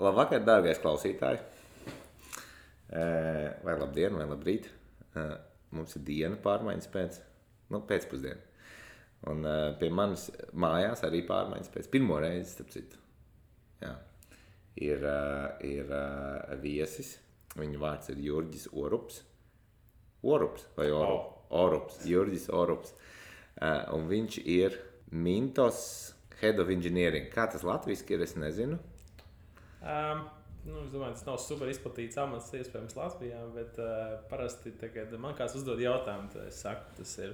Labvakar, dārgais klausītāji. Vai labdien, vai labrīt. Mums ir diena pārmaiņas pēcpusdiena. Un pie manis mājās arī pārmaiņas pēc pirmo reizi, starp citu. Jā. Ir viesis. Viņa vārds ir Jurģis Orups. Orups vai Orups? Orups. Jurģis Orups. Un viņš ir Mintos Head of Engineering. Kā tas latviski ir, es nezinu. Es domāju, tas nav super izplatīts amats iespējams Latvijā, bet parasti, kad man kāds uzdod jautājumu, tad es saku, tas ir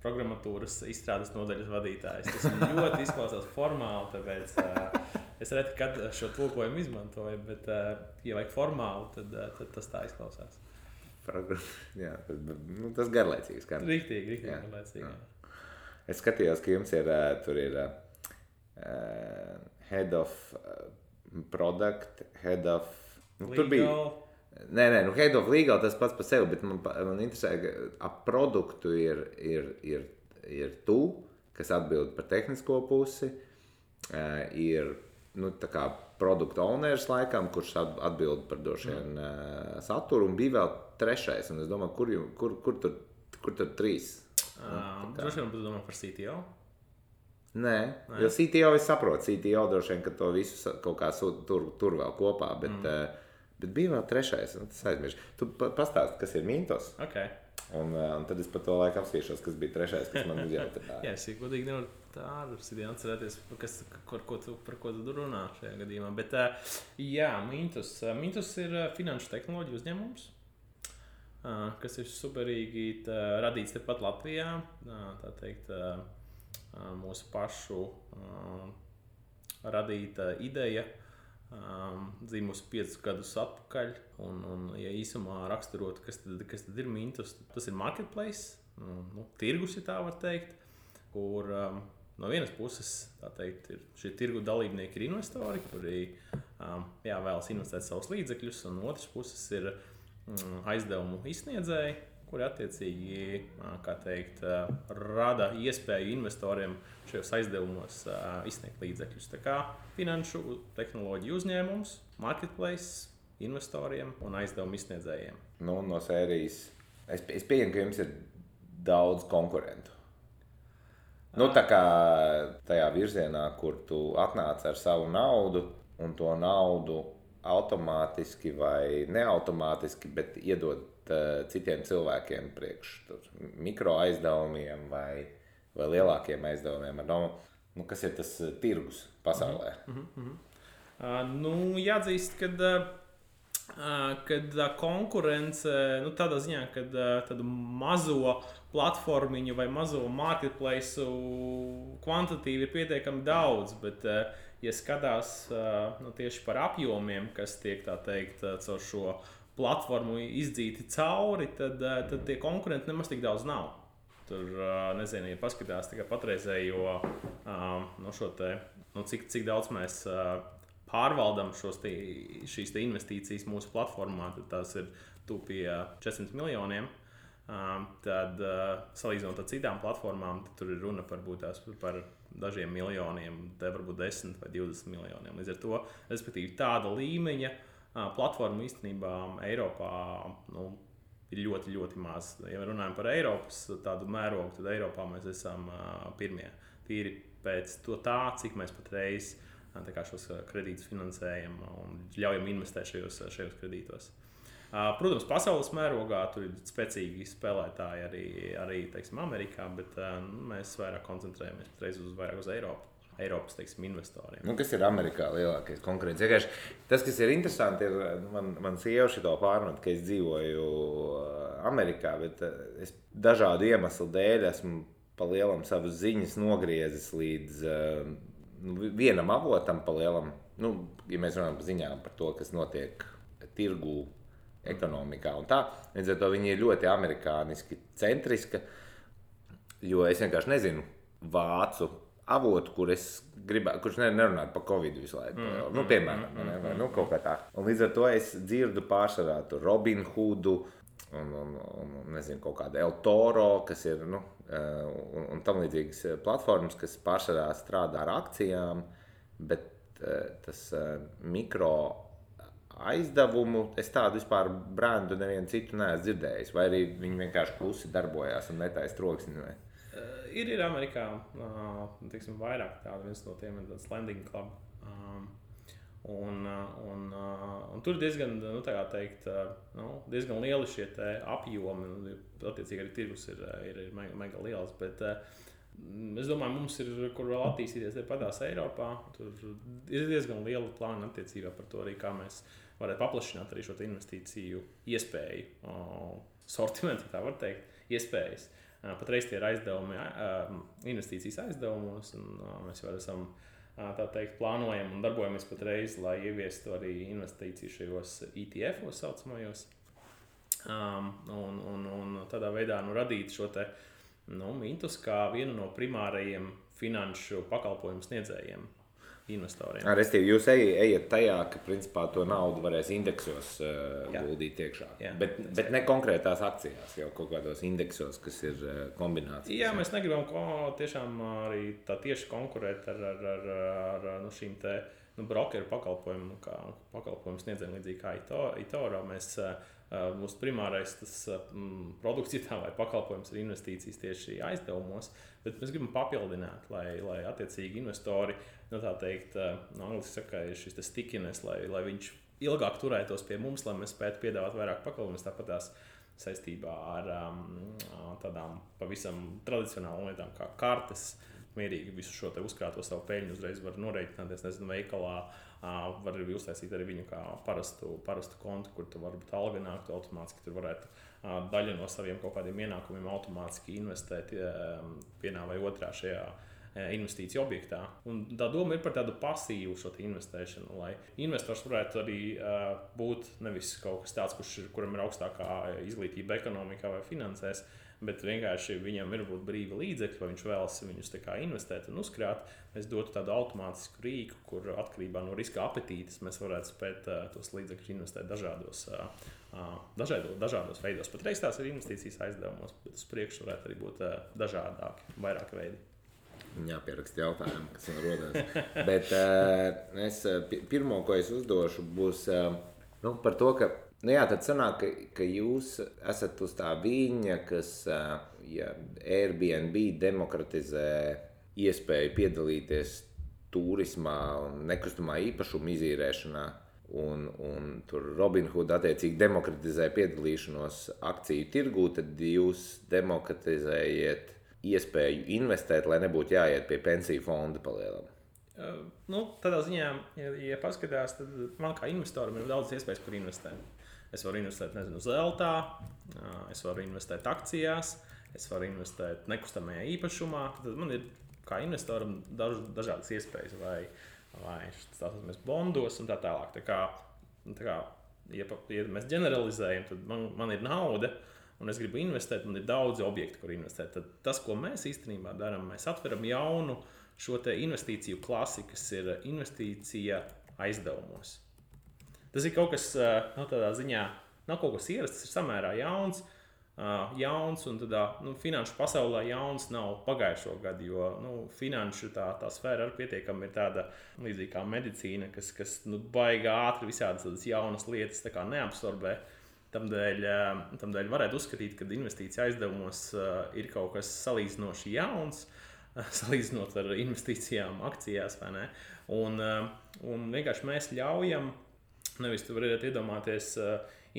programmatūras izstrādes nodaļas vadītājs. Tas ļoti izklausās formāli, tāpēc es reti, kad šo tulkojumu izmantoju, bet, ja vajag formāli, tad tas tā izklausās. Jā, tas garlaicīgs. Riktīgi garlaicīgi. Jā. Es skatījos, ka jums ir, tur ir Head of Product, Head of... Legal. Tur bija... Head of Legal tas pats par sevi, bet man interesē, ka ap produktu ir tu, kas atbild par tehnisko pusi, ir tā kā product owners laikam, kurš atbild par došiem saturu, un bija vēl trešais, un es domāju, kur tur trīs? Droši vien tu domā par CTO? Nē, jo CTO es saprotu, CTO droši vien, ka to visu kaut kā tur vēl kopā, bet bija vēl trešais, un tas aizmirst. Tu pastāsti, kas ir Mintos, un tad es par to laiku apsvīšos, kas bija trešais, kas man uzjautāja. Jā, es godīgi nevaru tā atcerēties, par ko tu runā šajā gadījumā, bet jā, Mintos ir finanšu tehnoloģiju uzņēmums, kas ir superīgi radīts tepat Latvijā, tā teikt, mūsu pašu radīta ideja, dzīvusi 5 gadus atpakaļ, un ja īsumā raksturot, kas tad ir Mintos, tas ir marketplace, tirgus, ja tā var teikt, kur no vienas puses, tā teikt, šie tirgu dalībnieki ir investori, kuri vēlas investēt savus līdzekļus, un otras puses ir aizdevumu izsniedzēji, kuri attiecīgi, kā teikt, rada iespēju investoriem šajos aizdevumos izsniegt līdzekļus. Tā kā finanšu tehnoloģiju uzņēmums, marketplace, investoriem un aizdevumu izsniedzējiem. No sērijas, es pieņemu, ka jums ir daudz konkurentu. Tā kā tajā virzienā, kur tu atnāc ar savu naudu, un to naudu automātiski vai neautomātiski, bet iedod citiem cilvēkiem priekš mikro aizdevumiem vai lielākiem aizdevumiem. Kas ir tas tirgus pasaulē? Jāatzīst, kad konkurence, tādā ziņā, kad tādu mazo platformiņu vai mazo marketplace kvantitīvi ir pietiekami daudz, bet ja skatās tieši par apjomiem, kas tiek, tā teikt, caur šo platformu izdzīti cauri, tad tie konkurenti nemaz tik daudz nav. Tur, nezinu, ja paskatās tikai patreizējo, cik daudz mēs pārvaldam šīs investīcijas mūsu platformā, tad tās ir pie 400 miljoniem. Tad, salīdzinot ar citām platformām, tad tur ir runa par dažiem miljoniem, te varbūt 10 vai 20 miljoniem. Līdz ar to, respektīvi, tāda līmeņa platforma īstenībā Eiropā ir ļoti, ļoti maz. Ja runājam par Eiropas tādu mērogu, tad Eiropā mēs esam pirmie. Tīri pēc tā, cik mēs patreiz šos kredītus finansējam un ļaujam investēt šajos kredītos. Protams, pasaules mērogā tur ir spēcīgi spēlētāji arī teiksim, Amerikā, bet mēs vairāk koncentrējamies vairāk uz Eiropas teiksim, investoriem. Kas ir Amerikā lielākais konkurents? Tas, kas ir interesanti, ir, man sieva šito pārmet, ka es dzīvoju Amerikā, bet es dažādu iemeslu dēļ esmu pa lielam savas ziņas nogriezis līdz vienam avotam pa lielam. Ja mēs runājam par ziņām par to, kas notiek tirgū, ekonomikā un tā. Līdz ar to viņi ir ļoti amerikāniski centriska, jo es vienkārši nezinu vācu avotu, kurš nerunātu par Covid visu laiku. Piemēram, kaut kā tā. Un līdz ar to es dzirdu pārsvarā Robin Hoodu un nezinu, kaut kādu El Toro, kas ir, un tam līdzīgas platformas, kas pārsvarā strādā ar akcijām, bet tas mikro aizdevumu, es tādu vispār brendu nevienu citu neesmu dzirdējis, vai arī viņi vienkārši klusi darbojās un netaisa troksni? Ir Amerikā, teiksim, vairāk tādu, viens no tiem ir tāds Lending Club. Un tur diezgan, tā kā teikt, diezgan lieli šie apjomi, attiecīgi arī tirgus ir mega liels, bet es domāju, mums ir, kur vēl attīstīties tepadās Eiropā, tur ir diezgan liela plāna attiecībā par to arī, kā mēs varētu paplašināt arī šo investīciju iespēju, sortimentu, tā var teikt, iespējas. Patreiz tie ir aizdevumi, investīcijas aizdevumos, un mēs jau esam, tā teikt, plānojam un darbojamies patreiz, lai ieviestu arī investīciju šajos ETF-os saucamajos, un tādā veidā radīt šo te mintus kā vienu no primārajiem finanšu pakalpojumu sniedzējiem investoriem. Restīvi, jūs ejat tajā, ka principā to naudu varēs indeksos guldīt iekšā. Bet ne konkrētās akcijās, jau kaut kādos indeksos, kas ir kombinācijas. Jā, mēs negribam tiešām arī tā tieši konkurēt ar šīm te brokeru pakalpojumu sniedzējiem līdzīgi kā eToro. Mūsu primārais produkts vai pakalpojums ir investīcijas tieši aizdevumos, bet mēs gribam papildināt, lai attiecīgi investori, tā teikt, angliski saka, ir šis stickiness, lai viņš ilgāk turētos pie mums, lai mēs spētu piedāvāt vairāk pakalpojumus, tāpat tās saistībā ar tādām pavisam tradicionālām lietām kā kartes, mierīgi visu šo te uzkrāto savu peļņu uzreiz var norēķināties, veikalā, var arī uztaisīt arī viņu kā parastu kontu, kur tu varbūt alga nāktu automātiski, tur varētu daļu no saviem kaut kādiem ienākumiem automātiski investēt vienā vai otrā šajā investīciju objektā. Un tā doma ir par tādu pasīvu šo investēšanu, lai investors varētu arī būt nevis kaut kas tāds, kuram ir augstākā izglītība ekonomikā vai finansēs, bet vienkārši viņam ir būt brīvi līdzekļi, vai viņš vēlas viņus tā kā investēt un uzkrāt. Mēs dotu tādu automātisku rīku, kur atkarībā no riska apetītes mēs varētu spēt tos līdzekļus investēt dažādos veidos. Patreiz tās ir investīcijas aizdevumos, bet uz priekšu varētu arī būt dažādāki, vairāki veidi. Jāpieraksta jautājumu, kas man rodās. Bet pirmo, ko es uzdošu, būs par to, ka tad sanāk, ka jūs esat uz tā viņa, kas Airbnb demokratizē iespēju piedalīties turismā un nekustamā īpašuma izīrēšanā, un tur Robinhood attiecīgi demokratizē piedalīšanos akciju tirgū, tad jūs demokratizējiet iespēju investēt, lai nebūtu jāiet pie pensiju fonda palielam. Tādā ziņā, ja paskatās, tad man kā investoram ir daudz iespējas, kur investēt. Es varu investēt, zeltā, es varu investēt akcijās, es varu investēt nekustamajā īpašumā. Tad man ir kā investoram dažādas iespējas, vai stāsimies bondos un tā tālāk. Tā kā ja mēs ģeneralizējam, tad man ir nauda, un es gribu investēt, man ir daudzi objekti, kur investēt. Tad tas, ko mēs īstenībā darām, mēs atveram jaunu šo te investīciju klasi, kas ir investīcija aizdevumos. Tas ir kaut kas, tādā ziņā, nav kaut kas ierasts, tas ir samērā jauns, un tādā, finanšu pasaulē jauns nav pagājušo gadu, jo, finanšu tā sfēra arī pietiekami ir tāda līdzīgi kā medicīna, kas baigā ātri visādas tādas jaunas lietas tā kā neabsorbē. Tamdēļ varētu uzskatīt, ka investīcija aizdevumos ir kaut kas salīdzinoši jauns, salīdzinot ar investīcijām akcijās, vai ne? Un vienkārši mēs ļaujam, nevis tu varētu iedomāties,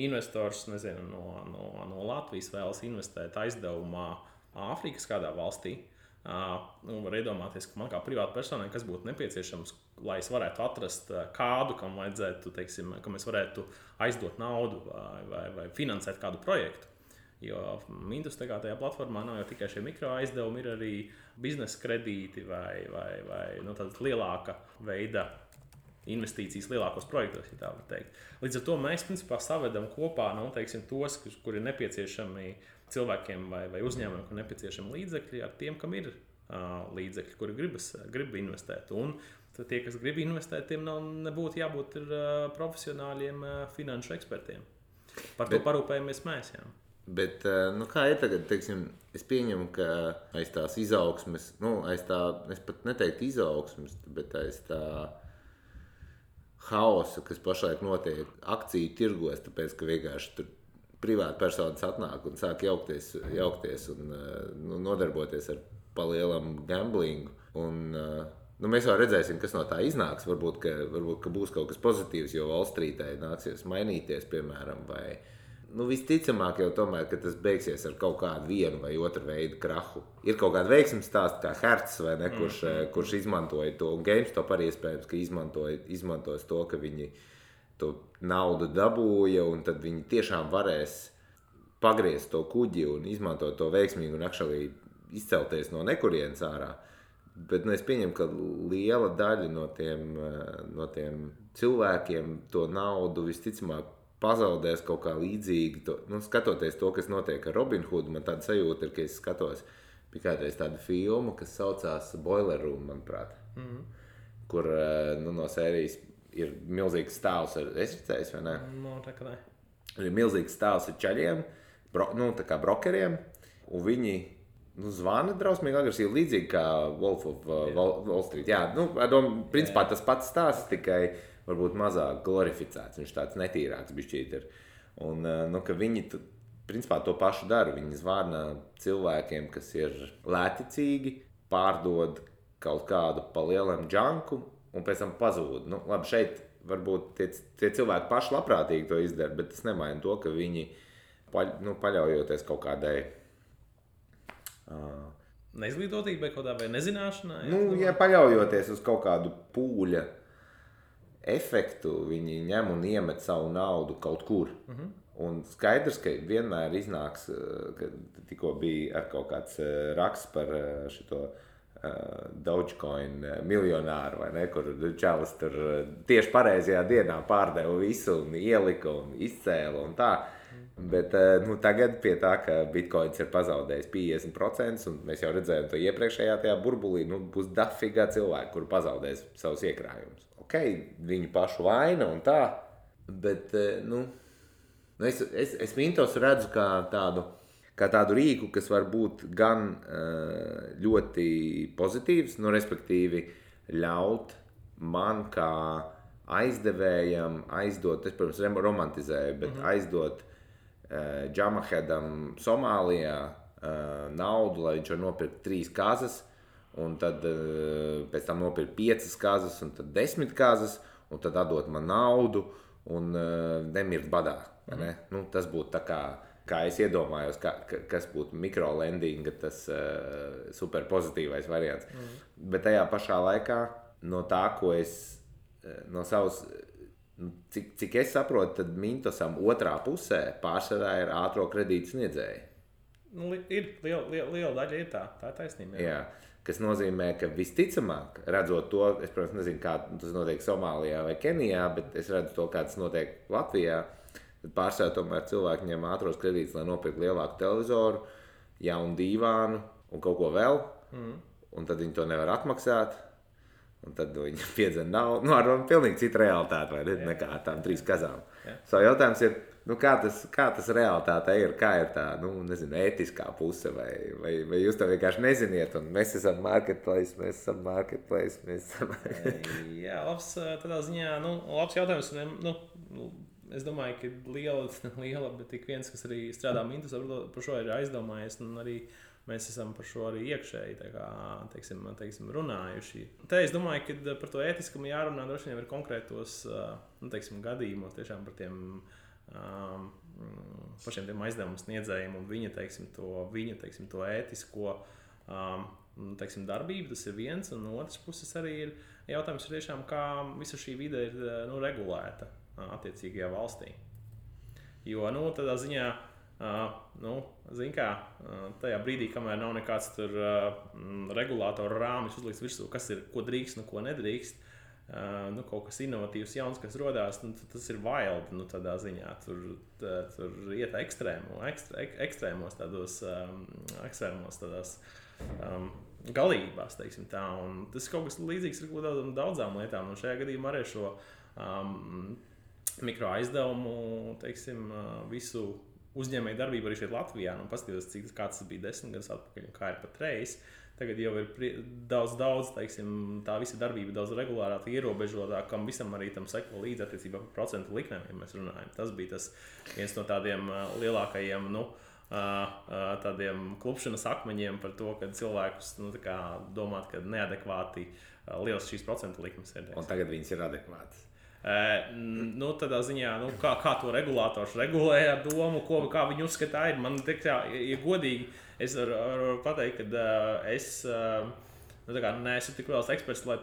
investors, no Latvijas vēlas investēt aizdevumā Āfrikas kādā valstī. Var iedomāties, ka man kā privāta personai, kas būtu nepieciešams, lai es varētu atrast kādu, kam vajadzētu, teiksim, ka mēs varētu aizdot naudu vai finansēt kādu projektu. Jo Mintus tajā platformā nav jau tikai šie mikro aizdevumi, ir arī biznesa kredīti vai tāda lielāka veida investīcijas lielākos projektos, ja tā var teikt. Līdz ar to mēs principā savedam kopā, tos, kuri ir nepieciešami cilvēkiem vai uzņēmumiem, kur nepieciešami līdzekļi ar tiem, kam ir līdzekļi, kuri grib investēt. Un tie, kas grib investēt, tiem nebūtu jābūt profesionāļiem finanšu ekspertiem. Par to parūpējamies mēs, jā. Bet, kā ir tagad, teiksim, es pieņemu, ka aiz tās izaugsmes, es pat neteiktu izaugsmes, bet aiz tā haosu, kas pašlaik notiek akciju tirgos, tāpēc, ka vienkārši tur privāti personas atnāk un sāk jaukties un nodarboties ar palielam gamblingu. Un, mēs jau redzēsim, kas no tā iznāks. Varbūt, ka būs kaut kas pozitīvs, jo Wall Streetē nāksies mainīties, piemēram, vai visticamāk jau tomēr, ka tas beigsies ar kaut kādu vienu vai otru veidu krahu. Ir kaut kāda veiksmes stāsta, kā Hertz, vai ne, kurš izmantoja to, un GameStop arī iespējams, ka izmantos to, ka viņi to naudu dabūja, un tad viņi tiešām varēs pagriezt to kuģi un izmantot to veiksmīgi un actually izcelties no nekurienes ārā. Bet es pieņemu, ka liela daļa no tiem cilvēkiem to naudu visticamāk pazaudēs kaut kā līdzīgi. Skatoties to, kas notiek ar Robin Hoodu, man tāda sajūta ir, ka es skatos bija kādreiz tādu filmu, kas saucās Boiler Room, manuprāt, kur no sērijas ir milzīgs stāvs ar, es redzēju, vai ne? Tā kā ne. Ir milzīgs stāvs ar čaļiem, tā kā brokeriem, un viņi zvana drausmīgi agresīvi, līdzīgi kā Wolf of Wall Street. Jā, principā tas pats stāsts, tikai varbūt mazāk glorificēts, viņš tāds netīrāks bišķīt ir. Un, ka viņi principā to pašu dara, viņi zvana cilvēkiem, kas ir lēticīgi, pārdod kaut kādu palielam džanku un pēc tam pazūd. Labi, šeit varbūt tie cilvēki paši labprātīgi to izdara, bet tas nemaina to, ka viņi paļaujoties kaut kādai neizglītotībai kaut kādā vai nezināšanai? Ja paļaujoties uz kaut kādu pūļa efektu, viņi ņem un iemet savu naudu kaut kur. Un skaidrs, ka vienmēr iznāks, ka tikko bija ar kaut kāds raksts par šito Dogecoin miljonāru, vai ne, kur čalis tur tieši pareizajā dienā pārdeva visu un ielika un izcēla un tā. Bet tagad pie tā, ka Bitcoins ir pazaudējis 50%, un mēs jau redzējām to iepriekšējā tajā burbulī, būs dafīgā cilvēki, kuri pazaudēs savus iekrājumus. Ok, viņu pašu vaina un tā, bet, es Mintos redzu kā tādu rīku, kas var būt gan ļoti pozitīvs, respektīvi ļaut man kā aizdevējam aizdot, es, protams, romantizēju, bet aizdot Džamahedam Somālijā naudu, lai viņš var nopirkt 3 kazas, un tad pēc tam nopirkt 5 kazas, un tad 10 kazas, un tad atdot man naudu, un nemirt badā. Ne? Tas būtu tā kā es iedomājos, kas būtu mikrolendinga, tas super pozitīvais variants. Bet tajā pašā laikā no tā, ko es no savas, cik es saprotu, tad Mintosam otrā pusē pārsvarā ir ātro kredītu sniedzēji. Ir liela daļa ir tā ir taisnība. Jā, kas nozīmē, ka visticamāk, redzot to, es, protams, nezinu, kā tas notiek Somālijā vai Kenijā, bet es redzu to, kā tas notiek Latvijā, tad pārsvarā tomēr cilvēki ņem ātros kredītus, lai nopirkt lielāku televizoru, jaunu dīvānu un kaut ko vēl, un tad viņi to nevar atmaksāt. Un tad viņi piedzen naudu, ar pilnīgi citu realitāti, vai ne, nekā ar tām 3 kazām. So jautājums ir, kā tas realitātē ir, kā ir tā, ētiskā puse, vai jūs to vienkārši neziniet, un mēs esam marketplace. Jā, labs tādā ziņā, labs jautājums, es domāju, ka liela, bet tik viens, kas arī strādā Mintos, par šo ir aizdomājies, un arī mēs esam par šo arī iekšēji teiksim, runājuši. Te es domāju, ka par to ētiskumu jārunā droši vien ir konkrētos gadījumos, tiešām par tiem pašiem tiem aizdevumu sniedzējiem un viņa to ētisko darbību. Tas ir viens, un no otras puses arī ir jautājums tiešām, kā visa šī vide ir regulēta attiecīgajā valstī. Jo tādā ziņā tajā brīdī, kamēr nav nekāds tur regulātoru rāmis uzlikts virsū, kas ir, ko drīkst un ko nedrīkst, kaut kas inovatīvs, jauns, kas rodās, tas ir wild, tādā ziņā. Tur iet ekstrēmos tādās galībās, teiksim tā. Un tas kaut kas līdzīgs ir daudzām lietām. Un šajā gadījumā arī šo mikroaizdevumu, visu uzņēmēju darbību arī šeit Latvijā, paskatījos, kā tas bija 10 gadus atpakaļ un kā ir patreiz. Tā tagad jau ir daudz, teiksim, tā visa darbība daudz regulārāk ierobežotāk, kam visam arī tam seko līdzi attiecībā par procentu likmēm, ja mēs runājam. Tas bija tas viens no tādiem lielākajiem, tādiem klupšanas akmeņiem par to, ka cilvēkus domāt, ka neadekvāti liels šīs procentu likmes ir. Un tagad viņas ir adekvātas. Tādā ziņā, kā to regulātors regulē ar domu, kā viņi uzskatā ir. Man ja godīgi, es varu pateikt, ka es neesmu tik liels eksperts, lai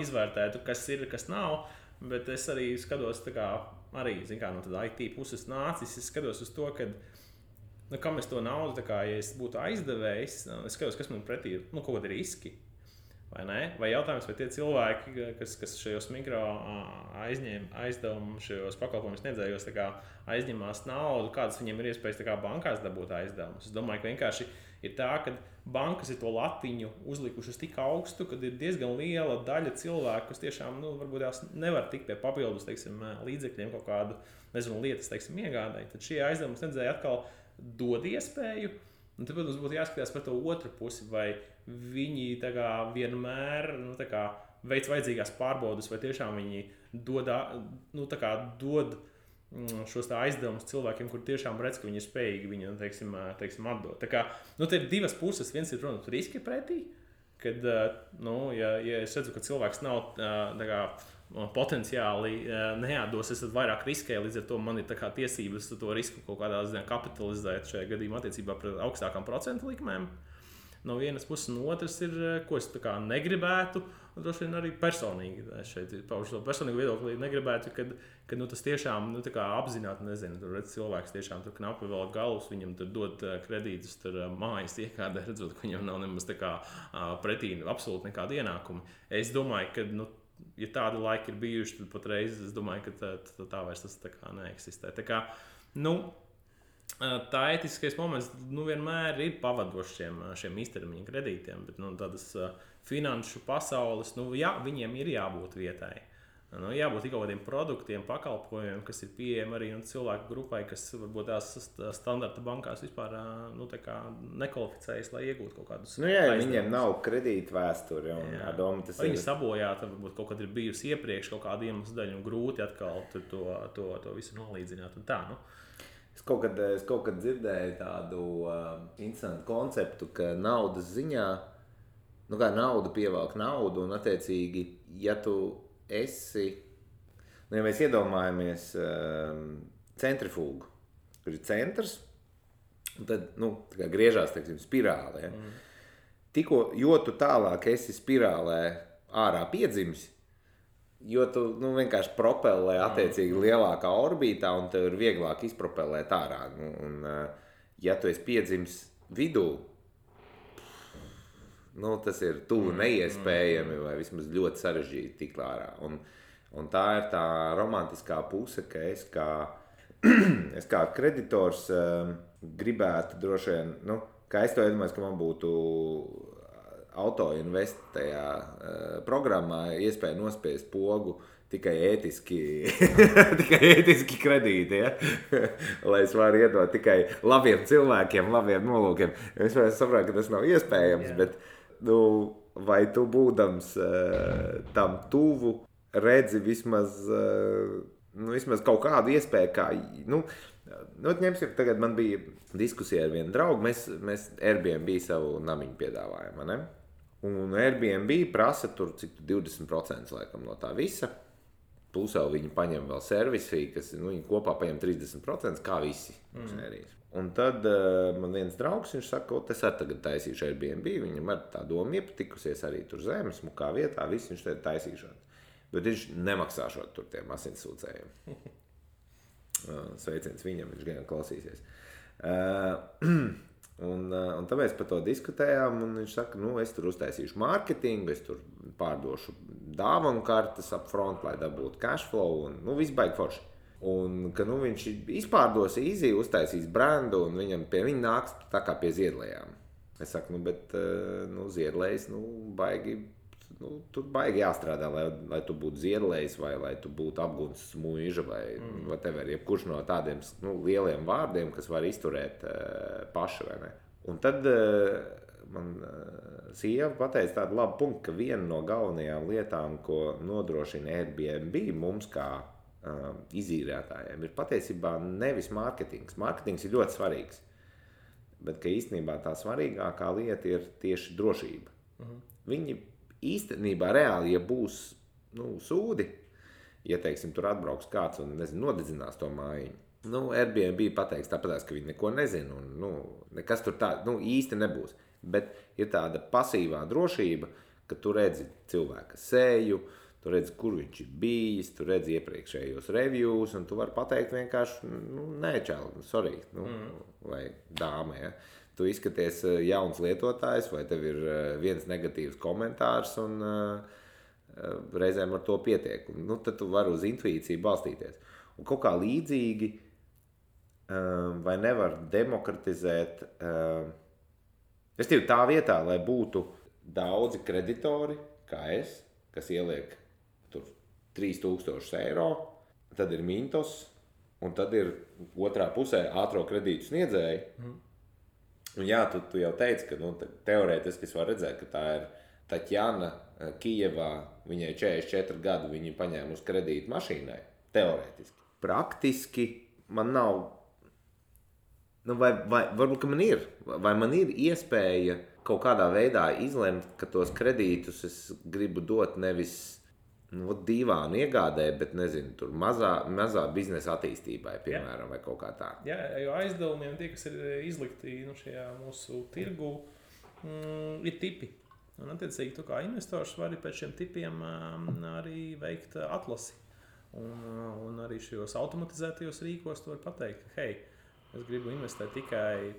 izvērtētu, kas ir, kas nav, bet es arī skatos, arī, no tāda IT puses nācis, es skatos uz to, ka kam es to naudu, ja es būtu aizdevējs, es skatos, kas man pretī ir, kaut kādi riski. Vai jautājums, vai tie cilvēki, kas šajos mikro aizdevumu, šajos pakalpojumus sniedzējos aizņemās naudu, kādas viņiem ir iespējas bankās dabūt aizdevumus. Es domāju, ka vienkārši ir tā, ka bankas ir to latiņu uzlikušas tik augstu, kad ir diezgan liela daļa cilvēku, kas tiešām varbūt tās nevar tikt pie papildus līdzekļiem kaut kādu lietas iegādai. Tad šie aizdevumu sniedzēji atkal dod iespēju. Un tad, protams, būtu jāskatās par to otru pusi, vai viņi vienmēr veic vajadzīgās pārbaudes, vai tiešām viņi dod šos aizdevumus cilvēkiem, kur tiešām redz, ka viņi ir spējīgi viņu atdot. Te ir divas puses. Viens ir, protams, riski pretī, kad, ja es redzu, ka cilvēks nav potenciāli neatdos, es vairāk riskēju, līdz ar to man ir tiesības to risku kaut kādā ziņā kapitalizēt šajā gadījumā attiecībā pret augstākām procentu likmēm. No vienas puses, no otras ir, ko es negribētu, un droši vien arī personīgi šeit paužu to personīgu viedokli, negribētu, kad tas tiešām apzināti, nezinu, tur redz cilvēks tiešām tur knapi vēl galus, viņam tur dod kredītus, tur mājas iekādē, redzot, ka viņam nav nemaz pretī absolūti nekāda ienākuma. Es domāju, ka, ja tādi laiki ir bijuši, tad patreiz es domāju, ka tā vairs tas neeksistē. Tā ētiskais moments vienmēr ir pavadošs šiem īstermiņa kredītiem, bet tādas finanšu pasaules, viņiem ir jābūt vietai. Jābūt kaut kādiem produktiem, pakalpojumiem, kas ir pieejami arī cilvēku grupai, kas varbūt tās standarta bankās vispār nekvalificējas, lai iegūtu kaut kādus aizdevumus. Viņiem nav kredīta vēsturi. Viņi sabojāti, varbūt kaut kad ir bijusi iepriekš kaut kāda iemesla dēļ un grūti atkal to visu nolīdzināt. Un tā, Es kaut kad dzirdēju tādu interesantu konceptu, ka naudas ziņā, kā nauda pievelk naudu, un attiecīgi, ja tu esi, ja mēs iedomājamies centrifūgu, kur ir centrs, un tad, griežās, spirāli, ja? Jo tu tālāk esi spirālē ārā piedzimis, jo tu vienkārši propellē attiecīgi lielākā orbītā un tev ir vieglāk izpropellēt ārā. Ja tu esi piedzimis vidū, tas ir tuvu neiespējami vai vismaz ļoti sarežģīti tikt ārā. Un tā ir tā romantiskā puse, ka es kā kreditors gribētu droši vien, kā es to iedomājos, ka man būtu autoinvest tajā programmā iespēja nospiest pogu tikai ētiski kredīti, ja? Lai es varu iedot tikai labiem cilvēkiem, labiem nolūkiem. Es saprotu, ka tas nav iespējams, bet vai tu būdams tam tuvu redzi vismaz kaut kādu iespēju, kā, ņemsim, tagad man bija diskusija ar vienu draugu, mēs Airbnb savu namiņu piedāvājam, ne? Un Airbnb prasa tur cik 20% laikam no tā visa, plus jau viņi paņem vēl servisī, kas viņi kopā paņem 30%, kā visi. Un tad man viens draugs, viņš saka, es arī tagad taisīšu Airbnb, viņam ar tā doma iepatikusies arī tur zemes, smukā vietā, viss viņš tagad taisīšot. Bet viņš nemaksāšot tur tiem asinsūcējiem. Sveiciens viņam, viņš gan klausīsies. Un tāpēc par to diskutējām, un viņš saka, es tur uztaisīšu mārketingu, es tur pārdošu dāvanu kartes up front, lai dabūtu cashflow, un viss baigi forši. Un ka viņš izpārdos easy, uztaisīs brandu, un viņam pie viņa nāks tā kā pie ziedlējām. Es saku, bet ziedlējs, baigi, tur baigi jāstrādā, lai tu būtu ziedlējs, vai lai tu būtu apgunsts muiža, vai whatever, jebkurš no tādiem lieliem vārdiem, kas var izturēt paši, vai ne? Un tad man sieva pateica tādu labu punktu, ka viena no galvenajām lietām, ko nodrošina Airbnb mums kā izīrētājiem, ir patiesībā nevis mārketings. Mārketings ir ļoti svarīgs, bet ka īstenībā tā svarīgākā lieta ir tieši drošība. Viņi īstenībā reāli, ja būs sūdi, ja, teiksim, tur atbrauks kāds un, nodedzinās to mājiņu, Airbnb pateiks tāpēc, ka viņi neko nezina un, nekas tur tā, īsti nebūs. Bet ir tāda pasīvā drošība, ka tu redzi cilvēka seju, tu redzi, kur viņš ir bijis, tu redzi iepriekšējos reviews, un tu vari pateikt vienkārši, nē, čāli, sorry, vai dāme, ja. Tu izskaties jauns lietotājs, vai tev ir viens negatīvs komentārs, un reizēm ar to pietiek. Tad tu vari uz intuīciju balstīties. Un kaut kā līdzīgi, vai nevar demokratizēt, tā vietā, lai būtu daudzi kreditori, kā es, kas ieliek tur 3000 eiro, tad ir Mintos, un tad ir otrā pusē ātro kredītu sniedzēji. Un jā, tu jau teici, ka teorētiski es varu redzēt, ka tā ir Taķjana Kijevā, viņai 44 gadu, viņa paņēma uz kredītu mašīnai, teorētiski. Praktiski man nav, vai varbūt, ka man ir, vai man ir iespēja kaut kādā veidā izlemt, ka tos kredītus es gribu dot nevis dīvānu iegādē, bet, tur mazā biznesa attīstībai, piemēram, vai kaut kā tā. Jā, jo aizdevumiem tie, kas ir izlikti šajā mūsu tirgu, ir tipi. Un, attiecīgi, tu kā investors vari pēc šiem tipiem arī veikt atlasi. Un arī šajos automatizētajos rīkos tu vari pateikt, ka, hei, es gribu investēt tikai,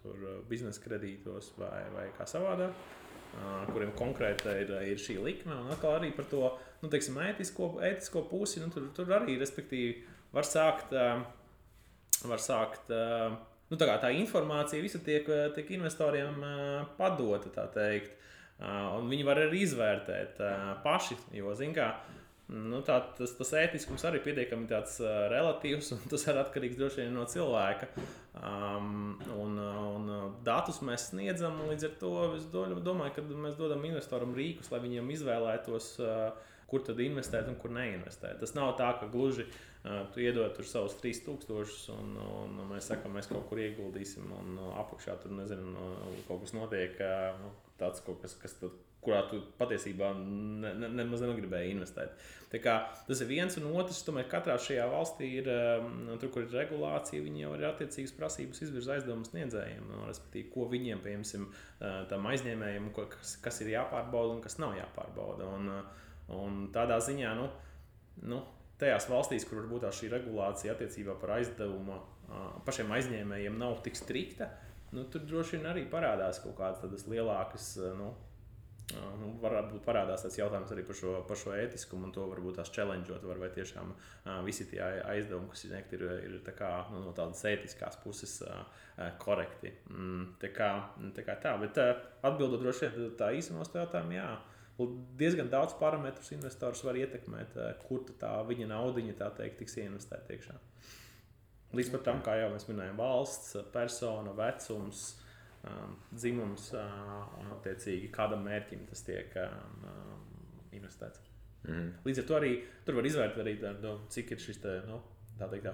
tur biznesa kredītos vai kā savādāk, kuriem konkrēti ir šī likme, un atkal arī par to, teiksim, ētisko pusi, tur arī, respektīvi, var sākt tā informācija visa tiek investoriem padota, tā teikt, un viņi var arī izvērtēt paši, jo, zin kā, tas ētiskums arī pietiekami tāds relatīvs, un tas ir atkarīgs droši vien no cilvēka. Un datus mēs sniedzam, un līdz ar to es domāju, ka mēs dodam investoram rīkus, lai viņiem izvēlētos, kur tad investēt un kur neinvestēt. Tas nav tā, ka gluži tu iedod tur savus 3000 un mēs sakam, mēs kaut kur ieguldīsim, un apakšā tur, kaut kas notiek, tāds kaut kas tad, kurā tu patiesībā nemaz negribēji investēt. Tā kā tas ir viens, un otrs, tomēr katrā šajā valstī ir, tur, kur ir regulācija, viņi jau ir attiecīgas prasības izvirza aizdevumu sniedzējiem, respektīvi, ko viņiem, piemēram, tam aizņēmējiem, kas ir jāpārbauda un kas nav jāpārbauda. Un tādā ziņā, tajās valstīs, kur varbūt šī regulācija attiecībā par aizdevumu pašiem aizņēmējiem nav tik strikta, tur droši vien arī parādās kaut kādas tādas lielākas, varbūt parādās tāds jautājums arī par šo ētiskumu, un to varbūt tās challengeot var, vai tiešām visi tie aizdevumi, kas ir tā kā, no tādas ētiskās puses korekti. Tā kā tā, bet atbildot droši vien tā īsumos to jautājumu, jā, diezgan daudz parametrus investors var ietekmēt, kur tā viņa naudiņa, tā teikt, tiks ieinvestēt iekšā. Līdz pat tam, kā jau mēs minējām, valsts, persona, vecums, dzimums un attiecīgi kādam mērķim tas tiek investēts. Līdz ar to arī tur var izvērtēt arī, cik ir šis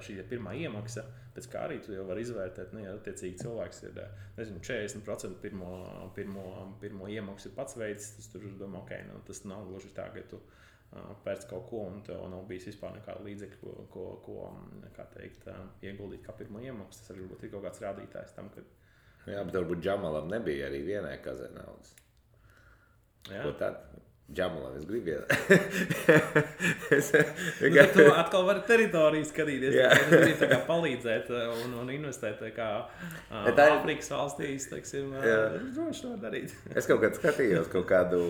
šī pirmā iemaksa, pēc kā arī tu jau var izvērtēt, ja attiecīgi cilvēks ir, 40% pirmo iemaksu ir pats veids, tas tur domā, tas nav gluži tā, ka tu pēc kaut ko, un tev nav bijis vispār nekāda līdzekļa, ko kā teikt, ieguldīt kā pirmo iemaksu. Tas arī ir kaut kāds rādītājs tam, ka... Jā, bet varbūt Džamalam nebija arī vienai kazē naudas. Jā. Ko tad? Džamalam es gribu tu atkal vari teritoriju skatīties, tu gribi tā kā palīdzēt un investēt kā Āfrikas valstīs, teiksim, droši var darīt. Es kaut kad skatījos kaut kādu,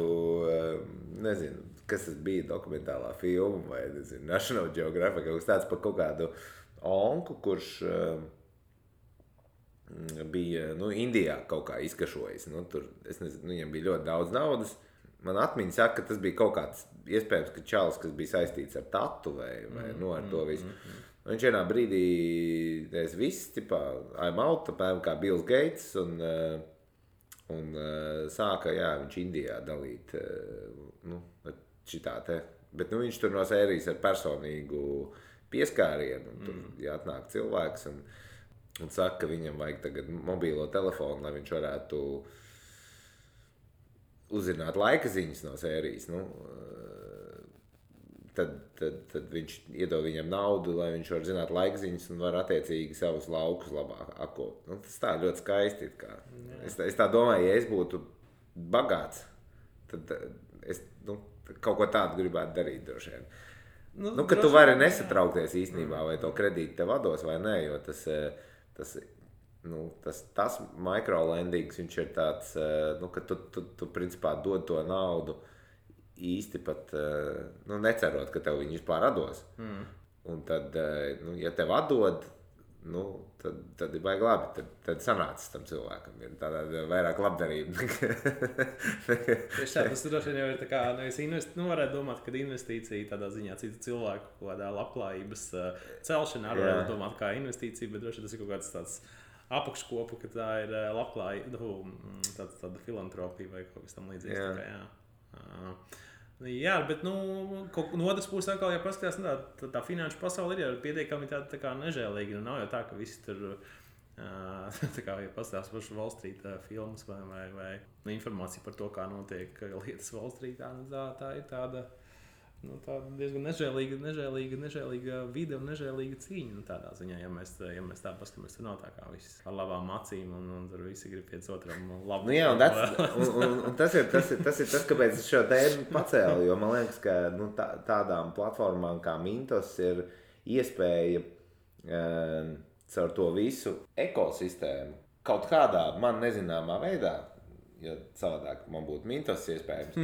nezinu, kas tas bija dokumentālā filma vai, National Geographic, kaut kas tāds par kaut kādu onku, kurš bija, Indijā kaut kā izkašojis. Tur, es nezinu, viņam bija ļoti daudz naudas. Man atmiņa saka, ka tas bija kaut kāds, iespējams, ka čalis, kas bija saistīts ar tatu vai ar to visu. Viņš vienā brīdī viss, I'm out, apmēram kā Bills Gates, un sāka, viņš Indijā dalīt, šitā te. Bet, viņš tur no sērijas ar personīgu pieskārienu, un tur atnāk cilvēks, un saka, ka viņam vajag tagad mobīlo telefonu, lai viņš varētu uzzināt laika ziņas no sērijas, Tad viņš iedod viņam naudu, lai viņš var zināt laikziņas un var attiecīgi savus laukus labāk akot. Tas tā ļoti skaisti. Es tā domāju, ja es būtu bagāts, tad es kaut ko tādu gribētu darīt droši vien. Ka tu vari nesatraukties īstenībā, vai to kredītu tev vados vai nē, jo tas microlendings, viņš ir tāds, ka tu principā dod to naudu īsti pat necerot, ka tev viņi vispār atdos. Un tad, ja tev atdod, tad ir baigi labi. Tad sanācis tam cilvēkam. Ir tāda vairāk labdarība. Tas droši vien jau ir tā kā, varētu domāt, ka investīcija tādā ziņā citu cilvēku kaut kādā labklājības celšanā varētu domāt kā investīcija, bet droši vien tas ir kaut kāds tāds apakškopu, ka tā ir labklājība, tāda filantropija vai kaut kas tam līdzīgs. Jā, bet no otras puses atkal, ja paskatās, tā finanšu pasaule ir pietiekami tā kā nežēlīga. Nav jau tā, ka visi tur, tā kā, ja paskatās pašu Wall Street filmas vai informācija par to, kā notiek lietas Wall Street, tā ir tāda diezgan nežēlīga vide un nežēlīga cīņa. Tādā ziņā, ja mēs tā paskatāmies, tur nav tā kā viss ar labām acīm un tur visi grib viens otram labu. Un tas ir tas, kāpēc es šo tēmu pacēlu, jo man liekas, ka tādām platformām kā Mintos ir iespēja caur to visu ekosistēmu kaut kādā man nezināmā veidā, jo savādāk man būtu Mintos iespējams,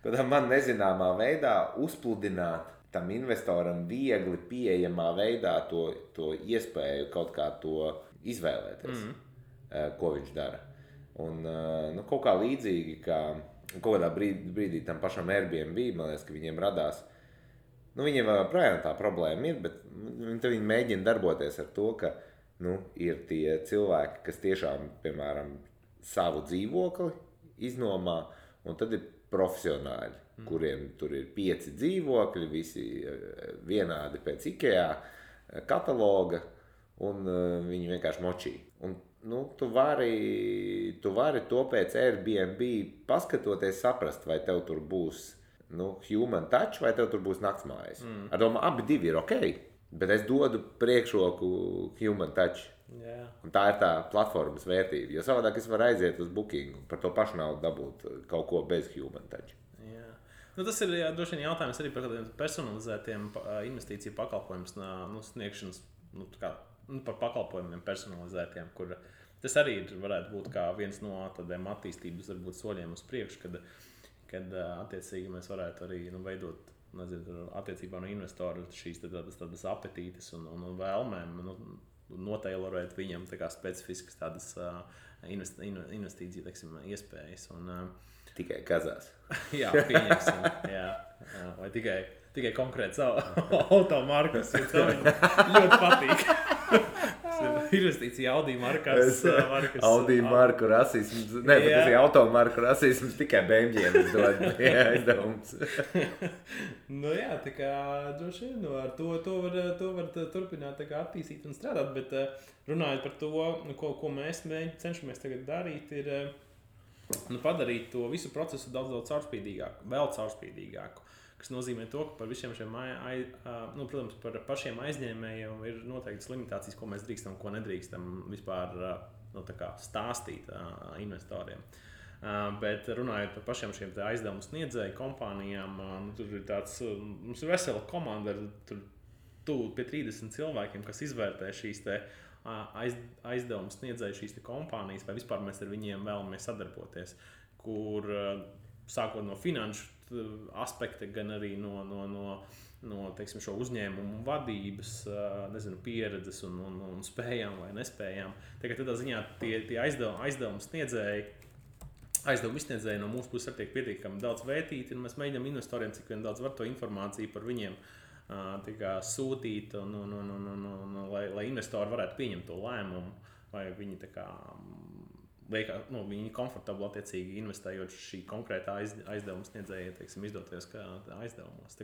kādā man nezināmā veidā uzpludināt tam investoram viegli pieejamā veidā to iespēju kaut kā to izvēlēties, ko viņš dara. Un kaut kā līdzīgi, kā kaut kādā brīdī tam pašam Airbnb, man liekas, ka viņiem radās, viņiem vēl projām tā problēma ir, bet viņi mēģina darboties ar to, ka ir tie cilvēki, kas tiešām, piemēram, savu dzīvokli iznomā, un tad ir profesionāļi, kuriem tur ir 5 dzīvokļi, visi vienādi pēc IKEA kataloga, un viņi vienkārši močī. Un, tu vari to pēc Airbnb paskatoties saprast, vai tev tur būs human touch, vai tev tur būs naktsmājas. Ar domu, abi divi ir ok, bet es dodu priekšroku human touch. Yeah. Un tā ir tā platformas vērtība, jo savādāk es varu aiziet uz booking un par to pašu naudu dabūt kaut ko bez human touch. Yeah. Tas ir droši vien jautājums arī par kādiem personalizētiem investīciju pakalpojumu sniegšanas, par pakalpojumiem personalizētiem, kur tas arī varētu būt kā viens no tādiem attīstības varbūt soļiem uz priekšu, kad attiecīgi mēs varētu arī veidot, attiecībā no investoru šīs tādas apetītes un vēlmēm, notailorēt viņam tā kā specifiskas tādas investīciju, iespējas. Tikai kazās. Jā, pieņemsim. Jā. Vai tikai konkrēts automarkas, jo tev ļoti patīk. Investīcija Audi markas. Audi marku rasisms. Nē, bet tas ir automarku rasisms, tikai Beņģiem dod aizdevums. Tā kā droši vien ar to var turpināt tā kā attīstīt un strādāt, bet runājot par to, ko mēs cenšamies tagad darīt, ir padarīt to visu procesu daudz caurspīdīgāku, vēl caurspīdīgāku. Kas nozīmē to, ka par visiem šiem, protams, par pašiem aizņēmējiem ir noteiktas limitācijas, ko mēs drīkstam, ko nedrīkstam vispār stāstīt investoriem. Bet runājot par pašiem šiem aizdevumu sniedzēju kompānijām, tur ir mums ir vesela komanda ar tuvu pie 30 cilvēkiem, kas izvērtē šīs aizdevumu sniedzēju šīs kompānijas, vai vispār mēs ar viņiem vēlamies sadarboties, kur sākot no finanšu aspekta, gan arī no teiksim, šo uzņēmumu vadības, pieredzes un spējām vai nespējām. Tādā ziņā tie aizdevumu izsniedzēji no mūsu puses tiek pietiekami daudz vērtīti, un mēs mēģinām investoriem, cik vien daudz var to informāciju par viņiem sūtīt, lai investori varētu pieņemt to lēmumu, vai viņi viņi komfortabli attiecīgi investējot šī konkrētā aizdevuma sniedzēja, izdoties kā aizdevumos.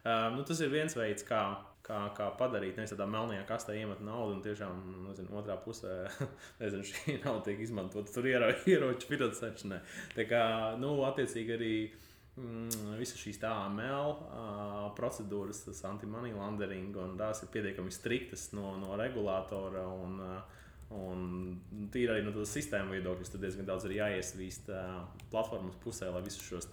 Tas ir viens veids, kā padarīt, nevis tādā melnajā kastē iemet naudu un tiešām, otrā pusē, šī nauda tiek izmantota tur ieroču finansēšanai. Attiecīgi arī visas šīs AML procedūras, tas anti-money laundering, un tās ir pietiekami striktas no regulātora un tīri arī no tādas sistēmu viedokļas, tad diezgan daudz ir jāiesvīst platformas pusē, lai visus šos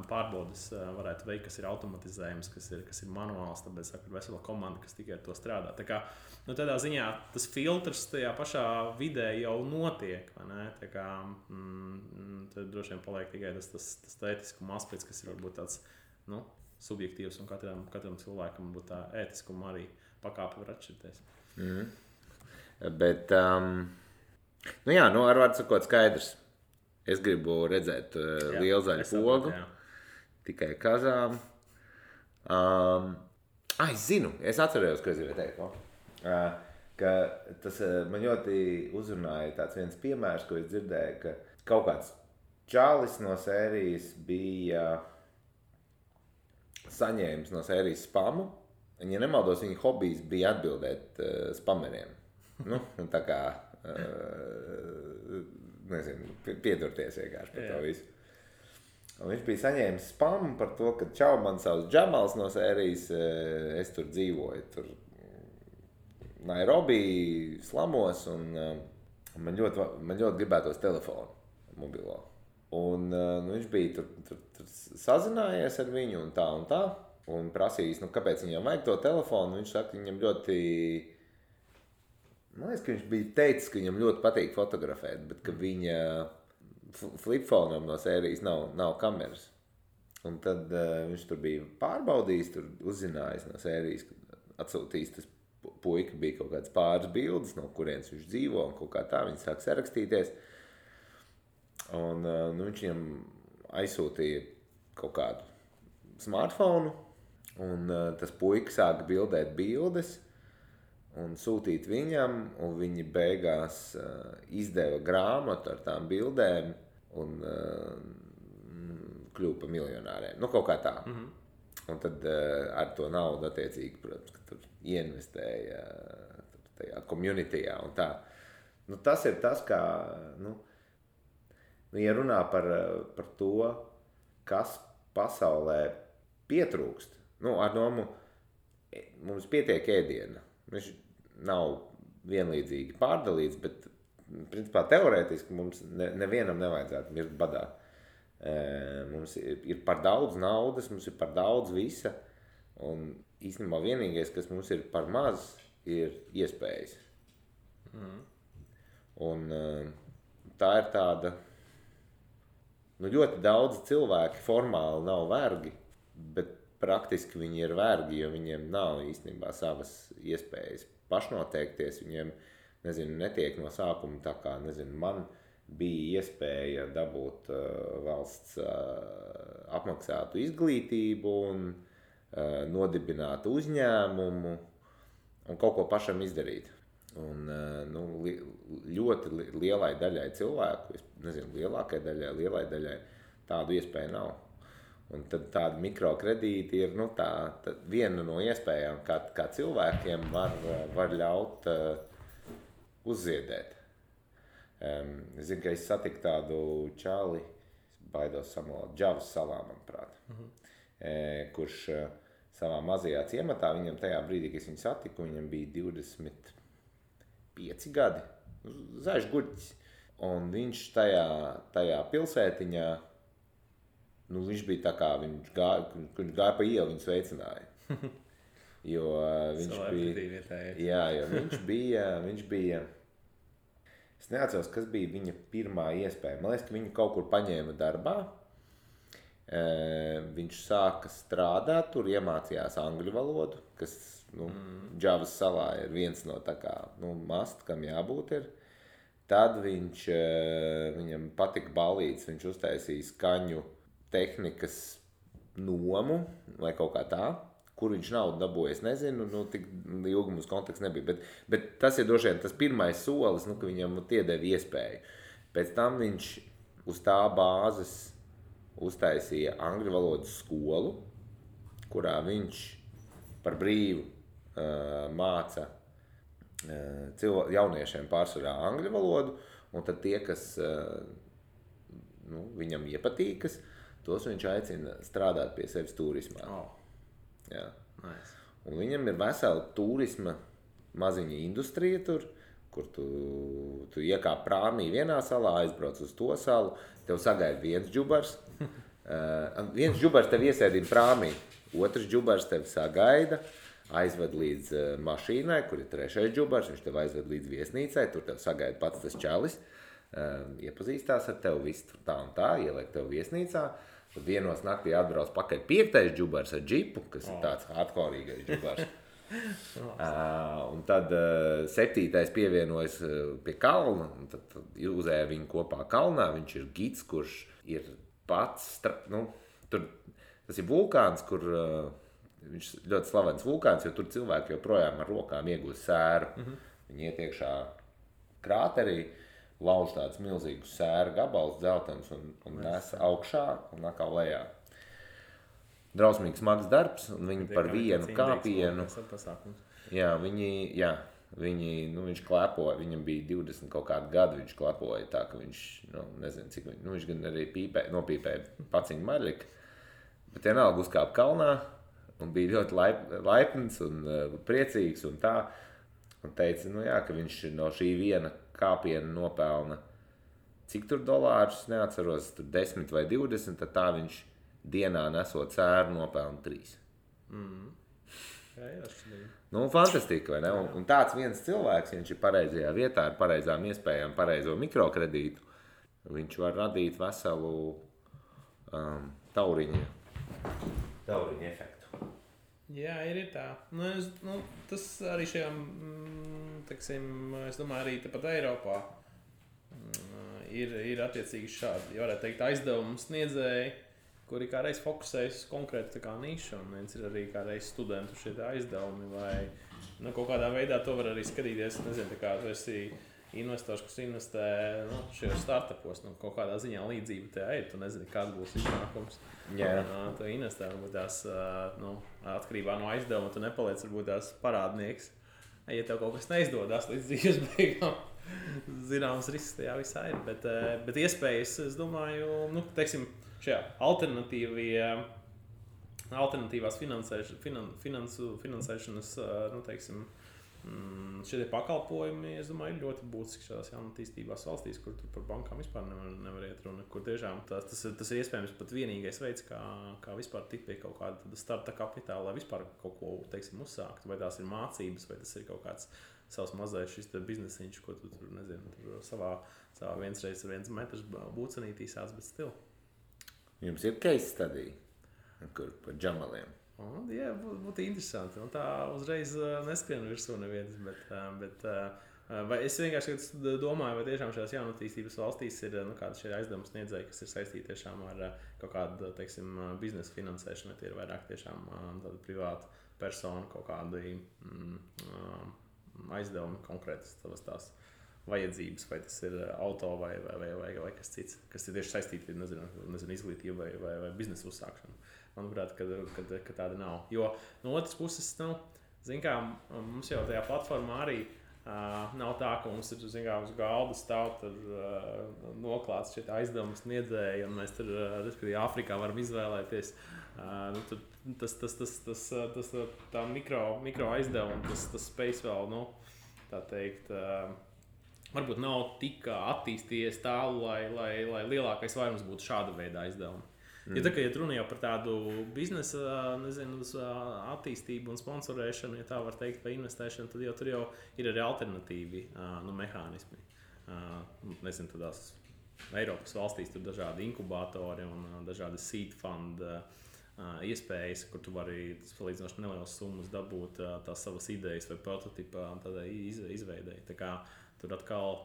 pārbaudes varētu veikt, kas ir automatizējums, kas ir manuāls, tāpēc ir vesela komanda, kas tikai ar to strādā. Tādā ziņā tas filtrs tajā pašā vidē jau notiek, vai ne? Tad droši vien paliek tikai tas ētiskuma aspekts, kas ir varbūt tāds subjektīvs, un katram cilvēkam būtu tā ētiskuma arī pakāpe var atšķirties. Bet, ar vārdu sakot skaidrs. Es gribu redzēt lielu zaļu pogu, tikai kazām. Es zinu, es atcerējos, ko es gribēju teikt. Ka tas man ļoti uzrunāja tāds viens piemērs, ko es dzirdēju, ka kaut kāds čalis no sērijas bija saņēmis no sērijas spamu. Un, ja nemaldos, viņa hobijs bija atbildēt spameriem. Tā kā, piedurties vienkārši par to visu. Un viņš bija saņēmis spamu par to, ka čau, man savs Džamals no sērijas, es tur dzīvoju, tur Nairobi slamos, un man ļoti gribētos telefonu mobilo. Un viņš bija tur sazinājies ar viņu un tā, un prasījis, kāpēc viņam vajag to telefonu. Viņš saka, viņam ļoti... Man liekas, ka viņš bija teicis, ka viņam ļoti patīk fotografēt, bet ka viņa flipfonam no sērijas nav kameras. Un tad viņš tur bija pārbaudījis, tur uzzinājis no sērijas, atsūtījis tas puika, bija kaut kāds pāris bildes, no kurienes viņš dzīvo un kaut kā tā, viņi sāk sarakstīties. Un viņš viņam aizsūtīja kaut kādu smartphonu, un tas puika sāka bildēt bildes, un sūtīt viņam, un viņi beigās izdeva grāmatu ar tām bildēm un kļuva par miljonāriem. Kaut kā tā. Un tad ar to naudu attiecīgi, protams, ka tur ieinvestēja tajā communityjā un tā. Tas ir tas, kā, ja runā par to, kas pasaulē pietrūkst, ar domu, mums pietiek ēdiena. Viņš nav vienlīdzīgi pārdalīts, bet principā teorētiski mums nevienam nevajadzētu mirt badā. Mums ir par daudz naudas, mums ir par daudz visa, un īstenībā vienīgais, kas mums ir par maz, ir iespējas. Un tā ir tāda, ļoti daudz cilvēki formāli nav vergi, bet praktiski viņi ir vergi, jo viņiem nav īstenībā savas iespējas pašnoteikties. Viņiem, netiek no sākuma tā kā, man bija iespēja dabūt valsts apmaksātu izglītību un nodibināt uzņēmumu un kaut ko pašam izdarīt. Un ļoti lielai daļai cilvēku, lielākai daļai tādu iespēju nav. Un tad tādi mikrokredīti ir viena no iespējām, kā cilvēkiem var ļaut uzziedēt. Es zinu, ka es satiku tādu čali, baidos samalot, Džavas salā, manuprāt, kurš savā mazajā ciematā, viņam tajā brīdī, kad es viņu satiku, viņam bija 25 gadi, zaļš guļķis. Un viņš tajā pilsētiņā, viņš bija tā kā, viņš gāja pa ielu, viņu sveicināja. Jo viņš bija, es neatceros, kas bija viņa pirmā iespēja. Man liekas, ka viņu kaut kur paņēma darbā. Viņš sāka strādāt, tur iemācījās angļu valodu, kas, Džavas salā ir viens no tā kā, must, kam jābūt ir. Tad viņam patika ballītes, viņš uztaisīja skaņu tehnikas nomu vai kaut kā tā, Kur viņš naudu dabūja, es nezinu, tik ilgi mums konteksts nebija. Bet tas ir droši vien tas pirmais solis, ka viņam iedeva iespēju. Pēc tam viņš uz tā bāzes uztaisīja angļu valodas skolu, kurā viņš par brīvu māca jauniešiem pārsvarā angļu valodu, un tad tie, kas viņam iepatīkas, tos viņš aicina strādāt pie sevis turismā. Jā. Nice. Un viņam ir vesela turisma maziņa industrija tur, kur tu iekāp prāmī vienā salā, aizbrauc uz to salu, tev sagaida viens džubars, viens džubars tev iesēdina prāmī, otrs džubars tev sagaida, aizved līdz mašīnai, kur ir trešais džubars, viņš tev aizved līdz viesnīcai, tur tev sagaida pats tas čalis, iepazīstās ar tevi, viss tur tā un tā, ieliek tev viesnīcā. Tad vienos naktī atbrauc pakaļ 5. džubars ar džipu, kas ir tāds hardcoreīgais džubars. Un tad 7. pievienojas pie kalna, un tad uzēja viņu kopā kalnā. Viņš ir gids, kurš ir pats, tas ir vulkāns, kur viņš ļoti slavens vulkāns, jo tur cilvēki joprojām ar rokām iegūst sēru. Viņi iet iekšā krāterī, lauž tāds milzīgus sēru gabals dzeltens un nes augšā un atkal lejā. Drausmīgs smags darbs, un viņi par vienu kāpienu. Jā, viņš klepoja, viņam bija 20 kaut kādu gadu, viņš klepoja tā, ka viņš, nezinu cik, viņš gan arī nopīpēja paciņu maļiku, bet vienalga uzkāpa kalnā un bija ļoti laipns un priecīgs un tā, un teica, ka viņš no šī viena kāpiena nopelna, cik tur dolārus, neatceros, tur 10 vai 20, tad tā viņš dienā nesot sēru nopelna 3. Fantastika, vai ne? Un tāds viens cilvēks, viņš ir pareizajā vietā, ar pareizām iespējām, pareizo mikrokredītu, viņš var radīt veselu tauriņu efektu. Jā, ir tā. Tas arī šajām, es domāju, arī tepat Eiropā ir attiecīgi šādi, ja varētu teikt, aizdevumu sniedzēji, kuri kā reiz fokusējas konkrēti nišu, un viens ir arī kā reiz studentu šie aizdevumi, vai kaut kādā veidā to var arī skatīties, nezinu, kā tu esi investors, kas investē šajos startupos, kaut kādā ziņā līdzība te ir, tu nezini, kāds būs iznākums. Tu investē, varbūt tās atkarībā no aizdevuma, tu nepaliec varbūt tās parādnieks. Ja tev kaut kas neizdodas līdz dzīves beigām, zināms risks tajā visā ir, bet iespējas, es domāju, teiksim, šajā alternatīvās finansēšanas, teiksim, šie pakalpojumi, es domāju, ir ļoti būtiski šādās jaunatīstībās valstīs, kur tur par bankām vispār nevar iet runa, kur tiešām tas ir iespējams pat vienīgais veids, kā vispār tikt pie kaut kāda starta kapitāla, lai vispār kaut ko, teiksim, uzsākt, vai tās ir mācības, vai tas ir kaut kāds savs mazais šis biznesiņš, ko tu tur, nezinu, tur savā viens reiz 1 metrs būcenītī sāc, bet stil. Jums ir case study, kur par džamaliem? Jā, būtu interesanti. Tā uzreiz neskrien virsū nevienas, bet es vienkārši domāju, vai tiešām šajās jaunatīstības valstīs ir kādi šie aizdevumi sniedzēji, kas ir saistīti tiešām ar kaut kādu, teiksim, biznesa finansēšanu, vai tie ir vairāk tiešām tāda privāta persona, kaut kādi aizdevumi konkrētas tās vajadzības, vai tas ir auto vai kas cits, kas ir tieši saistīti, nezinu izglītību vai biznesa uzsākšanu. Manuprāt, ka tāda nav. Jo no otras puses, zin kā, mums jau tajā platformā arī nav tā, ka mums ir, zin kā, uz galda stāv noklāts šie aizdevums sniedzēji, un mēs tur, Āfrikā varam izvēlēties. Tā mikro aizdevuma, tas spējas vēl, tā teikt, varbūt nav tik attīstījies tālu, lai lielākais vairums būtu šāda veida aizdevumi. Ja runa jau par tādu biznesa, attīstību un sponsorēšanu, ja tā var teikt, vai investēšanu, tad jau tur jau ir arī alternatīvi mehānismi. Nezinu, tādās Eiropas valstīs tur dažādi inkubatori un dažādi seed fund iespējas, kur tu vari salīdzinoši nelielas summas dabūt tās savas idejas vai prototipa tādai izveidei. Tā kā tur atkal,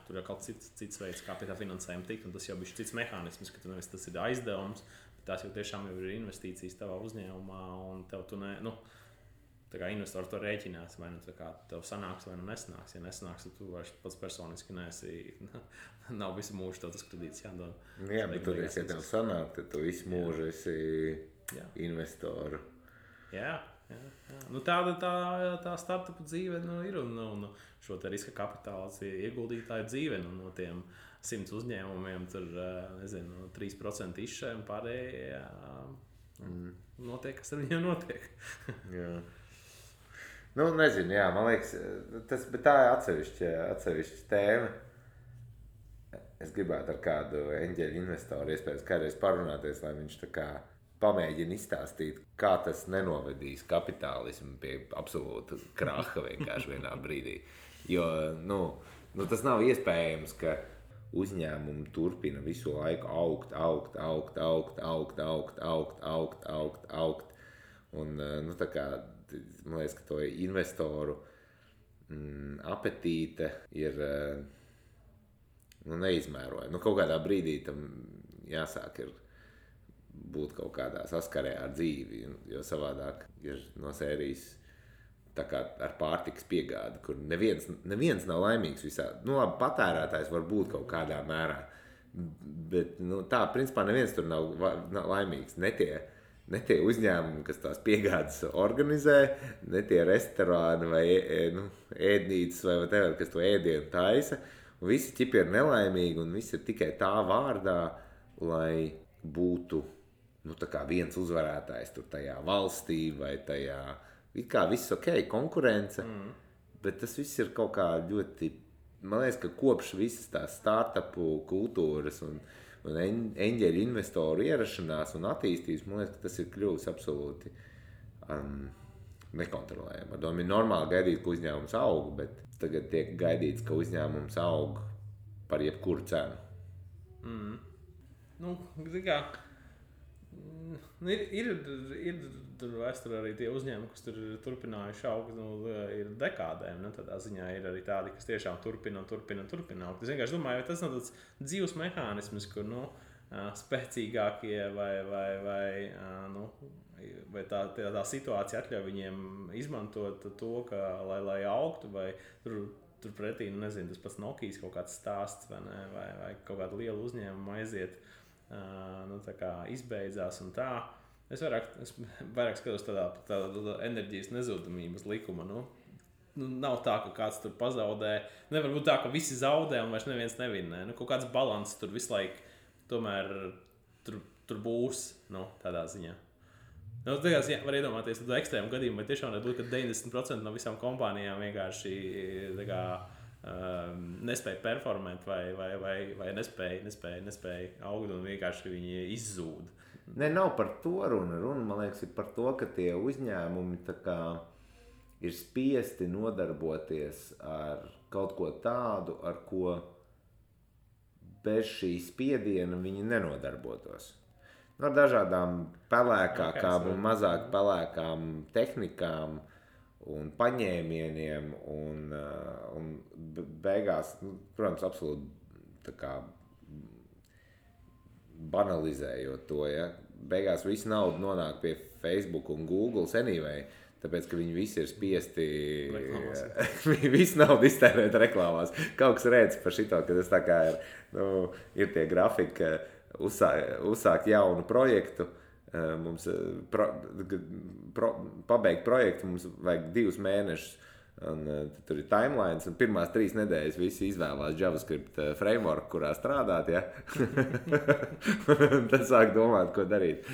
tur ir kaut cits veids, kā pie tā finansējuma tikt, un tas jau bija cits mehānisms, ka nevis tas ir aizdevums, tās jau tiešām ir investīcijas tavā uzņēmumā, un tev tu tā kā investors to rēķinās, vai nu tā kā tev sanāks, vai nu nesanāks. Ja nesanāks, tad tu vairs pats personiski nav visu mūžu tev tas kredīts jādod. Jā, bet tur, ja tev sanāk, tad tu visu mūžu esi investoru. Jā. Nu, tā startupu dzīve ir un šo te riska kapitāls ieguldītāju dzīve. No tiem 100 uzņēmumiem tur, 3% izšķē un pārējie notiek, kas ar viņiem notiek. Jā. Nu, nezinu, jā, man liekas, bet tā ir atsevišķa tēma. Es gribētu ar kādu eņģeļu investoru iespējams kādreiz parunāties, lai viņš tā kā pamēģina izstāstīt, kā tas nenovedīs kapitālismu pie absolūta kraha vienkārši vienā brīdī. Jo, tas nav iespējams, ka uzņēmumi turpina visu laiku augt. Un, tā kā, man liekas, ka to investoru apetīte ir neizmērojama. Kaut kādā brīdī tam jāsāk ir būt kaut kādā saskarē ar dzīvi, jo savādāk ir no sērijas tā kā ar pārtikas piegādi, kur neviens nav laimīgs visā. Labi, patērētājs var būt kaut kādā mērā, bet tā, principā neviens tur nav laimīgs. Ne tie uzņēmumi, kas tās piegādes organizē, ne tie restorāni vai ēdnīcas vai whatever, kas to ēdienu taisa. Un visi ķipi ir nelaimīgi un visi ir tikai tā vārdā, lai būtu tā kā viens uzvarētājs tur tajā valstī vai tajā, it kā viss ok, konkurence, bet tas viss ir kaut kā ļoti, man liekas, ka kopš visas tās startupu kultūras un eņģeļu investoru ierašanās un attīstības, man liekas, ka tas ir kļuvis absolūti nekontrolējami. Ar domu ir normāli gaidīt, ka uzņēmums aug, bet tagad tiek gaidīts, ka uzņēmums aug par jebkuru cenu. Ir tur vēsturē arī tie uzņēmumi, kas tur turpinājuši augt, ir dekādēm. Tādā ziņā ir arī tādi, kas tiešām turpina augt. Es vienkārši domāju, vai tas nav tāds dzīves mehānisms, kur spēcīgākie vai tā situācija atļauj viņiem izmantot to, lai augtu, vai tur pretī, tas pats Nokijas kaut kāds stāsts, vai kaut kāda liela uzņēmuma aiziet. Tā kā izbeidzās un tā. Es vairāk skatos tādā enerģijas nezudamības likuma. Nav tā, ka kāds tur pazaudē. Nevar būt tā, ka visi zaudē un vairs neviens nevinnē. Kaut kāds balanss tur visu laiku tomēr tur būs, tādā ziņā. Var iedomāties tādu ekstrēmu gadījumu, vai tiešām nebūtu, ka 90% no visām kompānijām vienkārši nespēja performēt vai nespēja augt un vienkārši viņi izzūd. Nav par to runa. Man liekas, ir par to, ka tie uzņēmumi tā kā ir spiesti nodarboties ar kaut ko tādu, ar ko bez šī spiediena viņi nenodarbotos. Ar dažādām pelēkākām un mazāk pelēkām tehnikām un paņēmieniem un beigās, protams, absolūti tā kā banalizējot to, ja. Beigās visu naudu nonāk pie Facebook un Google anyway, tāpēc, ka viņi visi ir spiesti visu naudu iztērēt reklāmās. Kaut kas redz par šito, ka tas tā kā ir tie grafiki, uzsākt jaunu projektu, mums pabeigt projektu, mums vajag 2 mēnešus, un tur ir timelines, un pirmās 3 nedēļas visi izvēlās JavaScript framework, kurā strādāt, ja? Tad sāk domāt, ko darīt.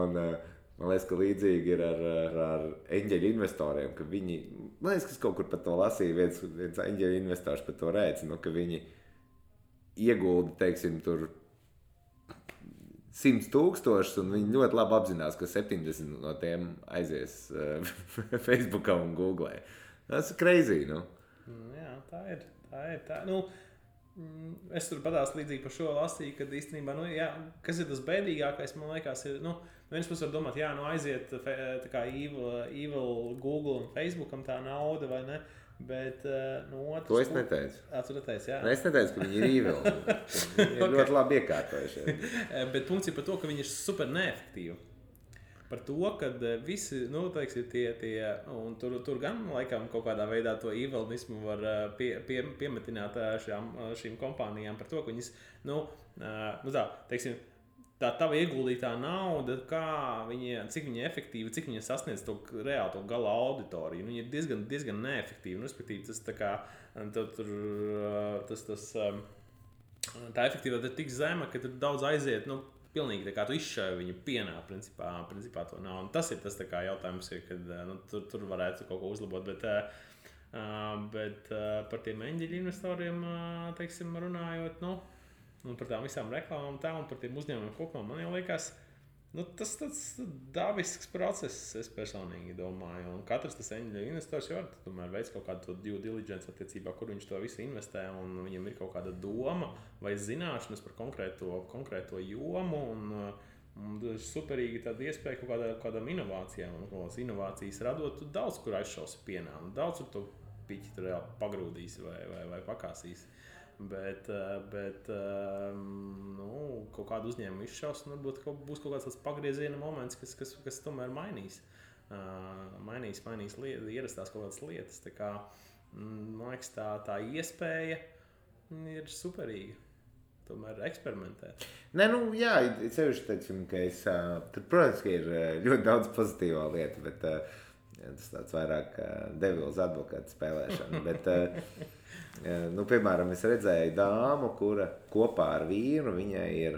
Un man liekas, ka līdzīgi ir ar eņģeļu investoriem, ka viņi, man liekas, ka es kaut kur par to lasīju, viens eņģeļu investors par to rēcina, ka viņi iegulda, teiksim, tur 100,000, un viņi ļoti labi apzinās, ka 70 no tiem aizies Facebookā un Googlē. Tas ir crazy, Jā, tā ir. Es tur padās līdzīgi par šo lasīju, kad īstenībā, kas ir tas bēdīgākais, man liekas, ir, viens puses var domāt, aiziet tā kā evil Google un Facebookam tā nauda, vai ne? Bet no otras To es neteicu. Tu neteici, jā. Es neteicu, ka viņi ir īvilni. Viņi ir ļoti labi iekārtojušies. Bet punkts ir par to, ka viņi ir super neefektīvi. Par to, ka visi, teiksim, un tur gan laikam kaut kādā veidā to īvelnismu var piemetināt šīm kompānijām par to, ka viņas, teiksim, tā tava ieguldītā nauda, cik viņa efektīva, cik viņa sasniedz to reāli to gala auditoriju. Viņa ir diezgan neefektīva. Respektīvi, tā efektivitāte ir tik zema, ka tur daudz aiziet, pilnīgi tā kā tu izšāvi viņu pienā, principā to nav. Un tas ir tas jautājums, kad tur varētu kaut ko uzlabot. Bet par tiem eņģeļu investoriem, teiksim, runājot, un par tām visām reklāmām un par tiem uzņēmumiem kopumā, man jau liekas, tas tāds dabisks process, es personīgi domāju. Un katrs tas eņģeļu investors jau tomēr veids kaut kādu due diligence attiecībā, kur viņš to visu investē, un viņam ir kaut kāda doma vai zināšanas par konkrēto jomu, un tas ir superīgi tāda iespēja kaut kādām inovācijām, un kādas inovācijas radot, tu daudz kur aizšausi pienā, un daudz kur to piķi tur reāli pagrūdīs vai pakāsīs. Bet kaut kādu uzņēmumu izšaus, un varbūt būs kaut kāds tāds pagrieziena moments, kas tomēr mainīs ierastās kaut kādas lietas. Tā kā, man liekas, tā iespēja ir superīga. Tomēr eksperimentēt. Nē, jā, sevišķi, teiksim, ka tur, protams, ka ir ļoti daudz pozitīvā lieta, bet tas tāds vairāk devils advokāta spēlēšana. Bet, piemēram, es redzēju dāmu, kura kopā ar vīru, viņai ir,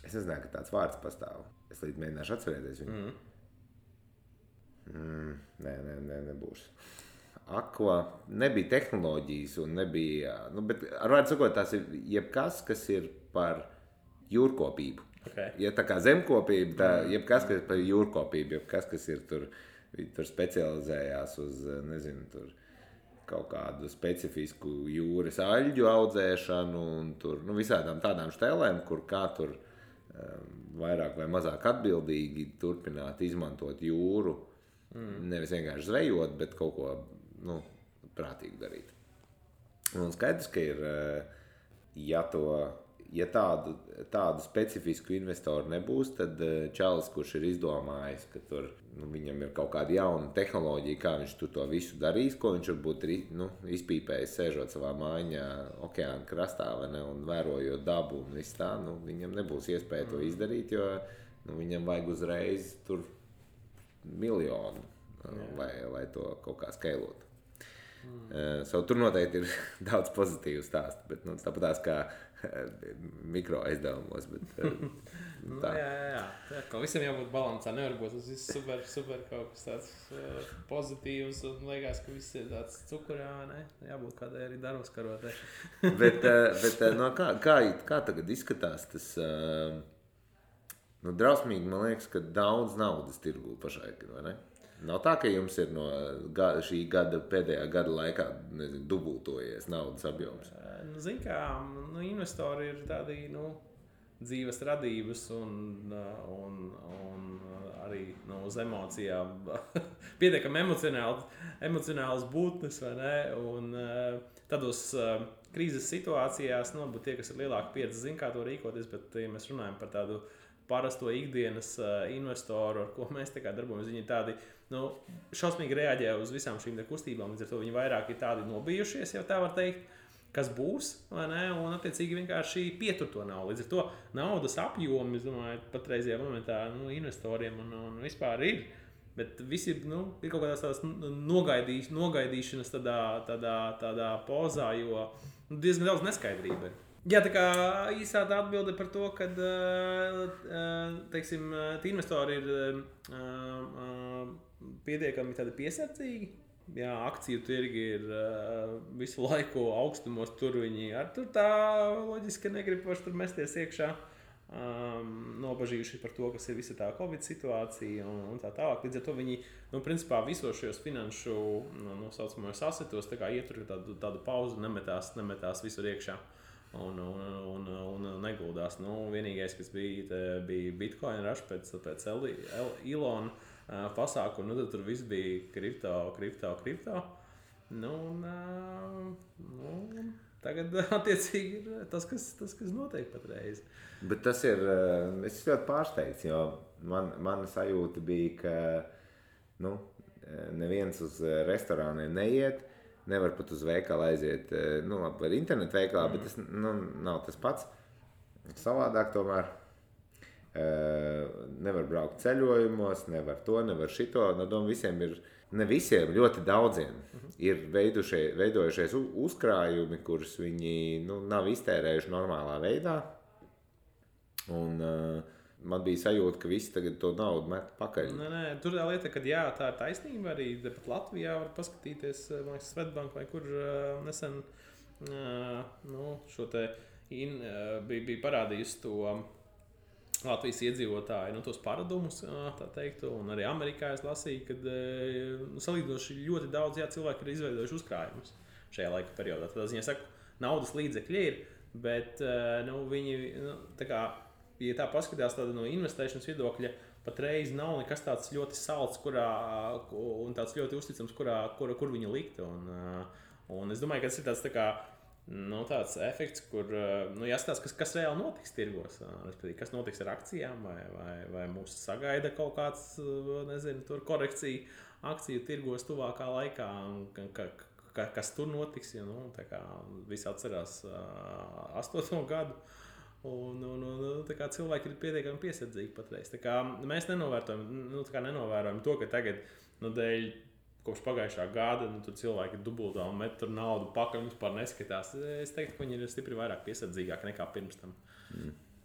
es nezināju, ka tāds vārds pastāv. Es līdz mēģināšu atcerēties viņu. Nebūs. Nebija tehnoloģijas un nebija, bet ar vārdu sakot, tās ir jebkas, kas ir par jūrkopību. Okay. Ja tā kā zemkopība, jebkas, kas ir par jūrkopību, jebkas, kas ir tur specializējās uz, nezinu, tur kaut kādu specifisku jūras aļģu audzēšanu un tur, visādām tādām štēlēm, kur kā tur vairāk vai mazāk atbildīgi turpināt izmantot jūru. Nevis vienkārši zvejot, bet kaut ko, prātīgi darīt. Un skaidrs, ka ir, ja tādu specifisku investoru nebūs, tad čalis, kurš ir izdomājis, ka tur viņam ir kaut kāda jauna tehnoloģija, kā viņš to visu darīs, ko viņš varbūt izpīpējis, sēžot savā mājiņā okeāna krastā un vērojot dabu un viss tā, viņam nebūs iespēja to izdarīt, jo viņam vajag uzreiz tur miljonu, lai to kaut kā skailotu. Tur noteikti ir daudz pozitīvu stāstu, bet tāpatās kā mikro aizdevumos. Jā. Ka visam jābūt balansā, nevar būt tas viss super kaut kas tāds pozitīvs un liekas, ka viss ir tāds cukurā, ne? Jābūt kādai arī darbskarotē. bet kā tagad izskatās tas, drausmīgi, man liekas, ka daudz naudas tirgū pašlaik, vai ne? Nav tā, ka jums ir no šī gada, pēdējā gada laikā, nezinu, dubultojies naudas apjoms? Zin kā, investori ir tādi, dzīves radības un arī uz emocijām pietiekami emocionāls būtnes, vai ne? Un tādos krīzes situācijās, varbūt tie, kas ir lielāka pieredze, zin kā to rīkoties, bet ja mēs runājam par tādu parasto ikdienas investoru, ar ko mēs darbojamies, viņi ir tādi, šausmīgi reaģē uz visām šīm kustībām, līdz ar to viņi vairāk ir tādi nobijušies, jau tā var teikt, kas būs, vai ne, un attiecīgi vienkārši pietur to naudu. Līdz ar to naudas apjomi, es domāju, patreizajā momentā investoriem un vispār ir, bet visi ir kaut kādās tādās nogaidīšanas tādā pozā, jo diezgan daudz neskaidrība ir. Jā, tā kā īsā atbilde par to, ka, teiksim, investori ir pietiekami tādi piesardzīgi. Jā, akciju tirgi ir visu laiku augstumos, tur viņi tur tā loģiski negrib paši tur mesties iekšā. Nobažījuši par to, kas ir visa tā Covid situācija un tā tālāk. Līdz ar to viņi, principā visos šajos finanšu, saucamajos asetos, tā kā ietur tādu pauzu, nemetās visur iekšā. Un neguldās. Vienīgais, kas bija Bitcoin rush pēc Elon pasākumu, tad tur viss bija kripto. Tagad attiecīgi ir tas, kas notiek patreiz. Bet tas ir, es ļoti pārsteigts, jo mana sajūta bija, ka neviens uz restorāniem neiet, nevar pat uz veikalu aiziet, var internetu veikalā, bet tas nav tas pats. Savādāk tomēr nevar braukt ceļojumos, nevar to, nevar šito. Visiem ir, ne visiem, ļoti daudziem ir veidojušies uzkrājumi, kurus viņi nav iztērējuši normālā veidā. Un man bija sajūta, ka visi tagad to naudu met pakaļ. Nē, tur tā lieta, ka jā, tā ir taisnība. Arī pat Latvijā var paskatīties, man liekas, Svetbank vai kur nesen šo te bija parādījusi to Latvijas iedzīvotāju, tos paradumus, tā teikt, un arī Amerikā es lasīju, kad salīdzinoši ļoti daudz cilvēki ir izveidojuši uzkrājumus šajā laika periodā. Tad es saku, naudas līdzekļi ir, bet viņi, tā kā, ja tā paskatās no investēšanas viedokļa, patreiz nav nekas tāds ļoti salds, un tāds ļoti uzticams, kur viņu likt. Un es domāju, ka tas ir tāds tā kā tāds efekts, kur jāskatās, kas reāli notiks tirgos. Kas notiks ar akcijām, vai mūs sagaida kaut kāds, tur korekcija akciju tirgos tuvākā laikā, kas tur notiks. Ja, visi atcerās 8. gadu. Un cilvēki ir pietiekami piesardzīgi patreiz. Mēs nenovērojam to, ka tagad dēļ kopš pagājušā gada tur cilvēki dubultā un met tur naudu pakaļ un vispār neskatās. Es teiktu, ka viņi ir stipri vairāk piesardzīgāki nekā pirms tam.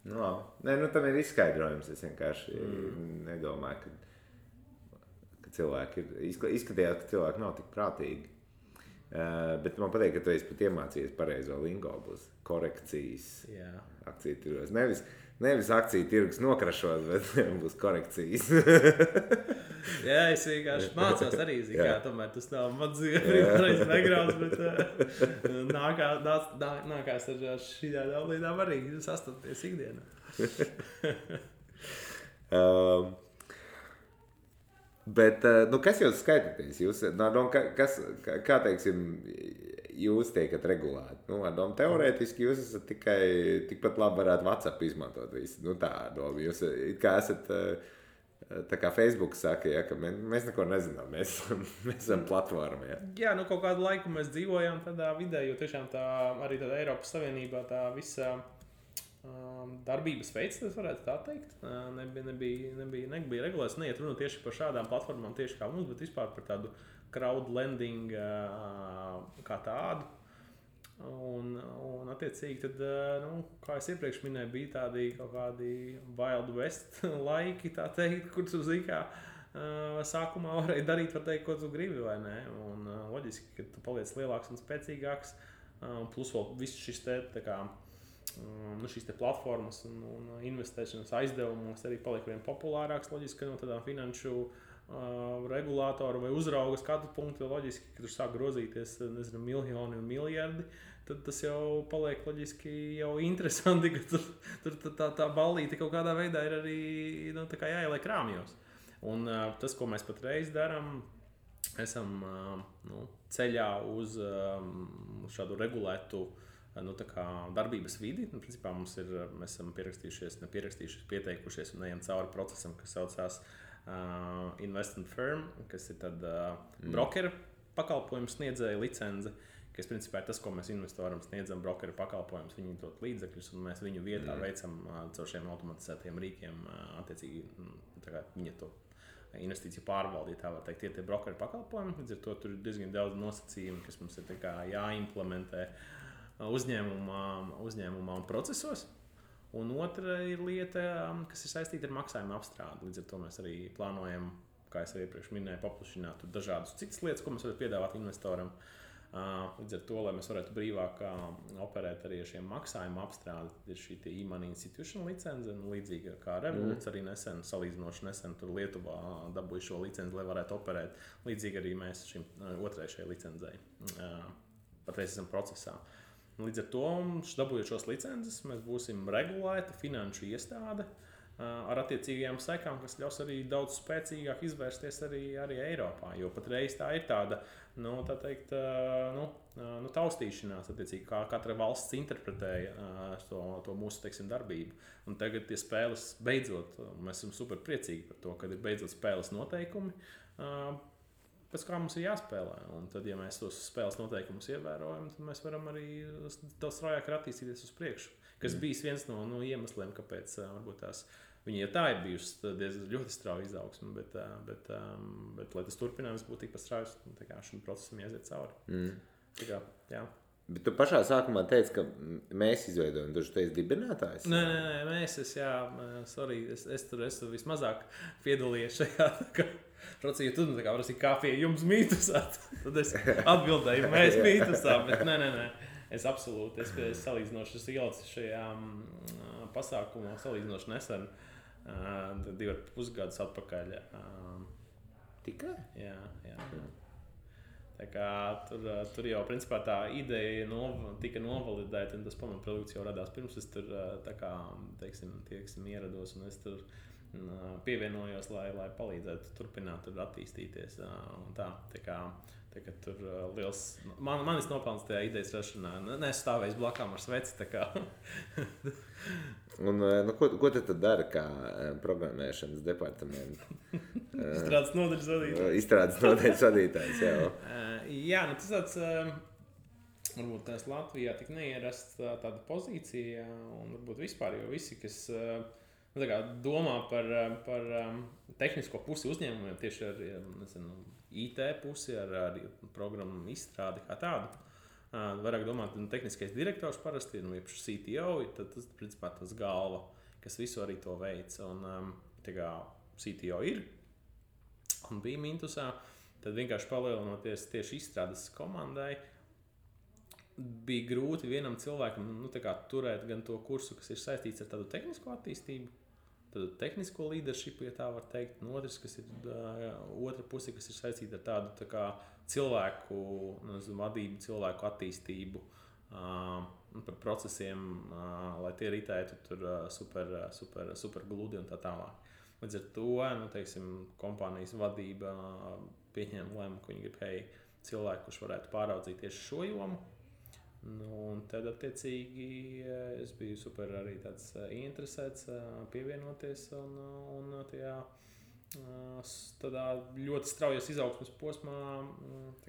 Tam ir izskaidrojums. Es vienkārši nedomāju, ka cilvēki izskatījās, ka cilvēki nav tik prātīgi. Bet man patīk, ka tu esi pat iemācījies pareizo lingo, būs korekcijas akciju tirgos. Nevis akciju tirgus nokrašot, bet būs korekcijas. Jā, es vienkārši mācos arī, tomēr tas nav mans brīvārais backgrounds, bet nākās ar šīdām lietām arī sastapties ikdienā. Bet, kas jūs skaitāties? Kā teiksim, jūs tiekat regulēti? Teorētiski jūs esat tikpat labi varētu WhatsApp izmantot visu. Tā doma. Jūs kā esat, tā kā Facebook saka, ka mēs neko nezinām, mēs esam platforma. Jā, kaut kādu laiku mēs dzīvojām tādā vidē, jo tiešām arī tādā Eiropas Savienībā tā visa darbības veids, tas varētu tā teikt. Nebija regulēts, neiet runa tieši par šādām platformām, tieši kā mums, bet vispār par tādu crowdlending kā tādu. Un attiecīgi, tad, kā es iepriekš minēju, bija tādi kaut kādi Wild West laiki, tā teikt, kur tu sākumā varēja darīt, var teikt, ko tu gribi, vai ne? Un loģiski, ka tu paliec lielāks un spēcīgāks, plus vēl viss šis šīs platformas un investēšanas aizdevumos arī paliek vien populārāks. Loģiski, ka no tādām finanšu regulātoru vai uzrauga skatu punktu loģiski, ka tur sāk grozīties, miljoni un miljardi, tad tas jau paliek loģiski jau interesanti, ka tur tā ballīte kaut kādā veidā ir arī jāieliek krāmjos. Un tas, ko mēs patreiz darām, esam ceļā uz šādu regulētu darbības vidi. Principā mēs esam pieteikušies un ejam cauri procesam, kas saucās investment firm, kas ir tad brokeru pakalpojumu sniedzēja licence, kas principā ir tas, ko mēs investoram sniedzam brokeru pakalpojumus, viņi dod līdzekļus un mēs viņu vietā veicam caur šiem automatizētiem rīkiem, attiecīgi viņa to investīciju pārvaldīt, tā var teikt, tie brokeru pakalpojumi. Līdz ar to tur ir diezgan daudz nosacījumu, kas mums ir jāimplementē uzņēmumā un procesos. Un otra ir lieta, kas ir saistīta ar maksājumu apstrādi. Līdz ar to mēs arī plānojam, kā es iepriekš minēju, paplašināt dažādas citas lietas, ko mēs varam piedāvāt investoram. Līdz ar to, lai mēs varētu brīvāk operēt arī ar šiem maksājumu apstrādi, ir šī e-money institutional licence, līdzīga kā Revolūts arī salīdzinoši nesen tur Lietuvā dabūja šo licenci, lai varētu operēt. Līdzīgi arī mēs šim otrai šai licencei patreiz esam procesā. Līdz ar to, dabūjot šos licences, mēs būsim regulēta finanšu iestāde, ar attiecīgajām sekām, kas ļaus arī daudz spēcīgāk izvērsties arī Eiropā. Jo patreiz tā ir tāda, tā teikt, taustīšanās, attiecīgi, kā katra valsts interpretēja to mūsu, teiksim, darbību. Un tagad tie spēles beidzot, mēs esam super priecīgi par to, kad ir beidzot spēles noteikumi, pēc kā mums ir jāspēlē. Un tad, ja mēs tos spēles noteikumus ievērojam, tad mēs varam arī daudz straujāk attīstīties uz priekšu. Kas bijis viens no iemesliem, kāpēc varbūt tās viņi jau tā ir bijusi ļoti strauja izaugsme, bet lai tas turpinājums būtu tikpat straujas, šim procesam jāiziet cauri. Tā kā, jā. Bet tu pašā sākumā teici, ka mēs izveidojam, tu esi dibinātājs? Nē, es tur vismazāk piedalījies šajā procesā, jo tu prasīji, kā pie jums mītusā, tad es atbildēju, mēs mītusā, bet nē. Es absolūti, es salīdzinoši ielicu šajā pasākumā, salīdzinoši nesen, 2,5 gadus atpakaļ. Tikai? Jā. Tā kā tur jau principā tā ideja tika novalidēta, un tas pamatprodukts jau radās pirms es tur teiksim, ierados, un es tur pievienojos, lai palīdzētu turpināt tur attīstīties. Un tā kā tur liels, manis nopelns tajā idejas rašanā, nestāvējis blakām ar sveci, tā kā. Un ko tu tad dari kā programmēšanas departamenta? Izstrādes nodaļas vadītājs. Izstrādes nodaļas vadītājs, jā. Jā, tas tāds, varbūt tās Latvijā tik neierasts tāda pozīcija, un varbūt vispār, jo visi, kas domā par tehnisko pusi uzņēmumiem, tieši ar IT pusi, ar programmu izstrādi kā tādu. Vairāk domāt, tehniskais direktors parasti ir, CTO, tad tas, principā, tas galva, kas visu arī to veic. Un CTO ir un bija Mintusā, tad vienkārši palielinoties tieši izstrādes komandai, bija grūti vienam cilvēkam turēt gan to kursu, kas ir saistīts ar tādu tehnisko attīstību, tādu tehnisko leadership, ja tā var teikt, un otrs, kas ir otra puse, kas ir saistīta ar tādu cilvēku vadību, cilvēku attīstību, par procesiem, lai tie ritētu tur super gludi un tā tālāk. Līdz ar to, kompānijas vadība pieņēma lēmumu, ka viņi grib cilvēku, kurš varētu pāraudzīt tieši šo jomu. Un tad, attiecīgi, es biju super arī tāds interesēts pievienoties un tādā ļoti straujas izaugsmes posmā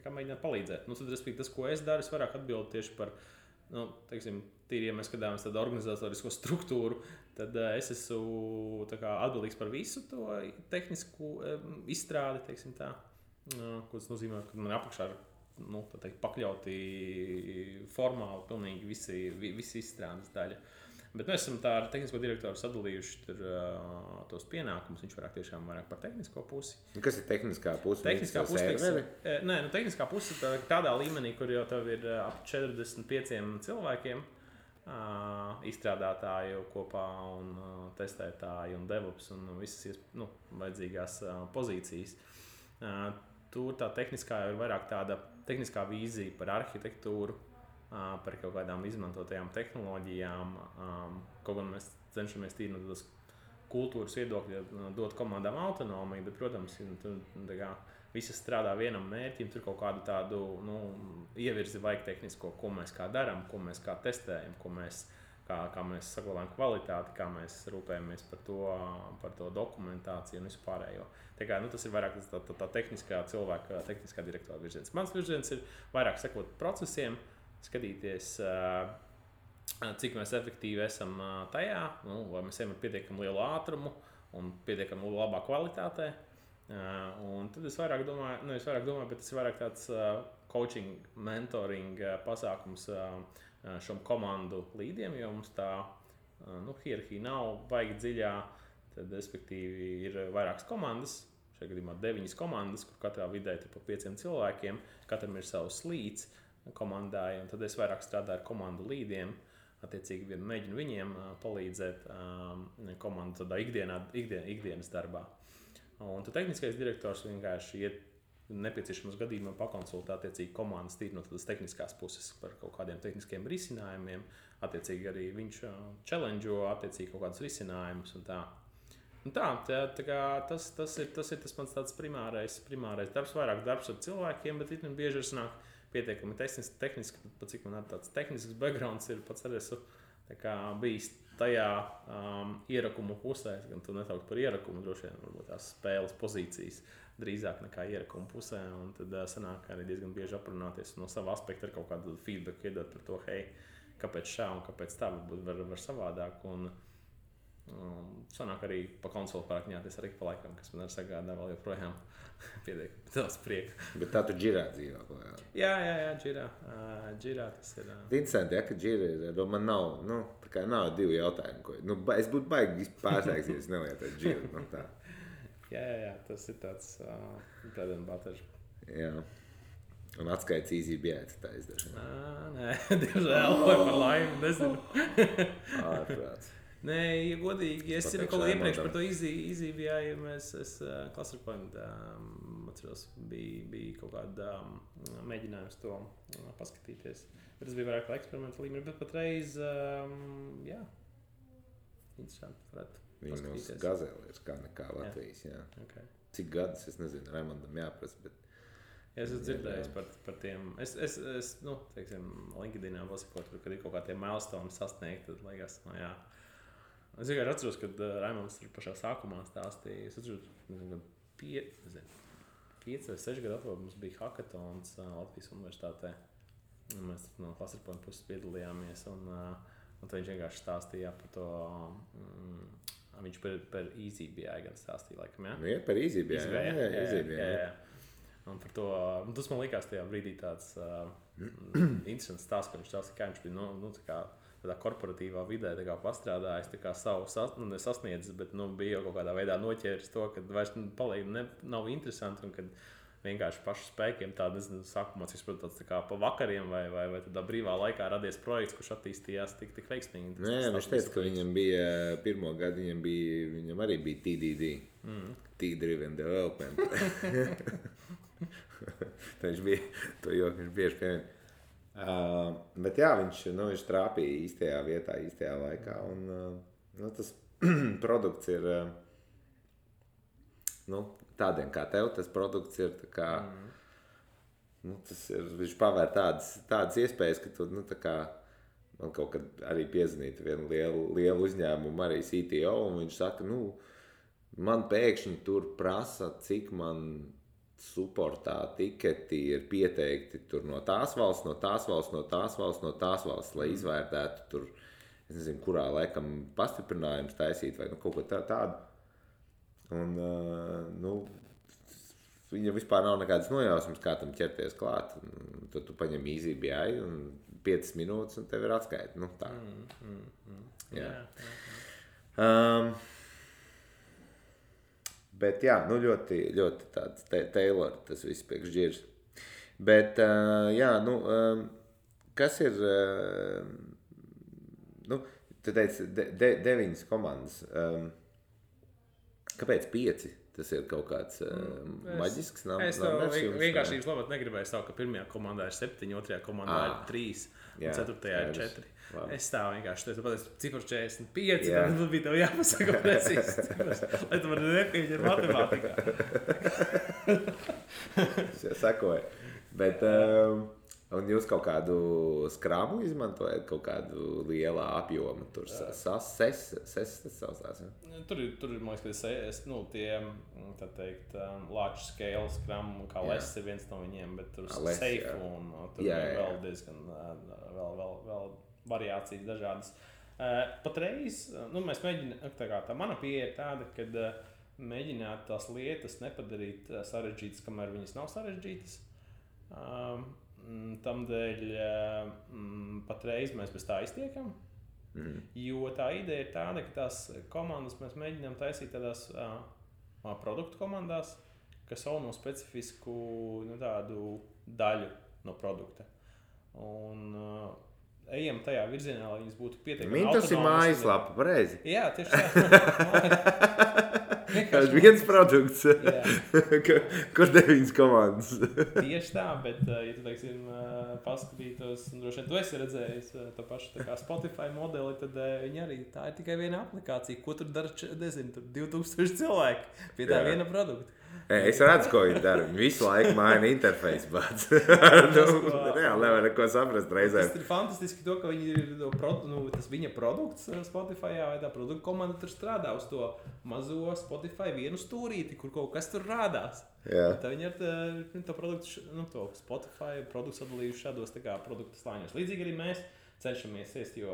mēģināt palīdzēt. Tad, respektīvi, tas, ko es daru, es vairāk atbildu tieši par, tīri, ja mēs skatāmies tādu organizatorisko struktūru, tad es esmu atbildīgs par visu to tehnisku izstrādi, ko tas nozīmē, ka man apakšā ir pakļauti formāli pilnīgi visi izstrādes daļa. Bet mēs esam tā ar tehnisko direktoru sadalījuši tos pienākumus. Viņš vairāk par tehnisko pusi. Kas ir tehniskā puse? Tehniskā puse, tehniskā puse tādā līmenī, kur jau tev ir ap 45 cilvēkiem izstrādātāju kopā un testētāji un DevOps un visas vajadzīgās pozīcijas. Tur tā tehniskā ir vairāk tāda tehniskā vīzija par arhitektūru, par kaut kādām izmantotajām tehnoloģijām. Kaut gan mēs cenšamies tīri no tādas kultūras viedokļa dot komandām autonomiju, bet, protams, visi strādā vienam mērķim, tur kaut kādu tādu ievirzi vajag tehnisko, ko mēs kā darām, ko mēs kā testējam, kā mēs saglabājam kvalitāti, kā mēs rūpējamies par to dokumentāciju un vispārējo. Tas ir vairāk tā tehniskā cilvēka, tehniskā direktora virziens. Mans virziens ir vairāk sekot procesiem, skatīties, cik mēs efektīvi esam tajā, vai mēs ejam ar pietiekami lielu ātrumu un pietiekami labā kvalitātē. Un tad es vairāk domāju, bet tas ir vairāk tāds coaching, mentoring pasākums šom komandu līdiem, jo mums tā hierarhija nav baigi dziļā, tad, respektīvi, ir vairākas komandas, šajā gadījumā 9 komandas, kur katrā vidē ir pa 5 cilvēkiem, katram ir savs līdz komandai, un tad es vairāk strādāju ar komandu līdiem, attiecīgi mēģinu viņiem palīdzēt komandu tādā ikdienas darbā. Un tad tehniskais direktors vienkārši iet nepieciešamos gadījumā pakonsultēt attiecīgi komandas tīri no tādas tehniskās puses par kaut kādiem tehniskiem risinājumiem, attiecīgi arī viņš challenge'o attiecīgi kaut kādus risinājumus un tā. Tā kā tas ir tas mans tāds primārais darbs, vairāk darbs ar cilvēkiem, bet it bieži ir sanāk pietiekami tehniski, pat cik man tāds tehnisks backgrounds ir, pats arī esmu bijis tajā ierakumu pusē, gan tu netaukt par ierakumu, droši vien varbūt tās spēles pozīcijas drīzāk nekā ierakumu pusē, un tad sanāk arī diezgan bieži aprunāties no sava aspekta ar kaut kādu feedback iedot par to, hei, kāpēc šā un kāpēc tā, varbūt var savādāk, un sanāk arī pa konsoli pārakņāties arī pa laikam, kas man arī sagādā vēl joprojām pietiekami daudz prieka. Bet tā tu džirā dzīvā klājā? Jā, džirā tas ir. Interesanti, ja, ka džira ir, man nav, tā kā nav divi jautājumi, ko, es būtu baigi pārsteigts, ja es nelietotu džiru, tā. Jā, tas ir tāds bread and butter. Jā. Un atskaits easy bieti tā izdažu. Nē, diemžēl, vai par laimi, nezinu. Ārprāts. Nē, ja godīgi, es jau kaut iepriekš par to easy bijāju, es Clusterpoint atceros, bija kaut kāda mēģinājums to paskatīties. Bet tas bija vairāk kā eksperimenta līmenī, bet patreiz, jā, interesanti, varētu paskatīties. Viņu gazēlēs kā nekā Latvijas, jā. Okay. Cik gadus, es nezinu, Raimondam jāprasa, bet... Ja es esmu dzirdējis par tiem, teiksim, LinkedInā pasakot, kad ir kaut kā tie milestone sasniegt, tad liekas, jā. Es vienkārši atceros, kad Raimonds tur pašā sākumā stāstīja, es atceros, kad 5 vai 6 gadu atpakaļ mums bija hackathons Latvijas universitātē. Un mēs no Clusterpoint puses piedalījāmies, un tad viņš vienkārši stāstīja par to, viņš par EasyBI gan stāstīja, laikam, jā? Nu, jā, par EasyBI, jā. Un par to, tas man likās tajā brīdī tāds interesants stāsts, ka viņš stāstīja, kā viņš bija, tādā korporatīvā vidē pastrādājis, savu nesasniedzis, bet bija jau kaut kādā veidā noķēris to, ka vairs paliek nav interesanti, un kad vienkārši pašu spēkiem tāda, nezinu, sākumā, cik saprotu, tāds pa vakariem vai tādā brīvā laikā radies projekts, kurš attīstījās tik veiksmīgi. Nē, viņš teica, ka viņam bija pirmo gadu, viņam arī bija TDD, T-Driven Development. Viņš bija, to joku viņš bieži piemēr. Bet jā, viņš trāpīja īstajā vietā, īstajā laikā, un tas produkts ir, tādiem kā tev, tas produkts ir tā kā, tas ir, viņš pavēr tādas iespējas, ka tu, tā kā, man kaut kad arī piezvanītu vienu lielu uzņēmumu, arī CTO, un viņš saka, man pēkšņi tur prasa, cik man supportā tiketi ir pieteikti tur no tās valsts, lai izvērtētu tur, es nezinu, kurā laikam pastiprinājums taisīt vai kaut ko tādu. Un, viņam vispār nav nekādas nojausmas, kā tam ķerties klāt. Un tad tu paņem EasyBI un 5 minūtes un tev ir atskaita. Tā. Jā. Bet jā, ļoti, ļoti tāds Taylor tas viss priekš džirs. Bet, jā, kas ir, tu teici, 9 komandas. Kāpēc 5? Tas ir kaut kāds maģisks numbers? Es vienkāršības labāk negribēju stāvu, ka pirmajā komandā ir 7, otrajā komandā ir 3, un ceturtajā ir 4. Labi. Es stāvu vienkārši, tu pateici, cifru 45, tad bija tev jāpasaka precīzi cifras, lai tu vari nepieņi ar matemātikā. Es jau sakoju. Bet, un jūs kaut kādu skrāmu izmantojat, kaut kādu lielā apjomu, tur ses tas saucās, ja? Tur ir, man liekas, tie, tā teikt, large scale skramu, kā Les ir viens no viņiem, bet tur safe un tur vēl diezgan, vēl variācijas dažādas. Patreiz, mēs mēģinām, tā mana pieeja ir tāda, kad mēģināt tās lietas nepadarīt sarežģītas, kamēr viņas nav sarežģītas. Tamdēļ patreiz mēs bez tā iztiekam, jo tā ideja ir tāda, ka tās komandas mēs mēģinām taisīt tādās produktu komandās, kas sauno specifisku tādu daļu no produkta. Un ejam tajā virzienā, lai viņas būtu pietiekami Mintos ir mājaslapa, pareizi. Jā, tieši tā. Tas viens produkts, kur 9 komandas. Tieši tā, bet, ja tu, teiksim, paskatītos, un droši vien tu esi redzējis to pašu tā kā Spotify modeli, tad viņi arī, tā ir tikai viena aplikācija, ko tur dara, nezinu, tur 2000 cilvēki pie tā viena produkta. Es redzu, ko viņi dara. Viņi visu laiku maina interfeisu, bet reāli nevar neko saprast reizēm. Tas ir fantastiski to, ka viņi ir tas viņa produkts Spotifyā, vai tā produkta komanda tur strādā uz to mazo Spotify vienu stūrīti, kur kaut kas tur rādās. Tā viņi ar to produktu, to Spotify produktu sadalījuši šādos tā kā produktu slāņos. Līdzīgi arī mēs cenšamies iest, jo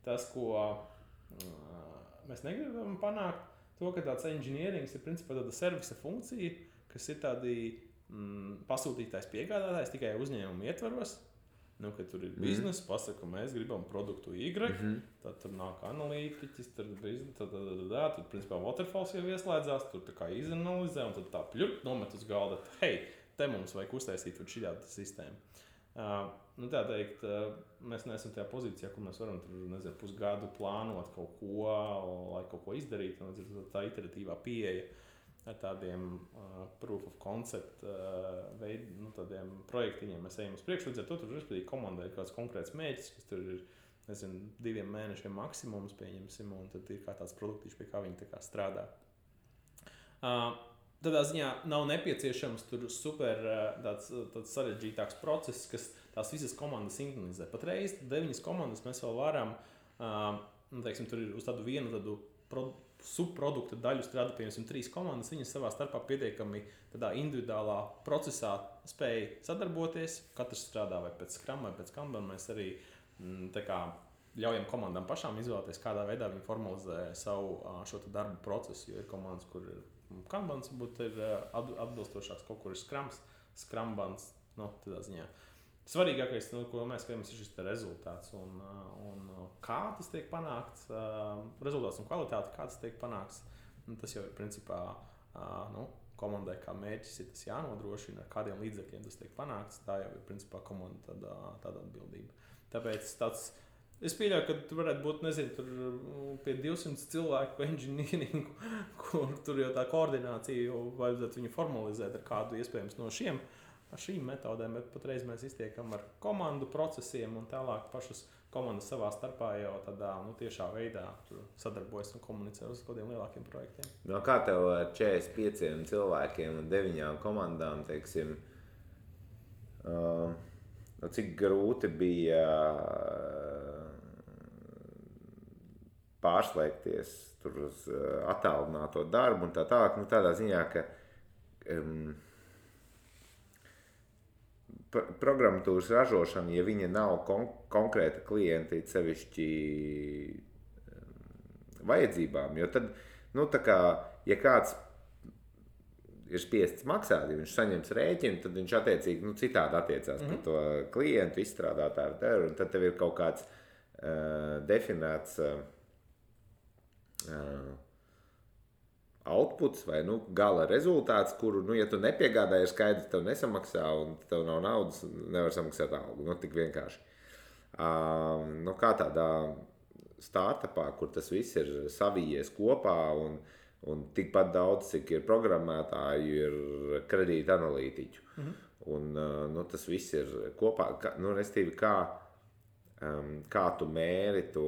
tas, ko mēs negribam panākt, to, ka tāds engineerings ir principā tāda servisa funkcija, kas ir tādi pasūtītājs piegādātājs tikai uzņēmumu ietvaros. Kad tur ir biznesa, pasaka, ka mēs gribam produktu Y, tad tur nāk analītiķis, tad principā Waterfalls jau ieslēdzās, tur tā kā izanalizē un tad tā pļup nomet uz galda, hei, te mums vajag uztaisīt šādu sistēmu. Tā teikt, mēs neesam tajā pozīcijā, kur mēs varam tur, pusgadu plānot kaut ko, lai kaut ko izdarītu. Tā iteratīvā pieeja ar tādiem proof of concept tādiem projektiņiem mēs ejam uz priekšu. Līdz ar to tur respektīvi komandai ir kāds konkrēts mērķis, kas tur ir, 2 mēnešiem maksimums pieņemsim, un tad ir kā tāds produktīšs, pie kā viņi tā kā strādā. Tādā ziņā nav nepieciešams tur super tāds sarežģītāks process, kas tās visas komandas sinkronizē. Patreiz 9 komandas mēs vēl varam, teiksim, tur ir uz tādu vienu subprodukta daļu strādā, piemēram, 3 komandas, viņas savā starpā pietiekami tādā individuālā procesā spēja sadarboties. Katrs strādā vai pēc Scrum vai pēc Kanban. Mēs arī tā kā ļaujam komandām pašām izvēlēties, kādā veidā viņi formalizē savu šo darbu procesu, jo ir komandas, kur ir Kanbans, būtu ir atbilstošāks, kaut kur ir Scrumbans, tādā ziņā. Svarīgākais, ko mēs skatāmies, ir šis rezultāts un kā tas tiek panākts, rezultāts un kvalitāte, kā tas tiek panākts. Tas jau ir principā komandai kā mērķis, ir tas jānodrošina, ar kādiem līdzekļiem tas tiek panākts. Tā jau ir principā komanda tāda atbildība. Tāpēc es pieļauju, ka tur varētu būt, nezinu, tur pie 200 cilvēku engineeringu, kur tur jau tā koordinācija vajadzētu viņu formalizēt ar kādu iespējams no šīm metodēm, bet patreiz mēs iztiekam ar komandu procesiem un tālāk pašas komandas savā starpā jau tādā tiešā veidā sadarbojas un komunicē uz kādiem lielākiem projektiem. Kā tev ar 45 cilvēkiem un 9 komandām, teiksim, cik grūti bija pārslēgties tur uz attālināto darbu un tā tālāk, tādā ziņā, ka programmatūras ražošana, ja viņa nav konkrēta klienta sevišķi vajadzībām, jo tad, tā kā, ja kāds ir spiests maksāt, ja viņš saņems rēķinu, tad viņš attiecīgi citādi attiecās par to klientu, izstrādātāju, un tad tev ir kaut kāds definēts outputs vai gala rezultāts, kuru, ja tu nepiegādāji, ir skaidrs, tev nesamaksā un tev nav naudas, nevar samaksāt algu. Tik vienkārši. Kā tādā startupā, kur tas viss ir savijies kopā un tikpat daudz, cik ir programmētāju, ir kredīta analītiķu. Un tas viss ir kopā. Restīvi, kā tu mēri to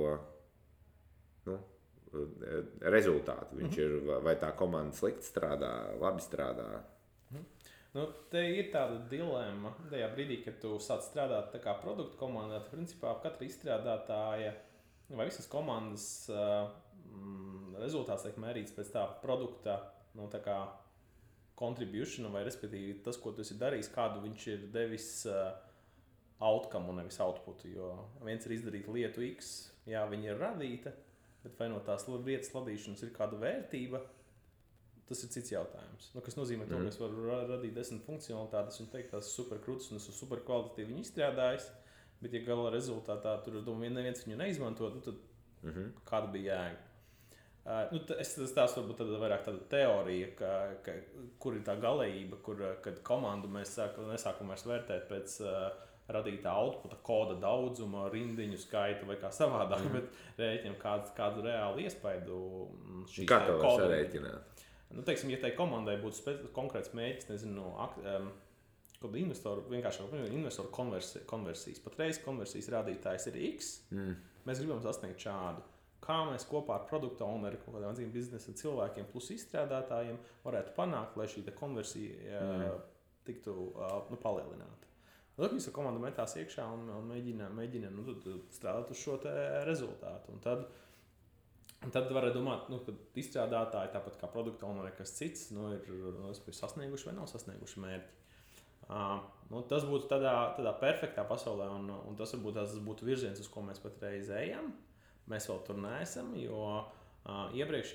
rezultātu. Viņš ir, vai tā komanda slikti strādā, labi strādā. Te ir tāda dilemma tajā brīdī, kad tu sāc strādāt tā kā produktu komandā, tad principā katra izstrādātāja vai visas komandas rezultāts tiek mērīts pēc tā produkta, tā kā contribution, vai respektīvi tas, ko tu esi darījis, kādu viņš ir devis outcome un nevis outputu, jo viens ir izdarīt lietu X, jā, viņa ir radīta, bet vai no tās lietas radīšanas ir kāda vērtība, tas ir cits jautājums. Kas nozīmē to, ka es varu radīt 10 funkcionalitātes un teikt, tās super krūtas un esmu super kvalitatīvi viņu izstrādājis, bet ja gala rezultātā tur neviens viņu neizmanto, tad kāda bija jēga? Tas varbūt vairāk tāda teorija, kur ir tā galējība, kad komandu mēs nesākam vairs vērtēt pēc radītā outputa koda daudzuma, rindiņu skaitu vai kā savādāk, bet rēķinam kādu reālu iespaidu. Kā to var sarēķināt? Nu, teiksim, ja tai komandai būtu konkrēts mēģis, nezinu, kad investoru konversijas. Patreiz konversijas rādītājs ir X. Mēs gribam sasniegt šādu. Kā mēs kopā ar produktu owneri, kaut kādiem atzīm biznesa cilvēkiem plus izstrādātājiem varētu panākt, lai šī konversija tiktu palielināta. Tad visa komanda metās iekšā un mēģina strādāt uz šo rezultātu. Un tad var domāt, ka izstrādātāji, tāpat kā produktu owneri, kas cits, ir sasnieguši vai nav sasnieguši mērķi. Tas būtu tādā perfektā pasaulē, un tas būtu virziens, uz ko mēs patreiz ejam. Mēs vēl tur neesam, jo iepriekš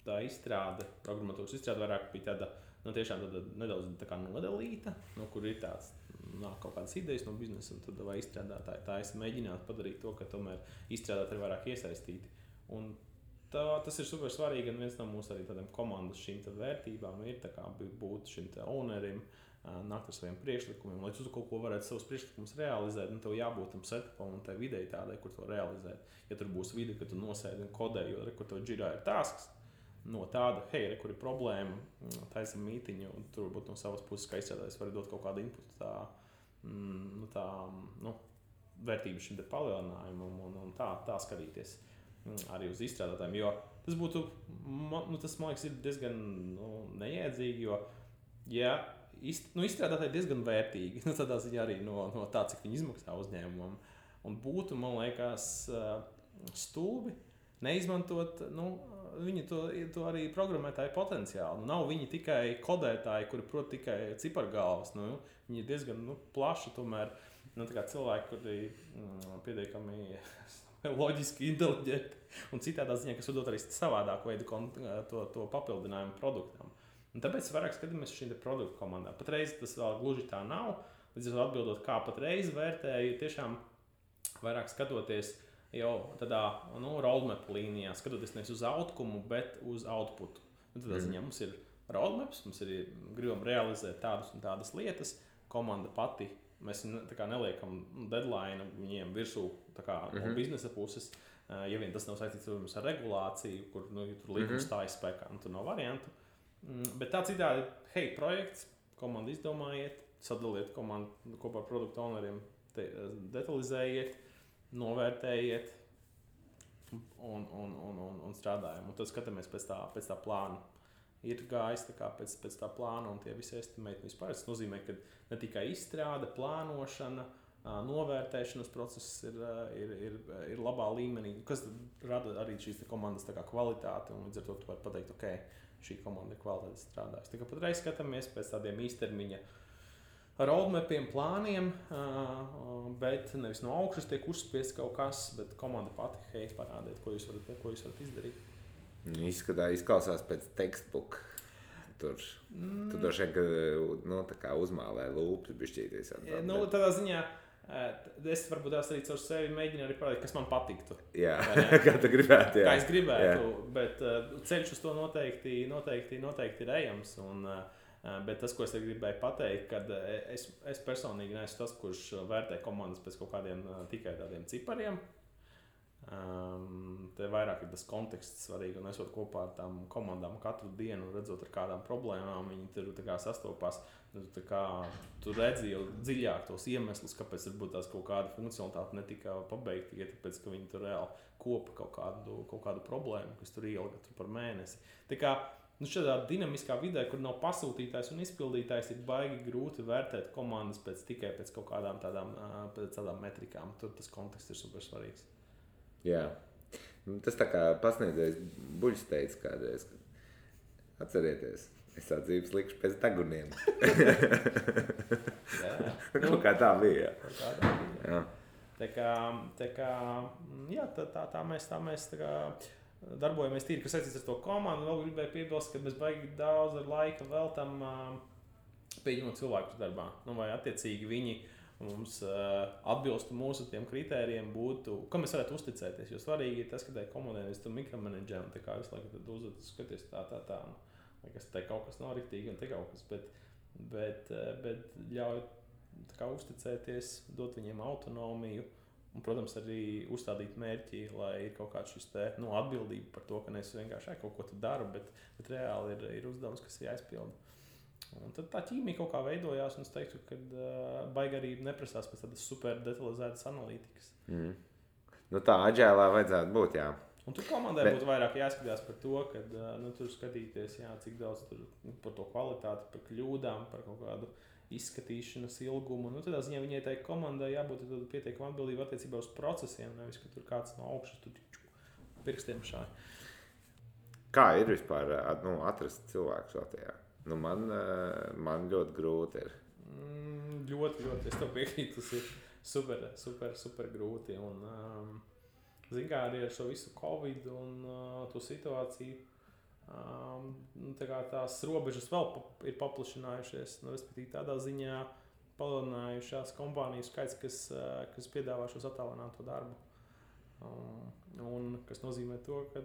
tā izstrāde, programmatūras izstrāde vairāk bija tāda, tiešām tāda nedaudz tā kā nodalīta, kur ir tāds kaut kādas idejas no biznesa, un tad vai izstrādātāji tā es mēģinātu padarīt to, ka tomēr izstrādātāji ir vairāk iesaistīti. Un tas ir super svarīgi, un viens no mūsu arī tādiem komandas šīm vērtībām ir tā kā būt šim ownerim, nākt ar saviem priekšlikumiem, lai tu kaut ko varētu savus priekšlikumus realizēt, tev jābūt tam setupam un tai videi tādai, kur to realizēt. Ja tur būs vide, ka tu nosēdi un kodē, jo kur tev džirā ir tasks, no tāda, kur ir problēma, taisam mītiņu, un tur varbūt no savas puses, kā izstrādājis, var dot kaut kādu inputu vērtību šim palielinājumam un tā skatīties arī uz izstrādātājiem, jo tas būtu, tas man liekas ir diezgan neiedzīgi, jo, izstrādātāji diezgan vērtīgi, tādā ziņā arī no tā, cik viņi izmaksā uzņēmumam, un būtu, man liekas, stulbi neizmantot, viņi to arī programmētāju potenciālu. Nav viņi tikai kodētāji, kuri prot tikai cipargalvas, viņi ir diezgan plaši tomēr, tā kā cilvēki, kuri pietiekami loģiski inteliģenti, un citādā ziņā, kas var dot arī savādāku veidu to papildinājumu produktam. Un tāpēc vairāk skatāmies šīm produktu komandām. Patreiz tas vēl gluži tā nav. Līdz ar atbildot, kā patreiz vērtēju, tiešām vairāk skatoties jau tādā roadmap līnijā, skatoties nevis uz outcomu, bet uz outputu. Tādā ziņā mums ir roadmaps, mums ir gribam realizēt tādas un tādas lietas. Komanda pati, mēs tā kā neliekam deadline viņiem virsū no biznesa puses. Ja vien tas nav saistīts ar regulāciju, kur tur līgums stājas spēkā, tur nav variantu. Bet tā citādi, projekts, komanda izdomājiet, sadaliet komandu kopā ar produktu owneriem, detalizējiet, novērtējiet un strādājam. Un tad skatāmies pēc tā plāna. Ir gājis pēc tā plāna un tie visi estimēti vispār. Tas nozīmē, ka ne tikai izstrāde, plānošana, novērtēšanas process ir labā līmenī, kas rada arī šīs komandas kvalitāti, un līdz ar to tu vari pateikt, šī komanda ir kvalitāte strādājusi. Tā kā patreiz skatāmies pēc tādiem īstermiņa roadmapiem, plāniem, bet nevis no augšas tiek uzspiests kaut kas, bet komanda pati parādiet, ko jūs varat izdarīt. Izklausās pēc textbook. Tur droši vien, ka uzmālē lūpes bišķīties. Tādā ziņā es varbūt arī caur sevi mēģinu arī parādīt, kas man patiktu. Jā, kā tu gribētu. Kā es gribētu, bet ceļš uz to noteikti ir ejams. Bet tas, ko es gribēju pateikt, kad es personīgi neesmu tas, kurš vērtē komandas pēc kaut kādiem tikai tādiem cipariem. Te vairāk ir tas konteksts svarīgi, un esot kopā ar tām komandām katru dienu, redzot ar kādām problēmām, viņi tur sastopās. Tu redzi jau dziļāk tos iemeslus, kāpēc varbūt tās kaut kāda funkcionalitāte netika pabeigta, tikai tāpēc, ka viņi tur reāli kopa kaut kādu problēmu, kas tur ielga par mēnesi. Tā kā šādā dinamiskā vidē, kur nav pasūtītājs un izpildītājs, ir baigi grūti vērtēt komandas tikai pēc kaut kādām tādām metrikām. Tur tas konteksts ir super svarīgs. Jā. Tas tā kā pasniedzējs Buļs teica kādreiz, atcerieties, es dzīves likšu pēc deguniem. Kaut kā tā bija. Jā. Tā mēs darbojamies tīri, kas saistīts ar to komandu. Vēl gribēju piebilst, ka mēs baigi daudz laika veltam pieņemot cilvēkus darbā. Vai attiecīgi viņi mums atbilstu mūsu tiem kritērijiem būtu, kam mēs varētu uzticēties. Jo svarīgi ir tas, ka tai komandai mēs tur mikromenedžējam, tā kā visu laiku tad uzvedas, skaties tā. Liekas, te kaut kas nav riktīgi un te kaut kas, bet ļauj tā kā uzticēties, dot viņiem autonomiju. Un, protams, arī uzstādīt mērķi, lai ir kaut kāds šis te, atbildība par to, ka nevis vienkārši kaut ko tu daru, bet reāli ir uzdevums, kas ir jāizpilda. Un tad tā ķīmija kaut kā veidojās, un es teiktu, ka baigi arī neprasās pēc tādas super detalizētas analītikas. Nu tā aģēlā vajadzētu būt, jā. Un tur komandai būtu vairāk jāskatās par to, ka tur skatīties, cik daudz tur par to kvalitāti, par kļūdām, par kaut kādu izskatīšanas ilgumu. Tādā ziņā viņai tai komandai jābūt pietiekami atbildībai attiecībā uz procesiem, nevis, ka tur kāds no augšas tur pirkstiem šādi. Kā ir vispār atrast cilvēkus Latvijā? Man ļoti grūti ir. Ļoti, es tev piekrītu, tas ir super grūti. Un, zin kā, arī ar šo visu Covid un to situāciju, tās robežas vēl ir paplašinājušies, respektīvi tādā ziņā palielinājušās kompāniju skaits, kas piedāvā šos attālināto darbu. Un kas nozīmē to, ka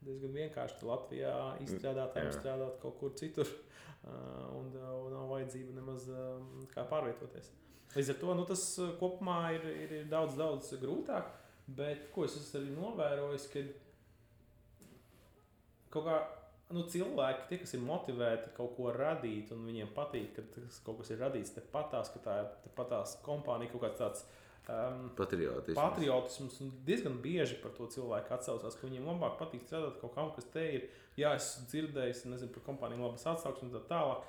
diezgan vienkārši Latvijā izstrādātājiem strādāt kaut kur citur un nav vajadzība nemaz kā pārvietoties. Līdz ar to tas kopumā ir daudz grūtāk, bet ko es esmu arī novērojis, ka kaut kā cilvēki, tie, kas ir motivēti kaut ko radīt un viņiem patīk, ka kaut kas ir radīts tepatās, ka tā ir tepatās kompānija, kaut kāds tāds patriotisms. Un diezgan bieži par to cilvēku atsaucās, ka viņiem labāk patīk strādāt kaut kam, kas te ir. Jā, es dzirdējis, nezinu, par kompāniju labas atsauksmes un tā tālāk.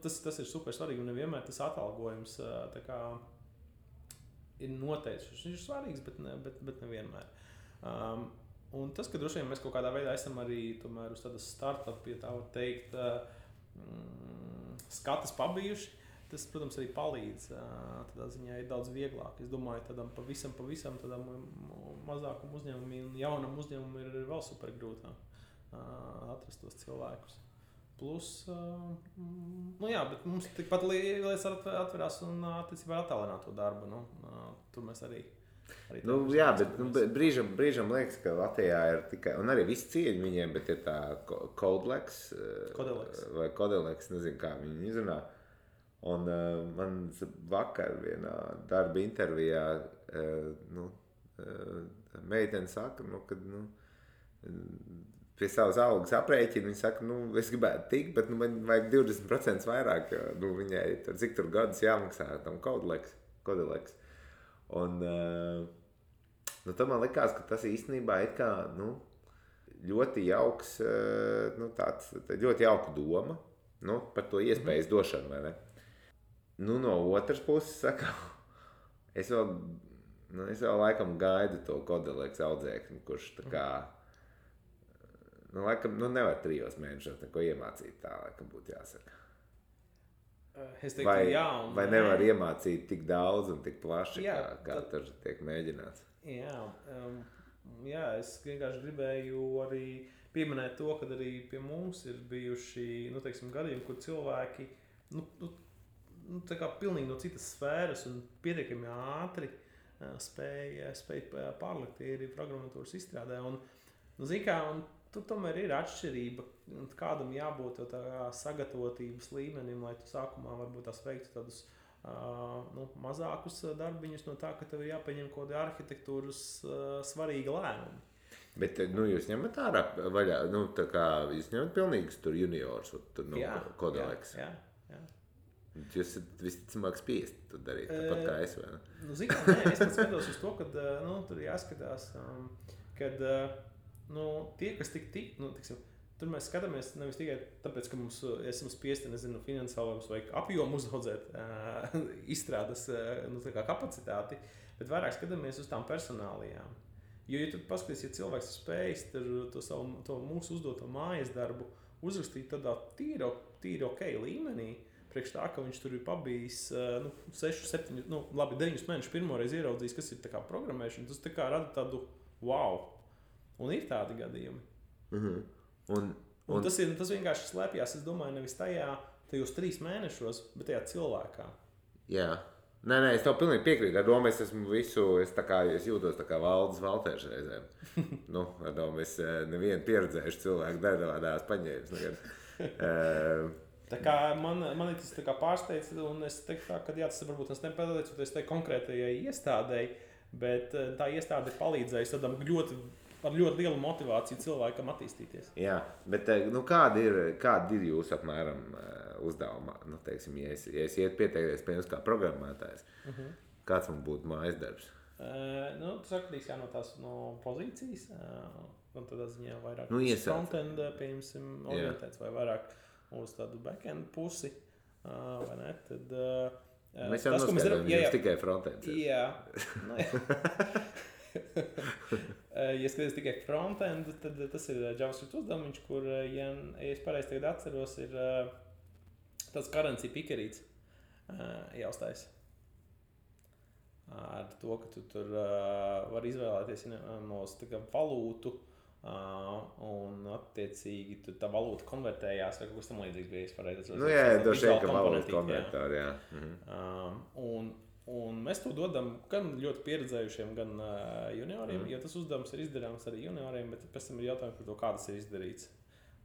Tas ir super svarīgi un nevienmēr tas atalgojums tā kā ir noteicis. Viņš ir svarīgs, bet nevienmēr. Un tas, ka droši vien mēs kaut kādā veidā esam arī tomēr uz tādas startup, ja tā var teikt, skatas pabijuši, tas, protams, arī palīdz. Tādā ziņā ir daudz vieglāk. Es domāju, tādam pavisam tādam mazākam uzņēmumam un jaunam uzņēmumam ir vēl super grūtāk atrast tos cilvēkus. Plus, bet mums tikpat lietas atverās un attiecībā attālināto darbu. Tur mēs arī bet brīžam liekas, ka Latvijā ir tikai, un arī visi cieņi viņiem, bet ir tā Kodelex, nezinu, kā viņi izrunā. Un man vakar vienā darba intervijā meitene saka, kad pie savas algas aprēķina, viņa saka, es gribētu tikt, bet man vajag 20% vairāk, jo viņai cik tur gadus jāmaksā tam Kodelex. Un tad man likās, ka tas īstenībā ir kā ļoti jauks, ļoti jauka doma par to iespējas došanu, vai ne? No otras puses, saka, es vēl laikam gaidu to Kodelex audzēkni, kurš tā kā, laikam, nevar 3 mēnešos neko iemācīt, tā laikam būtu jāsaka. Es teiktu, vai nevar iemācīt tik daudz un tik plaši, kā tur tiek mēģināts? Jā, es vienkārši gribēju arī pieminēt to, ka arī pie mums ir bijuši, gadījumi, kur cilvēki, tā kā pilnīgi no citas sfēras un pietiekami ātri spēja pārlikt arī programmatūras izstrādē. Un, tur tomēr ir atšķirība, kādam jābūt tā sagatavotības līmenim, lai tu sākumā varbūt tās veiktu tādus mazākus darbiņus no tā, ka tev ir jāpieņem kaut kādi arhitektūras svarīgi lēmumi. Bet jūs ņemat ārā vaļā, tā kā jūs ņemat pilnīgus tur juniors, tur Kodelex. Jā. Jūs esat visticamāk spiesti to darīt, tāpat kā es, vai ne? Es skatos uz to, ka tur jāskatās, kad tie, kas tur mēs skatāmies nevis tikai tāpēc, ka mums esam spiesti, finansiāli vai apjomu uzaudzēt izstrādes kapacitāti, bet vairāk skatāmies uz tām personālijām. Jo, ja tu paskaties, ja cilvēks spējas to mūsu uzdoto mājas darbu uzrakstīt tādā tīri ok līmenī, priekš tā, ka viņš tur ir pabijis 6, 7, 9 mēnešus pirmoreiz ieraudzījis, kas ir tā kā programmēšana, tas tā kā rada tādu wow. Un ir tādi gadījumi. Un tas vienkārši slēpjas, es domāju, nevis tajos 3 mēnešos, bet tajā cilvēkā. Jā. Nē, es tev pilnīgi piekrītu. Ar domu es jūtos tā kā Valdis Valters reizēm. Ar domu es nevienu pieredzējuši cilvēku dēdavādās paņēmis. Tā kā man tas tā kā pārsteidz, un es teiktu, ka jā, tas varbūt tas nepateicoties tai konkrētajai iestādēji, bet tā iestāde palīdzējusi tādam ar ļoti lielu motivāciju cilvēkam attīstīties. Jā, bet nu, kādi ir jūsu apmēram uzdevumi? Nu, teiksim, ja es iet pieteikties pie jums kā programmētājs, kāds man būtu mājas darbs? Tas atkarīgs no tās pozīcijas, un tādā ziņā vairāk frontend, pieņemsim, orientēts vai vairāk uz tādu backend pusi, vai ne? Tad, mēs jau noskaidrojam, jums tikai frontends. Jā. Ja skaties tikai frontend, tad tas ir JavaScript uzdevums, kur, ja es pareizi tagad atceros, ir tāds currency pickerīts jāuztais. Ar to, ka tu tur var izvēlēties no valūtu un attiecīgi tu tā valūta konvertējās vai kaut kas tam līdzīgs bija, es pareizi atceros. Nu jā, droši vien, ka valūta konvertori, jā. Un mēs to dodam gan ļoti pieredzējušiem, gan junioriem, jo tas uzdevums ir izdarāms arī junioriem, bet pēc tam ir jautājums par to, kā tas ir izdarīts.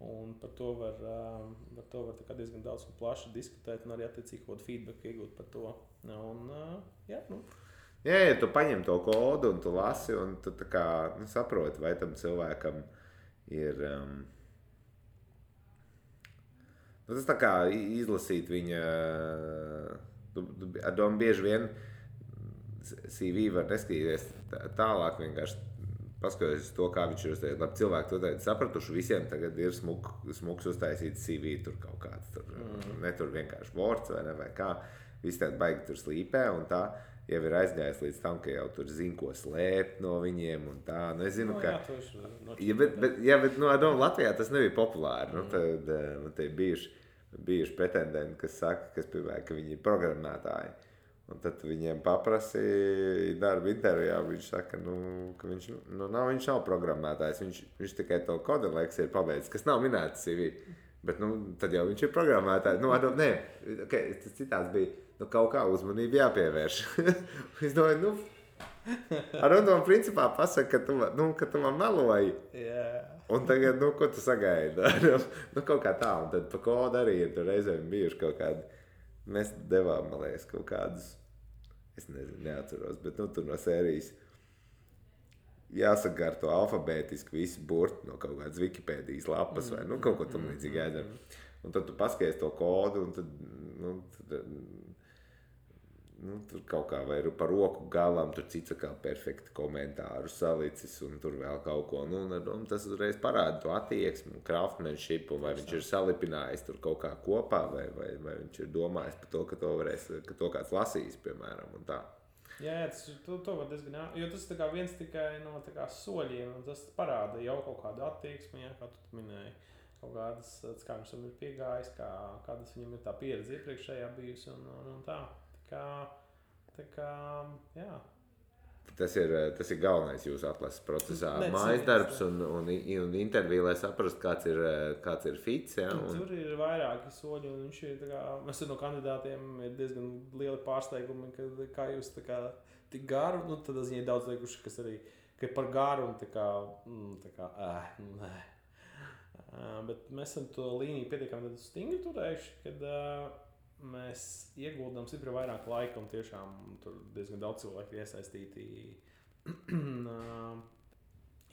Un par to var tā kā diezgan daudz un plaši diskutēt un arī attiecīgi kaut kādu feedback iegūt par to. Un, jā, ja tu paņem to kodu un tu lasi, un tu tā kā saproti, vai tam cilvēkam ir... tas tā kā izlasīt viņa... Ar domu bieži vien CV var neskatīties tālāk, vienkārši paskatoties to, kā viņš ir uztaisījis. Labi, cilvēki to tagad sapratuši, visiem tagad ir smuks uztaisīts CV, tur kaut kāds, ne tur vienkārši Words vai kā, visi tādi baigi tur slīpē, un tā jau ir aizgājis līdz tam, ka jau tur zina, ko slēpt no viņiem, un tā, nu es zinu, ka... Bet Latvijā tas nebija populāri, tad te bijuši pretendenti, kas saka, ka viņi ir programmētāji. Un tad viņiem paprasīja darba intervijā, viņš saka, ka viņš nav programmētājs, viņš tikai to kodeleks ir pabeidzis, kas nav minēts CV. Bet tad jau viņš ir programmētājs. Tas citāds bija, kaut kā uzmanību jāpievērš. Es domāju, ar un principā pasaka, ka tu man meloji. Yeah. Un tagad, ko tu sagaidi? Kaut kā tā, un tad pa kodu arī ir tur reizēm bijuši kaut kādi, mēs devām, man liekas, kaut kādus, es nezinu, neatceros, bet tur no sērijas jāsakārto alfabētiski visi burti no kaut kādas Wikipēdijas lapas vai kaut ko tam līdzīgi jādara. Un tad tu paskaties to kodu, un tad tur kaut kā vai par roku galam, tur cits kā perfekti komentāru salicis, un tur vēl kaut ko. Tas uzreiz parāda to attieksmi, craftsmanship, vai viņš ir salipinājis tur kaut kā kopā, vai viņš ir domājis par to, ka to kāds lasīs, piemēram, un tā. Jā, to var diezgan, jo tas ir viens tikai no soļiem, un tas parāda jau kaut kādu attieksmi, jā, kā tu minēji, kaut kādas, kā viņš ir piegājis, kādas viņam ir tā pieredze iepriekšējā bijusi, un tā. Tā kā, jā. Tas ir galvenais jūsu atlases procesā. Mājas darbs un intervija, lai saprastu, kāds ir fits. Ja, Tur ir vairāki soļi, un viņš ir, mēs no kandidātiem ir diezgan lieli pārsteigumi, kā jūs tik garu, tad ziņā ir daudz liekuši, kas arī, ka par garu un bet mēs esam to līniju pietiekami stingri turējuši, kad mēs ieguldām stipri vairāk laika un tiešām tur diezgan daudz cilvēku iesaistīti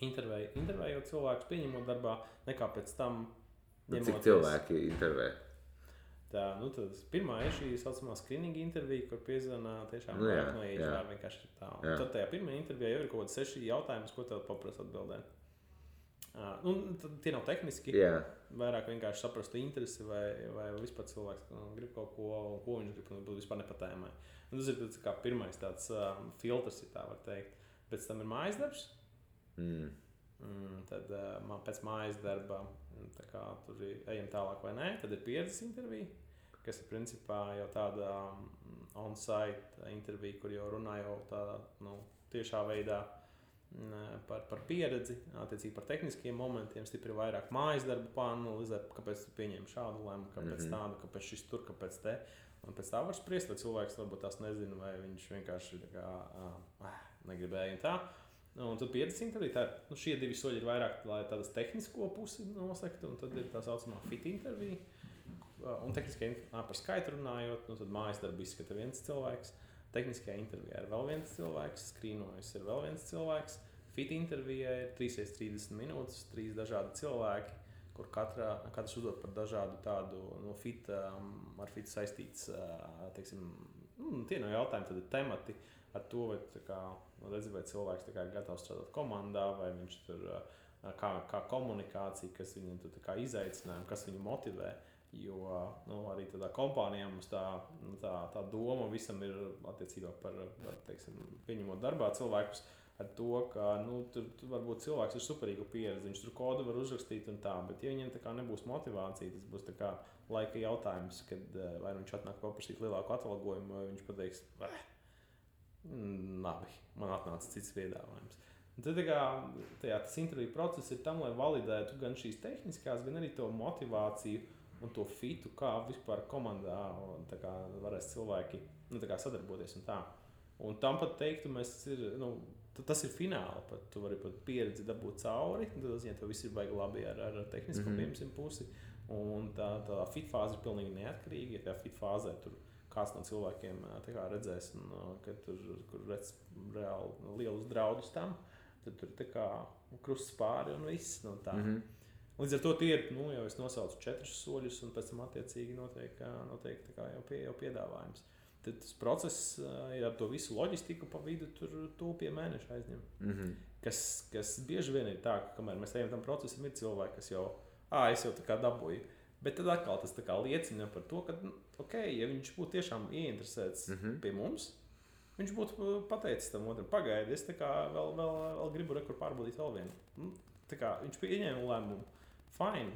intervējot cilvēkus, pieņemot darbā, nekā pēc tam ņemoties. Cik cilvēki intervē? Tā, tad pirmā ir šī saucamā screening intervija, kur piezvanā tiešām vairāk no HR vienkārši ir tā. Un tad tajā pirmajā intervijā jau ir kaut kāds 6 jautājumus, ko tev paprasa atbildēt. Tie nav tehniski, vairāk vienkārši saprastu interesi vai vispār cilvēks grib kaut ko, un ko viņš grib, un vispār nepatēmē. Tas ir tāds kā pirmais tāds filtrs, ja tā var teikt. Pēc tam ir mājas darbs. Tad pēc mājas darba, tā kā tur ejam tālāk vai nē, tad ir pieredzes intervija, kas ir principā jau tāda on-site intervija, kur jau runā jau tādā tiešā veidā par pieredzi, attiecīgi par tehniskiem momentiem, stipri vairāk mājas darbu pāranalizēt, kāpēc tu pieņem šādu lēmu, kāpēc tādu, kāpēc šis tur, kāpēc te. Un pēc tā var spriest, vai cilvēks varbūt tās nezina, vai viņš vienkārši negribēja un tā. Un tad pieredzes intervija, šie 2 soļi ir vairāk, lai tādas tehnisko pusi nosektu, un tad ir tā saucamā fit intervija, un par skaitu runājot, nu, tad mājas darbu izskata viens cilvēks, tehniskajā intervijā ir vēl viens cilvēks, skrīnojas ir vēl viens cilvēks, fit intervijā ir 3x30 minūtes, 3 dažādi cilvēki, kur katrs uzdod par dažādu tādu no ar fit saistīts, teiksim, tie no jautājumi, tad ir temati ar to, vai cilvēks ir gatavs strādāt komandā, vai viņš tur, kā komunikācija, kas viņam tur izaicinājumi, kas viņu motivē, jo arī tādā kompānijā mums tā doma visam ir attiecībā par, teiksim, pieņemot darbā cilvēkus, ar to, ka tur varbūt cilvēks ir superīga pieredze, viņš tur kodu var uzrakstīt un tā, bet ja viņiem nebūs motivācija, tas būs laika jautājums, kad vai viņš atnāk paprasīt lielāku atalgojumu, vai viņš pateiks, labi, man atnāca cits piedāvājums. Un tad tas interviju process ir tam, lai validētu gan šīs tehniskās, gan arī to motivāciju un to fitu, kā vispār komandā varēs cilvēki sadarboties un tā. Un tam pat teiktu, tas ir fināli, pat tu vari pat pieredzi dabūt cauri, tad tev viss ir baigi labi ar tehnisko piemēram pusi, un tā fit fāze ir pilnīgi neatkarīga, ja fit fāzē tur kāds no cilvēkiem redzēs, ka tur redz reāli lielus draudus tam, tad tur krusts pāri un viss, tā. Līdz ar to tie ir, jau es nosaucu 4 soļus, un pēc tam attiecīgi notiek jau piedāvājums. Tad tas process, ja ar to visu loģistiku pa vidu, tur pie mēneša aizņem. Kas bieži vien ir tā, ka kamēr mēs ejam tam procesam, ir cilvēki, kas jau, es jau dabūju. Bet tad atkal tas liecina par to, ka, ja viņš būtu tiešām ieinteresēts pie mums, viņš būtu pateicis tam otram, pagaidi, es vēl gribu rekur pārbaudīt vēl vienu. Viņš pieņēma lēmumu, fine,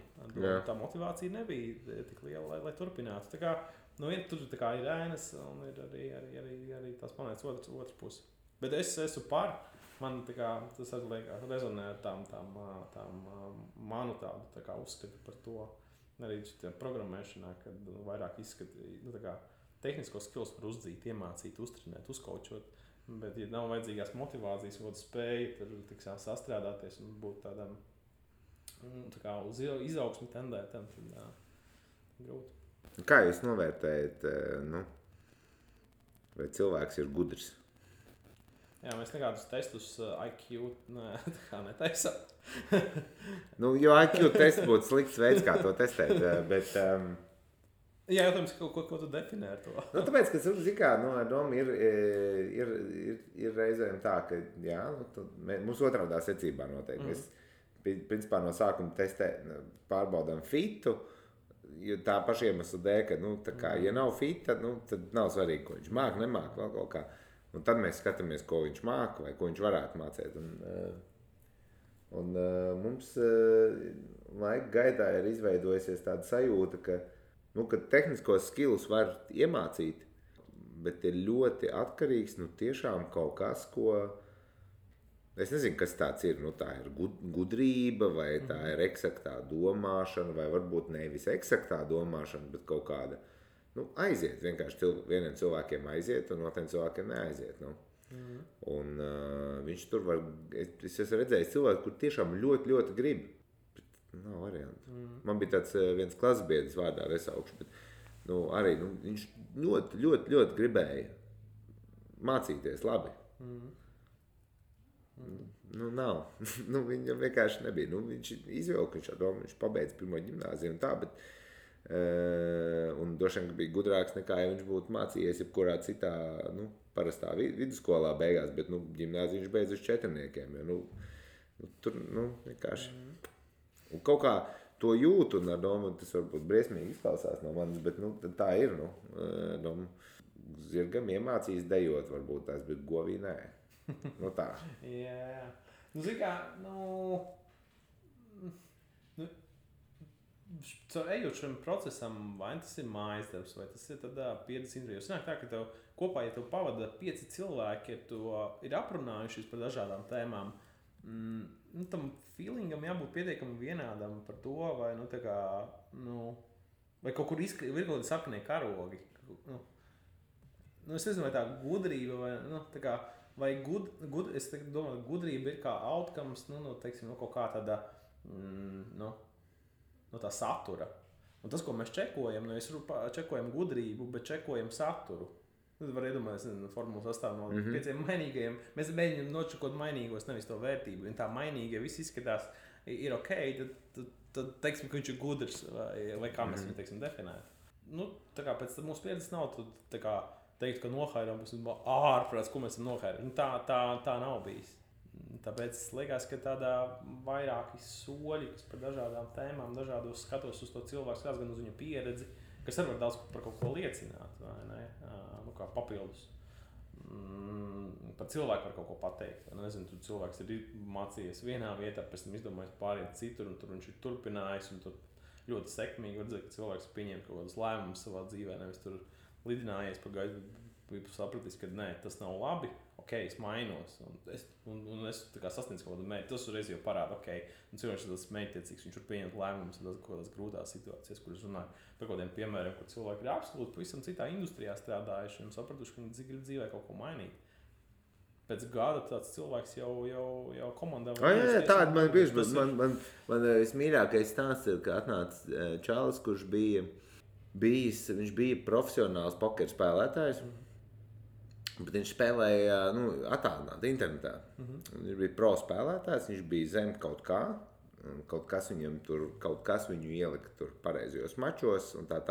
tā motivācija nebija tik liela, lai turpinātu. Tur ir ēnas un ir arī tās planētas otrs puses. Bet es esmu par, man tas rezonē ar tām manu tādu uzskatu par to, arī programmēšanā, kad vairāk izskata, tehniskos skills var uzdzīt, iemācīt, uztrenēt, uzkaučot, bet ja nav vajadzīgās motivācijas, ko spēja tur sastrādāties un būt tādam uz izaugsmi tendētam, tad grūti. Kā jūs novērtējat, vai cilvēks ir gudrs? Jā, mēs nekādus testus IQ netaisam. Jo IQ tests būtu slikts veids, kā to testēt, bet... Jā, jautājums, ko tu definē ar to? Tāpēc, ka doma ir reizēm tā, ka mums otrādā secībā noteikti. Mēs, principā, no sākuma pārbaudām fitu, jo tā paša iemesla dēļ, ka, ja nav fita, tad nav svarīgi, ko viņš māk, nemāk, vēl kaut kā. Un tad mēs skatāmies, ko viņš māk vai ko viņš varētu mācīt. Un mums laika gaitā ir izveidojusies tāda sajūta, ka tehniskos skillus var iemācīt, bet ir ļoti atkarīgs tiešām kaut kas, ko... Es nezinu, kas tāds ir. Tā ir gudrība, vai tā ir eksaktā domāšana, vai varbūt nevis eksaktā domāšana, bet kaut kāda aiziet. Vienkārši vieniem cilvēkiem aiziet, un otriem cilvēkiem neaiziet. Un viņš tur var... Es esmu redzējis cilvēku, kur tiešām ļoti, ļoti grib. Bet nav variantu. Man bija tāds viens klasbiedrs vārdā nesaukšu, bet arī viņš ļoti, ļoti, ļoti gribēja mācīties labi. Nav. Viņam vienkārši nebija. Viņš izvilka, viņš pabeidza pirmo ģimnāziju un tā, bet un droši vien bija gudrāks nekā, ja viņš būtu mācījies jebkurā citā, parastā vidusskolā beigās, bet, ģimnāziju viņš beidz uz 4. Tur, vienkārši. Un kaut kā to jūtu, un ar domu, tas varbūt briesmīgi izklausās no manis, bet, tā ir, domu. Zirgam iemācījis dejot, varbūt tās, bet govī nē. Tā. Jā. Zini kā, ejot šim procesam, vai tas ir mājas darbs, vai tas ir pieredzes intervijas. Sanāk tā, ka tev kopā, ja tev pavada 5 cilvēki, ja tu ir aprunājušies par dažādām tēmām, tam feelingam jābūt pietiekami vienādam par to, vai, vai kaut kur ir kaut kādi sarkanie karogi. Es nezinu, vai tā gudrība, vai, vai es domāju, gudrība ir kā outcomes, teiksim, kaut kā tāda, tā satura. Un tas, ko mēs čekojam, nevis čekojam gudrību, bet čekojam saturu. Tad var iedomāties, formula sastāv no 5 mainīgajiem. Mēs mēģinām nočekot mainīgos, nevis to vērtību. Ja tā mainīgie viss izskatās, ir ok, tad teiksim, ka viņš ir gudrs, vai kā mēs viņu, teiksim, definētu. Nu, tā kā pēc mūsu pieredzes nav, tā kā teikt, ka nohairām, tas ir ārprāts, ko mēs esam nohairām. Tā nav bijis. Tāpēc liekas, ka tādā vairāki soļi, kas par dažādām tēmām, dažādos skatos uz to cilvēku, skatās gan uz viņa pieredzi, kas arī var daudz par kaut ko liecināt, vai ne? Kā papildus. Par cilvēku var kaut ko pateikt. Nezinu, tur cilvēks ir mācījies vienā vietā, pēc tam izdomājis pāriet citur, un tur viņš ir turpinājis, un tur ļoti sekmīgi var redzēt, ka cilvēks pieņem kaut kādus lēmumus savā dzīvē, nevis tur lidinājies par gaisu, bet sapratis, ka nē, tas nav labi, ok, es mainos, un es tā kā sasniedzu kaut kādu mērķi, tas uzreiz jau parāda, ok, un cilvēks ir tāds mērķtiecīgs, viņš var pieņemt lēmumus kaut kādās grūtās situācijās, kur es runāju par kādiem piemēriem, kur cilvēki ir absolūti pavisam citā industrijā strādājuši un sapratuši, ka viņi grib dzīvē kaut ko mainīt. Pēc gada tāds cilvēks jau komandā... Jā, tāda man bieži, bet man vismīļākais stāsts ir, ka atnāca čalis, kurš viņš bija profesionāls pokeru spēlētājs, bet viņš spēlēja attālināti internetā. Viņš bija pro spēlētājs, viņš bija zem kaut kā, kaut kas viņu ielika tur pareizajos mačos un tā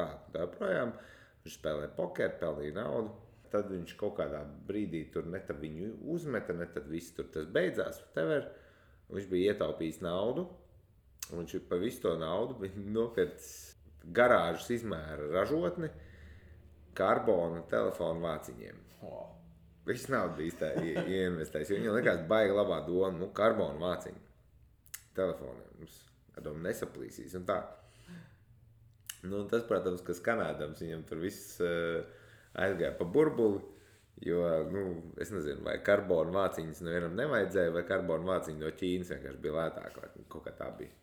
projām. Viņš spēlēja pokeru, pelnīja naudu. Tad viņš kaut kādā brīdī tur ne tad viņu uzmeta, ne tad viss tur tas beidzās. Viņš bija ietaupījis naudu, un viņš par visu to naudu bija nopircis garāžas izmēra ražotni karbona telefonu vāciņiem. Viss naudu bija ieinvestējis, jo viņam likās baigi labā doma, karbona vāciņu telefoniem. Nesaplīsīs un tā. Tas, protams, kas kanādams, viņam tur viss aizgāja pa burbuli, jo, es nezinu, vai karbona vāciņas nevienam nevajadzēja, vai karbona vāciņa no Ķīnas vienkārši bija lētāk, vai kaut kā tā bija.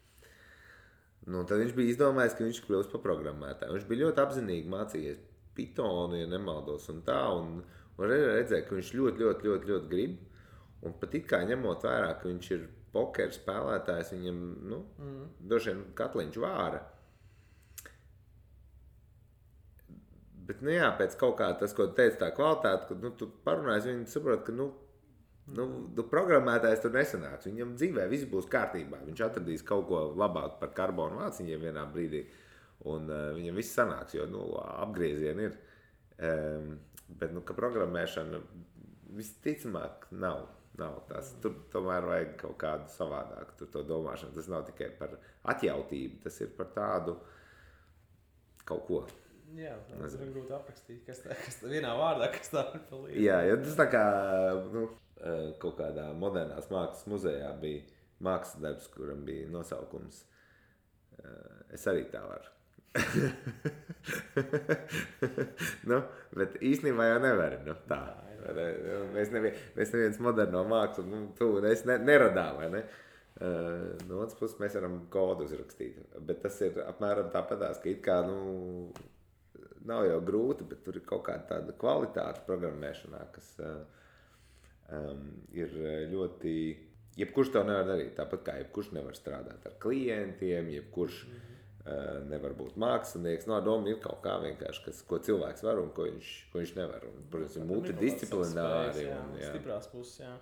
Tad viņš bija izdomājis, ka viņš kļūs par programmētāju. Viņš bija ļoti apzinīgi mācījies Pythonu, ja nemaldos, un tā, un redzēja, ka viņš ļoti grib, un pat it kā ņemot vērā, ka viņš ir pokeru spēlētājs, viņam, droši vien katliņš vāra. Bet, pēc kaut kā tas, ko tu teici, tā kvalitāte, kad, tu parunājies, viņi saprot, ka, programmētājs tur nesanāks. Viņam dzīvē viss būs kārtībā. Viņš atradīs kaut ko labāk par karbonu vāciņiem vienā brīdī, un viņam viss sanāks, jo, apgriezieni ir. Bet, ka programmēšana visticamāk nav tas. Tur tomēr vajag kaut kādu savādāku to domāšanu. Tas nav tikai par atjautību, tas ir par tādu kaut ko. Jā, tas ir grūti aprakstīt, kas tā vienā vārdā, kas tā ir palīdz. Jā, tas tā kā kaut kādā modernās mākslas muzejā bija mākslas darbs, kuram bija nosaukums Es arī tā varu. Bet īstenībā jau nevar, tā. Mēs neviens moderno mākslu, tu un es neradām, vai ne? No otras puses mēs varam kodu uzrakstīt, bet tas ir apmēram tāpatās, ka it kā, nav jau grūti, bet tur ir kaut kāda tāda kvalitāte programmēšanā, kas ir ļoti... Jebkurš to nevar darīt, tāpat kā jebkurš nevar strādāt ar klientiem, jebkurš nevar būt mākslinieks. No doma ir kaut kā vienkārši, ko cilvēks var un ko viņš nevar. Un, protams, ir multidisciplināri. Stiprās puses, jā.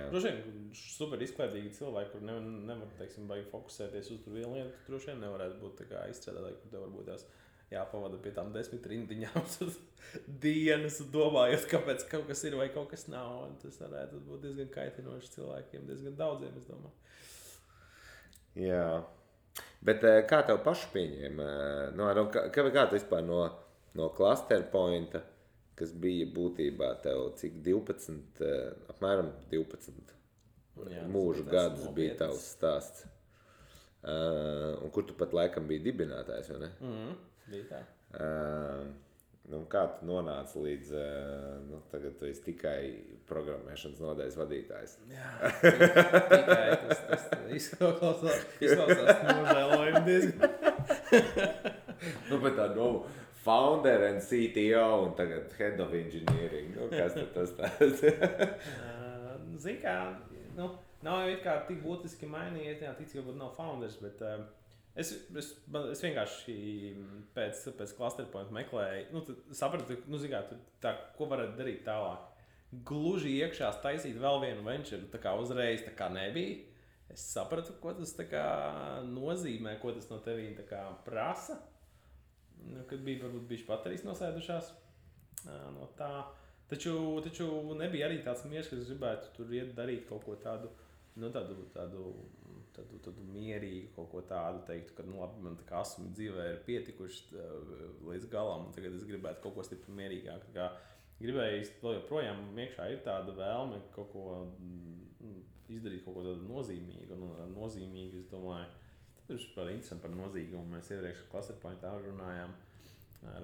Droši vien super izklaidīgi cilvēki, kur nevar, teiksim, baigi fokusēties uz tur vienu lietu, tur droši vien nevarētu būt tā kā izstrādātāji, kur tev varbūt tās jāpavada pie tām 10 rindiņām dienas, domājot, kāpēc kaut kas ir vai kaut kas nav. Un tas varētu būt diezgan kaitinoši cilvēkiem, diezgan daudziem, es domāju. Jā. Bet kā tev pašu pieņēma? Kā tu vispār no cluster pointa, kas bija būtībā tev cik 12, apmēram 12 mūžu gadus bija tavs stāsts? Un kur tu pat laikam biji dibinātājs, vai ne? Bija tā. Kā tu nonāci līdz, tagad tu esi tikai programmēšanas nodaļas vadītājs? Jā, tikai tas izklausās nožēlojumi diezgan. Bet tā, founder and CTO un tagad head of engineering, kas tas tāds? Zini kā, nav jau it kā tik būtiski mainījies, tic, ka nav founders, bet Es vienkārši pēc clusterpointa meklēju, sapratu, tā, ko varētu darīt tālāk. Gluži iekšā taisīt vēl vienu venture, tā kā uzreiz tā kā nebija. Es sapratu, ko tas tā kā nozīmē, ko tas no tevīm tā kā prasa. Kad bija varbūt bišķi baterijas nosēdušās no tā. Taču nebija arī tāds miers, ka es gribētu tur iet darīt kaut ko tādu, tādu mierīgu, kaut ko tādu teiktu, ka, labi, man tā kā asumi dzīvē ir pietikuši līdz galam, un tagad es gribētu kaut ko stipri mierīgāk. Tā kā gribēju vēl joprojām iekšā ir tāda vēlme kaut ko izdarīt, kaut ko tādu nozīmīgu, un nozīmīgi, es domāju, tas ir par interesanti par nozīgumu. Mēs iepriekš clusterpointā runājām ar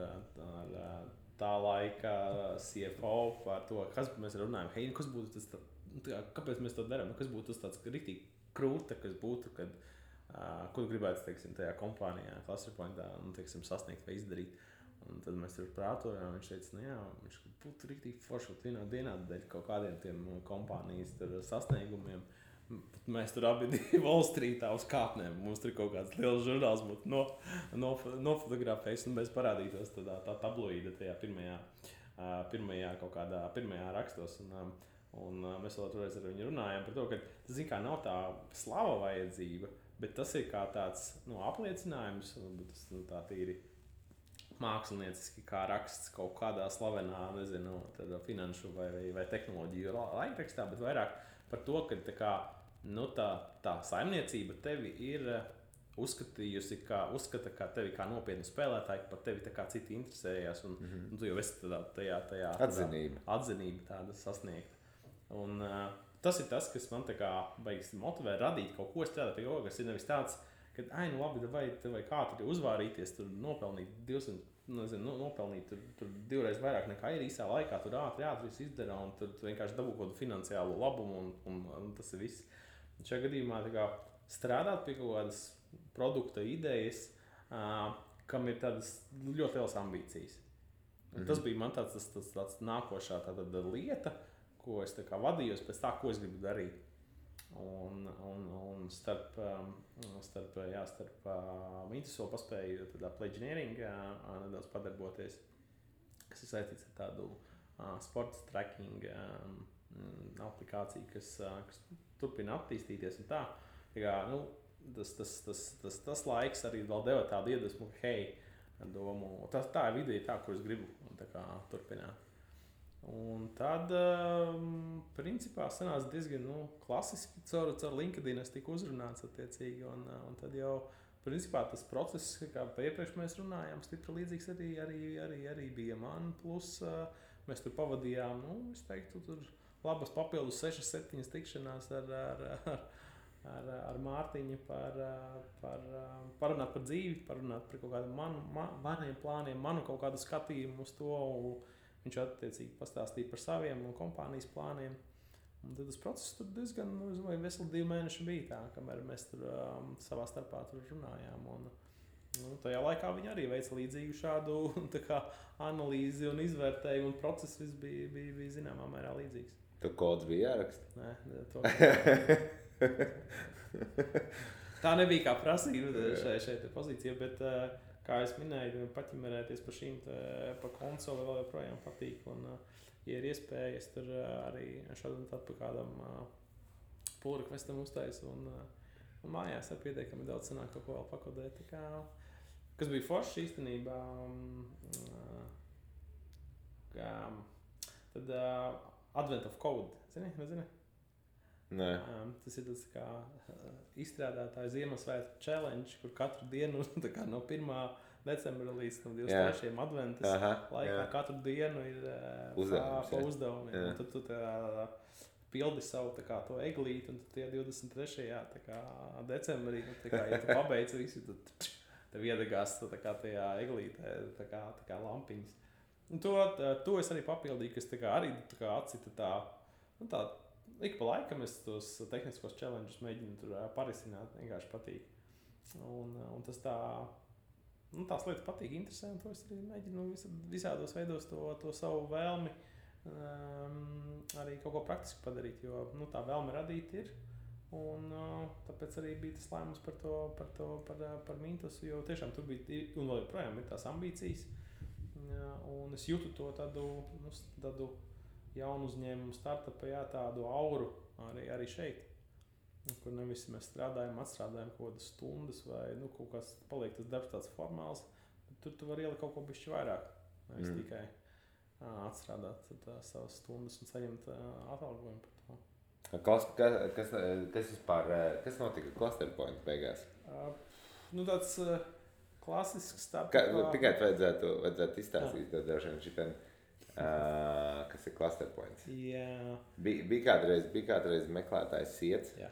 tā laika CFO par to, kas mēs runājam, hei, kas būtu tas, kāpēc mēs to darām, kas būtu tas tāds riktīgi krūta, kas būtu, kad, ko tu gribētu, teiksim, tajā kompānijā, clusterpointā, teiksim, sasniegt vai izdarīt. Un tad mēs tur prātojām, viņš teica, viņš būtu riktīgi forši vienā dienā dēļ kaut kādiem tiem kompānijas sasniegumiem. Mēs tur abi Wall Streetā uz kāpnēm. Mums tur kaut kāds liels žurnāls būtu nofotografējis, un mēs parādītos tā tabloīda tajā pirmajā kaut kādā pirmajā rakstos. Un mēs vēl toreiz ar viņu runājām par to, ka tas, kā nav tā slava vajadzība, bet tas ir kā tāds apliecinājums, tas tā tīri mākslinieciski, kā raksts kaut kādā slavenā, nezinu, finanšu vai tehnoloģiju laikrakstā, bet vairāk par to, ka tā saimniecība tevi ir uzskatījusi, uzskata kā tevi kā nopietnu spēlētāju, par tevi tā kā citi interesējās, un tu jau esi tajā atzinība tāda sasniegta. Un tas ir tas, kas man tā kā beigas motivē radīt kaut ko strādāt pie kaut, kas ir nevis tāds, ka, labi, vai kā tur uzvārīties, tur nopelnīt 200, nopelnīt tur divreiz vairāk nekā ir īsā laikā, tur ātri viss izdara, un tur vienkārši dabū kaut kādu finansiālu labumu, un tas ir viss. Šajā gadījumā tā kā strādāt pie kaut kādas produkta idejas, kam ir tādas ļoti lielas ambīcijas. Tas bija man tāds nākošā lieta, ko es tā kā vadījos pēc tā, ko es gribu darīt. Un starp Mintus vēl paspēju Pledge Engineering nedaudz padarboties, kas ir saistīts ar tādu sports tracking aplikāciju, kas turpina attīstīties un tā. Tas laiks arī vēl deva tādu iedvesmu, ka domu, tā ir ideja tā, kur es gribu tā kā turpināt. Un tad, principā, sanāca diezgan klasiski caur LinkedIn es tiku uzrunāts attiecīgi, un tad jau, principā, tas process, kā iepriekš mēs runājām, stipri līdzīgs arī bija man, plus mēs tur pavadījām, es teiktu, tur labas papildus 6-7 tikšanās ar Mārtiņu parunāt par dzīvi, parunāt par kaut kādiem maniem plāniem, manu kaut kādu skatījumu uz to. Viņš attiecīgi pastāstīja par saviem un kompānijas plāniem. Un tad tas process tur diezgan, veseli 2 mēneši bija tā, kamēr mēs tur savā starpā tur runājām. Un tajā laikā viņi arī veica līdzīgu šādu tā kā analīzi un izvērtējumu, un process viss bija zināmā mērā līdzīgs. Tu kods bija jāraksta? Nē, tā nebija kā prasība šeit pozīcija, bet kā es minēju, paķimerēties par šīm pa konsoli vēl joprojām patīk. Un, ja ir iespēja, es tur arī šādu tādu pa kādam pull requestam uztaisu. Un mājās ar pietiekami daudz sanāk kaut ko vēl pakodēt. Kas bija forši īstenībā. Tad Advent of Code. Nezini? Nē. Tas ir tas kā izstrādātāju Ziemassvētku challenge, kur katru dienu no 1. decembra līdz 23. adventas laikā katru dienu ir pa uzdevumiem. Jā. Un tad tu pildi savu to eglīti, un tie 23. decembrī, ja tu pabeidz visu, tad tev iedegās tajā eglītē tā lampiņas. Un to es arī papildīju, kas arī atcita tā ik pa laikam es tos tehniskos challenges mēģinu tur parisināt, vienkārši patīk. Un tas tās lietas patīk, interesē, un to es arī mēģinu visādos veidos to savu vēlmi arī kaut ko praktiski padarīt, jo tā vēlme radīt ir, Un tāpēc arī bija tas lēmums par Mintusu, jo tiešām tur bija, un vēl joprojām ir tās ambīcijas. Un es jūtu to tādu jaunu uzņēmumu startupu, tādu auru arī šeit. Kur nevis mēs strādājam, atstrādājam kaut kādas stundas vai kaut kas paliek tas darbs tāds formāls, bet tur tu vari ielikt kaut ko bišķi vairāk. Nevis tikai atstrādāt savas stundas un saņemt atalgojumu par to. Kas notika Clusterpoint beigās? Tāds klasisks startup. Tikai vajadzētu izstāstīt to droši vien šitam, kas ir Clusterpoints. Jā. Bija kādreiz meklētājs Siets. Jā.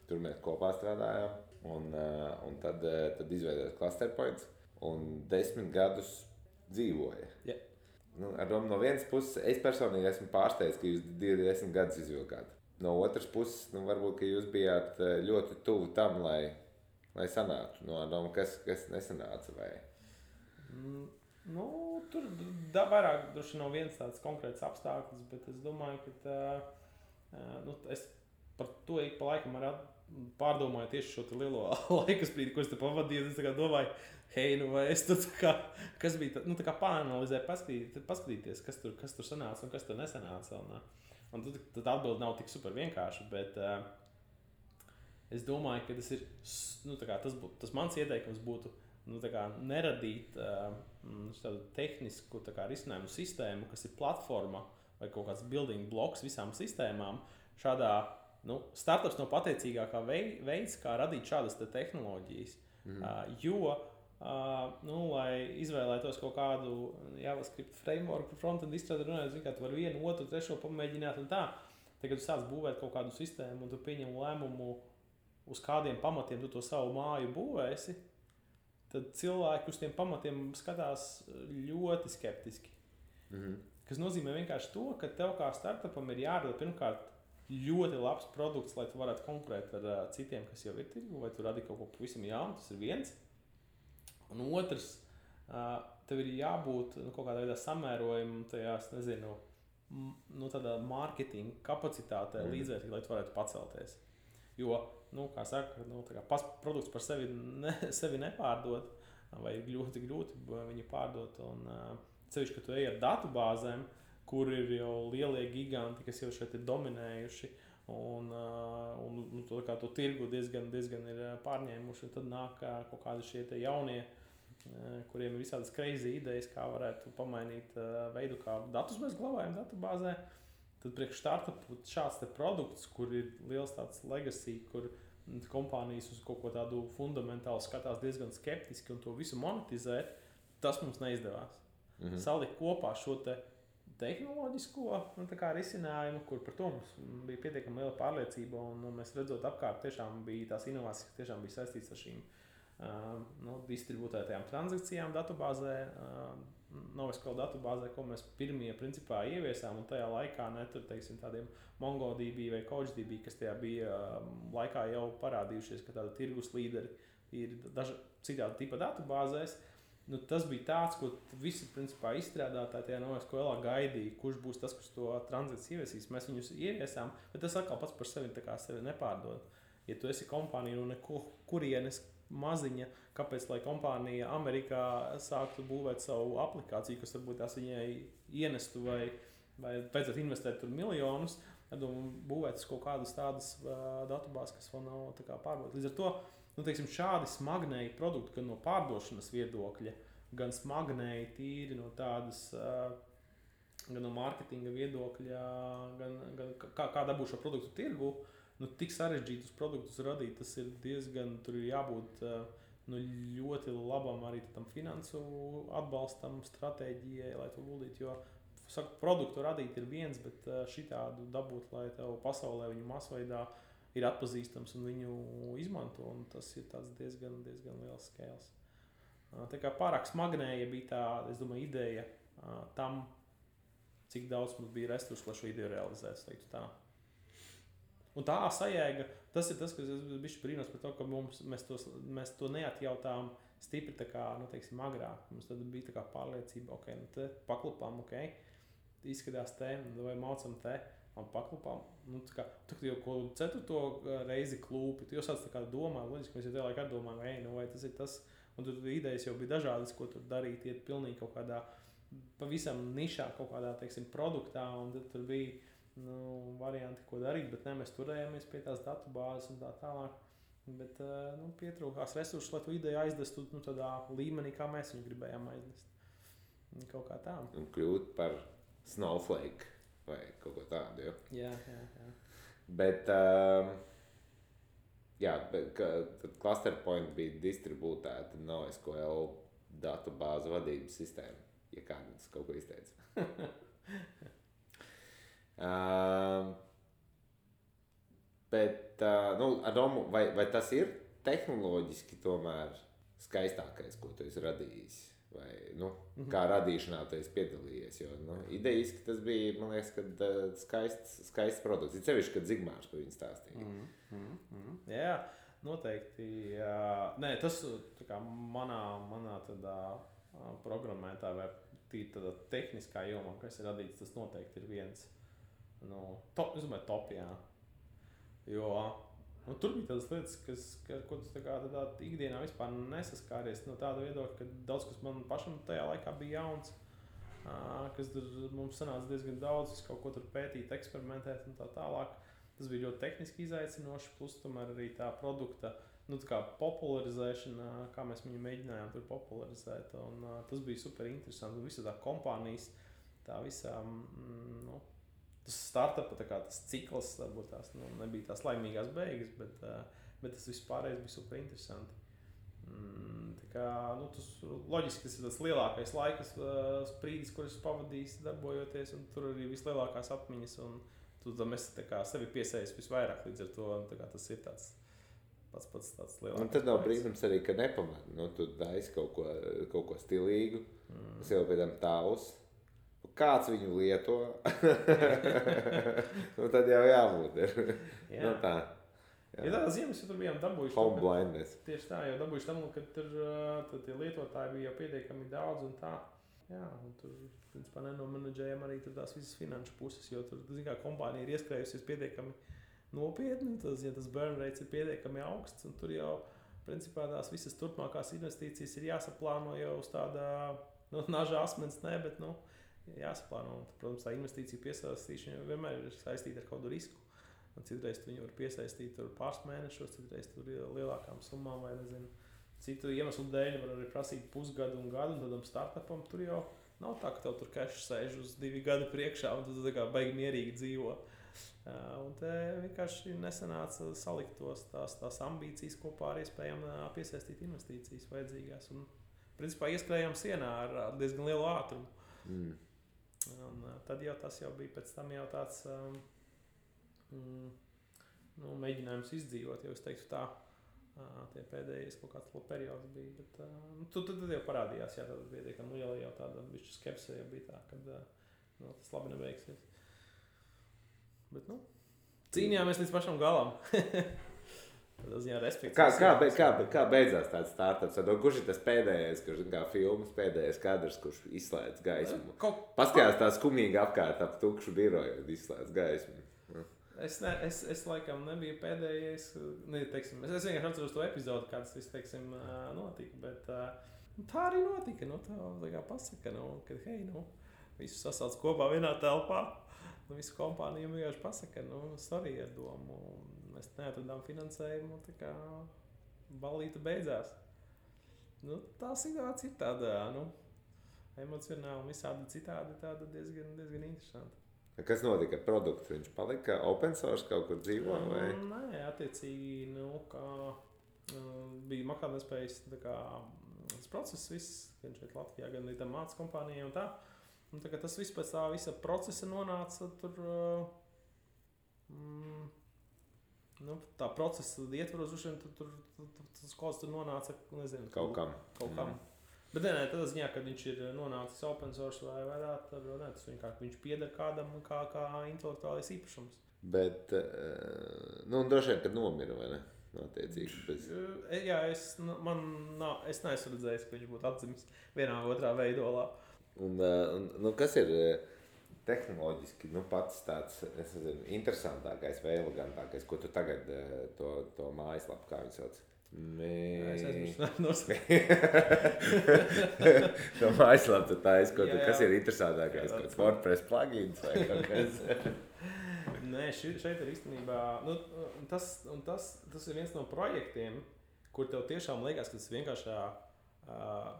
Tur mēs kopā strādājām, un tad izveidojās Clusterpoints, un 10 gadus dzīvoja. Yeah. Ar domu no vienas puses, es personīgi esmu pārsteigts, ka jūs 10 gadus izvilkāt. No otras puses, varbūt, ka jūs bijāt ļoti tuvu tam, lai sanāktu. Ar domu, kas nesanāca, vai? Tur vairāk droši nav viens tāds konkrēts apstākļus, bet es domāju, ka es par to ik pa laikam arī pārdomāju tieši šo lielo laikasprīdi, ko es te pavadīju. Es domāju, vai es tur kas bija tā, pāranalizēju, paskatīties, kas tur sanāca un kas tur nesanāca. Un tad atbilde nav tik super vienkārši, bet es domāju, ka tas ir, tas mans ieteikums būtu, neradīt tādu tehnisku risinājumu sistēmu, kas ir platforma vai kaut kāds building bloks visām sistēmām. Šādā startups nav pateicīgākā veids, kā radīt šādas tehnoloģijas. Jo, lai izvēlētos kaut kādu JavaScript framework par frontend izstrādi runājot, tu vari vienu, otru, trešo pamēģināt un tā. Tagad tu sāc būvēt kaut kādu sistēmu un tu pieņem lēmumu, uz kādiem pamatiem tu to savu māju būvēsi, tad cilvēki uz tiem pamatiem skatās ļoti skeptiski. Kas nozīmē vienkārši to, ka tev kā startupam ir jārada pirmkārt ļoti labs produkts, lai tu varētu konkurēt ar citiem, kas jau ir tirgu, vai tu radi kaut ko pavisam jaunu, tas ir viens. Un otrs, tev ir jābūt kaut kādā veidā samērojumam tajās, tādā mārketinga kapacitātē līdzvērtīgi, lai tu varētu pacelties. Jo, kā saka, produkts par sevi nepārdod, vai ir ļoti grūti viņu pārdot, un cevišķi, ka tu ej ar datubāzēm, kur ir jau lielie giganti, kas jau šeit ir dominējuši, un to tirgu diezgan ir pārņēmuši, un tad nāk kaut kādi šie te jaunie, kuriem ir visādas crazy idejas, kā varētu pamainīt veidu, kā datus mēs glabājam datubāzē. Tad priekš startupu šāds te produkts, kur ir liels tāds legacy, kur kompānijas uz kaut ko tādu fundamentālu skatās diezgan skeptiski un to visu monetizēt, tas mums neizdevās. Salikt kopā šo te tehnoloģisko risinājumu, kur par to mums bija pietiekami liela pārliecība, un mēs redzot apkārt, tiešām bija tās inovācijas, kas tiešām bija saistītas ar šīm distributētajām transakcijām datubāzē, NoSQL datubāzē, ko mēs pirmie principā ieviesām, un tajā laikā tādiem MongoDB vai CouchDB, kas tajā bija laikā jau parādījušies, ka tāda tirgus līderi ir citādi tipa datubāzēs. Tas bija tāds, ko visi principā izstrādātāji tajā NoSQL gaidīja, kurš būs tas, kurš to transakciju ieviesīs. Mēs viņus ieviesām, bet tas atkal pats par sevi nepārdod. Ja tu esi kompānija no kurienes maziņa, kāpēc lai kompānija Amerikā sāktu būvēt savu aplikāciju, kas varbūt tās viņai ienestu vai vajadzētu investēt tur miljonus, tad būvēt kaut kādas tādas datubāzes, kas vēl nav pārbaudītas. Līdz ar to šādi smagnēji produkti, gan no pārdošanas viedokļa, gan smagnēji tīri no tādas, gan no mārketinga viedokļa, gan kā dabūt šo produktu tirgu, tik sarežģītus produktus radīt, tas ir diezgan, tur ir jābūt ļoti labam arī tam finansu atbalstam, stratēģijai, lai to guldītu, jo produktu radīt ir viens, bet šitādu dabūt, lai tev pasaulē viņu masveidā ir atpazīstams un viņu izmanto, un tas ir tāds diezgan liels scales. Tā kā pārāk smagnēja bija tā, es domāju, ideja tam, cik daudz mums bija resursu, lai šo ideju realizētu, teiktu tā. Un tā sajēga, tas ir tas, kas es bišķi brīnos par to, ka mēs to neatjautām stipri agrāk. Mums tad bija pārliecība, te paklupām, izskatās te, vai maucam te, man paklupām. Nu, tā kā, tu jau ko 4. reizi klūpi, tu jau sāc tā kā domā, loģiski, mēs jau tajā laikā domājam, vai tas ir tas, un tur idejas jau bija dažādas, ko tur darīt, iet pilnīgi kaut kādā, pavisam nišā kaut kādā, teiksim, produktā, un tad tur bija, varianti, ko darīt, bet ne, mēs turējāmies pie tās datubāzes un tā tālāk. Bet pietrūkās resursus, lai tu ideju aizdestu tādā līmenī, kā mēs viņu gribējām aiznest. Kaut kā tā. Un kļūt par Snowflake vai kaut ko tādu, jo? Jā. Bet, tad Clusterpoint bija distribūtēta NoSQL datubāzu vadības sistēma, ja kādams kaut ko izteica. Bet, Adomu, vai tas ir tehnoloģiski tomēr skaistākais, ko tu esi radījis? Vai, kā radīšanā tu esi piedalījies? Jo, idejiski tas bija, man liekas, kad skaists produkts. Ir sevišķi, kad Zigmārs par viņu stāstīja. Jā, noteikti. Nē, tas tā kā manā tādā programmētā vai tādā tehniskā jomā, kas ir radīts, tas noteikti ir viens. Es domāju, top, jā. Jo tur bija tādas lietas, ko tu tādā ikdienā vispār nesaskāries no tāda viedokļa, ka daudz kas man pašam tajā laikā bija jauns, kas mums sanāca diezgan daudz, kaut ko tur pētīt, eksperimentēt un tā tālāk. Tas bija ļoti tehniski izaicinoši, plus tomēr arī tā produkta tā kā popularizēšana, kā mēs viņu mēģinājām tur popularizēt. Un, tas bija super interesanti. Visa tā kompānijas, tā visā, tas startupa, tas cikls, varbūt tās nebija tās laimīgās beigas, bet tas vispārējais bija super interesanti. Tā kā, tas loģiski, tas ir tas lielākais laikas sprīdis, kurus pavadījis darbojoties, un tur arī vislielākās atmiņas, un tu tam esi sevi piesējis visvairāk, līdz ar to tas ir tāds pats tāds lielākais. Un tad nav brīnums arī, ka nepamēr, tu daisi kaut ko stilīgu, tas jau pēc tam tavs. Kāds viņu lieto, tad jau jābūt. Jā. Tā. Jā. Ja tādā ziņā mēs tur bijām dabūjuši. Home blindness. Tieši tā, jau dabūjuši tam, ka tur tie lietotāji bija jau pietiekami daudz un tā. Jā, un tur, principā, nenomenedžējam arī tur tās visas finanšu puses, jo tur, kā kompānija ir ieskrējusies pietiekami nopietni, ja tas burn rates ir pietiekami augsts, un tur jau, principā, tās visas turpmākās investīcijas ir jāsaplāno jau uz tādā, naža asmens, bet, jāsaplāno. Protams, tā investīcija piesaistīšana vienmēr ir saistīta ar kādu risku. Citreiz viņu var piesaistīt pāris mēnešos, citreiz tur lielākām summām vai nezinu. Citu iemeslu dēļ var arī prasīt pusgadu un gadu, un tādam startupam tur jau nav tā, ka tev tur cash sēž uz 2 gadu priekšā, un tu tā kā baigi mierīgi dzīvo. Un te vienkārši nesanāca salikt tās ambīcijas kopā ar iespējām piesaistīt investīcijas vajadzīgās. Un, principā, ieskrējām sienā ar diezgan lielu ātrumu. Un tad jau tas jau bija pēc tam jau tāds mēģinājums izdzīvot, jau es teiktu tā, tie pēdējais kaut kāds periods bija, bet tad jau parādījās, jā, tad bija, ka jau tāda bišķi skepse jau bija tā, kad tas labi nebeigsies. Bet, cīnījāmies līdz pašam galam. Kā beidzās tāds startups? Kurš ir tas pēdējais, kurš kā filmas pēdējais kadrs, kurš izslēdz gaismu? Paskatās tā skumīgi apkārt ap tukšu biroju un izslēdz gaismu. Es laikam nebiju pēdējais. Es vienkārši atceros to epizodu, kāds viss, notika, bet tā arī notika. Tā kā pasaka, kad visus sasauc kopā vienā telpā. Visu kompāniju vienkārši pasaka, sorry ar domu. Mēs neatradām finansējumu, tā kā ballīte beidzās. Tā situācija ir tāda, emocionāli un visādi citādi tāda diezgan interesanta. Kas notika ar produktu? Viņš palika open source kaut kur dzīvo? Vai? Nē, attiecīgi, bija maksātnespējas tas process viss, gan šeit Latvijā, gan arī tam mācas kompānijai un tā. Un tā kā tas viss pēc tā visa procesa nonāca tur, tā procesa ietvaros, tur tas kods tur nonāca, nezinu, kaut kam. Bet tādā ziņā, kad viņš ir nonācis open source vai tā, tad tas viņš pieder kādam kā intelektuālais īpašums. Bet, droši vien, kad nomira, vai ne? Attiecīgi, bez... Jā, es neesmu redzējis, ka viņš būtu atdzimis vienā vai otrā veidolā. Un kas ir tehnoloģiski pats tāds interesantākais vai elegantākais, ko tu tagad to mājaslapu, kā viņi sauc? Es aizmirsu. To mājaslapu tu taisi, kas ir interesantākais? Kāds WordPress plugins vai kaut kas? Nē, šeit ir īstenībā, tas ir viens no projektiem, kur tev tiešām liekas, ka tas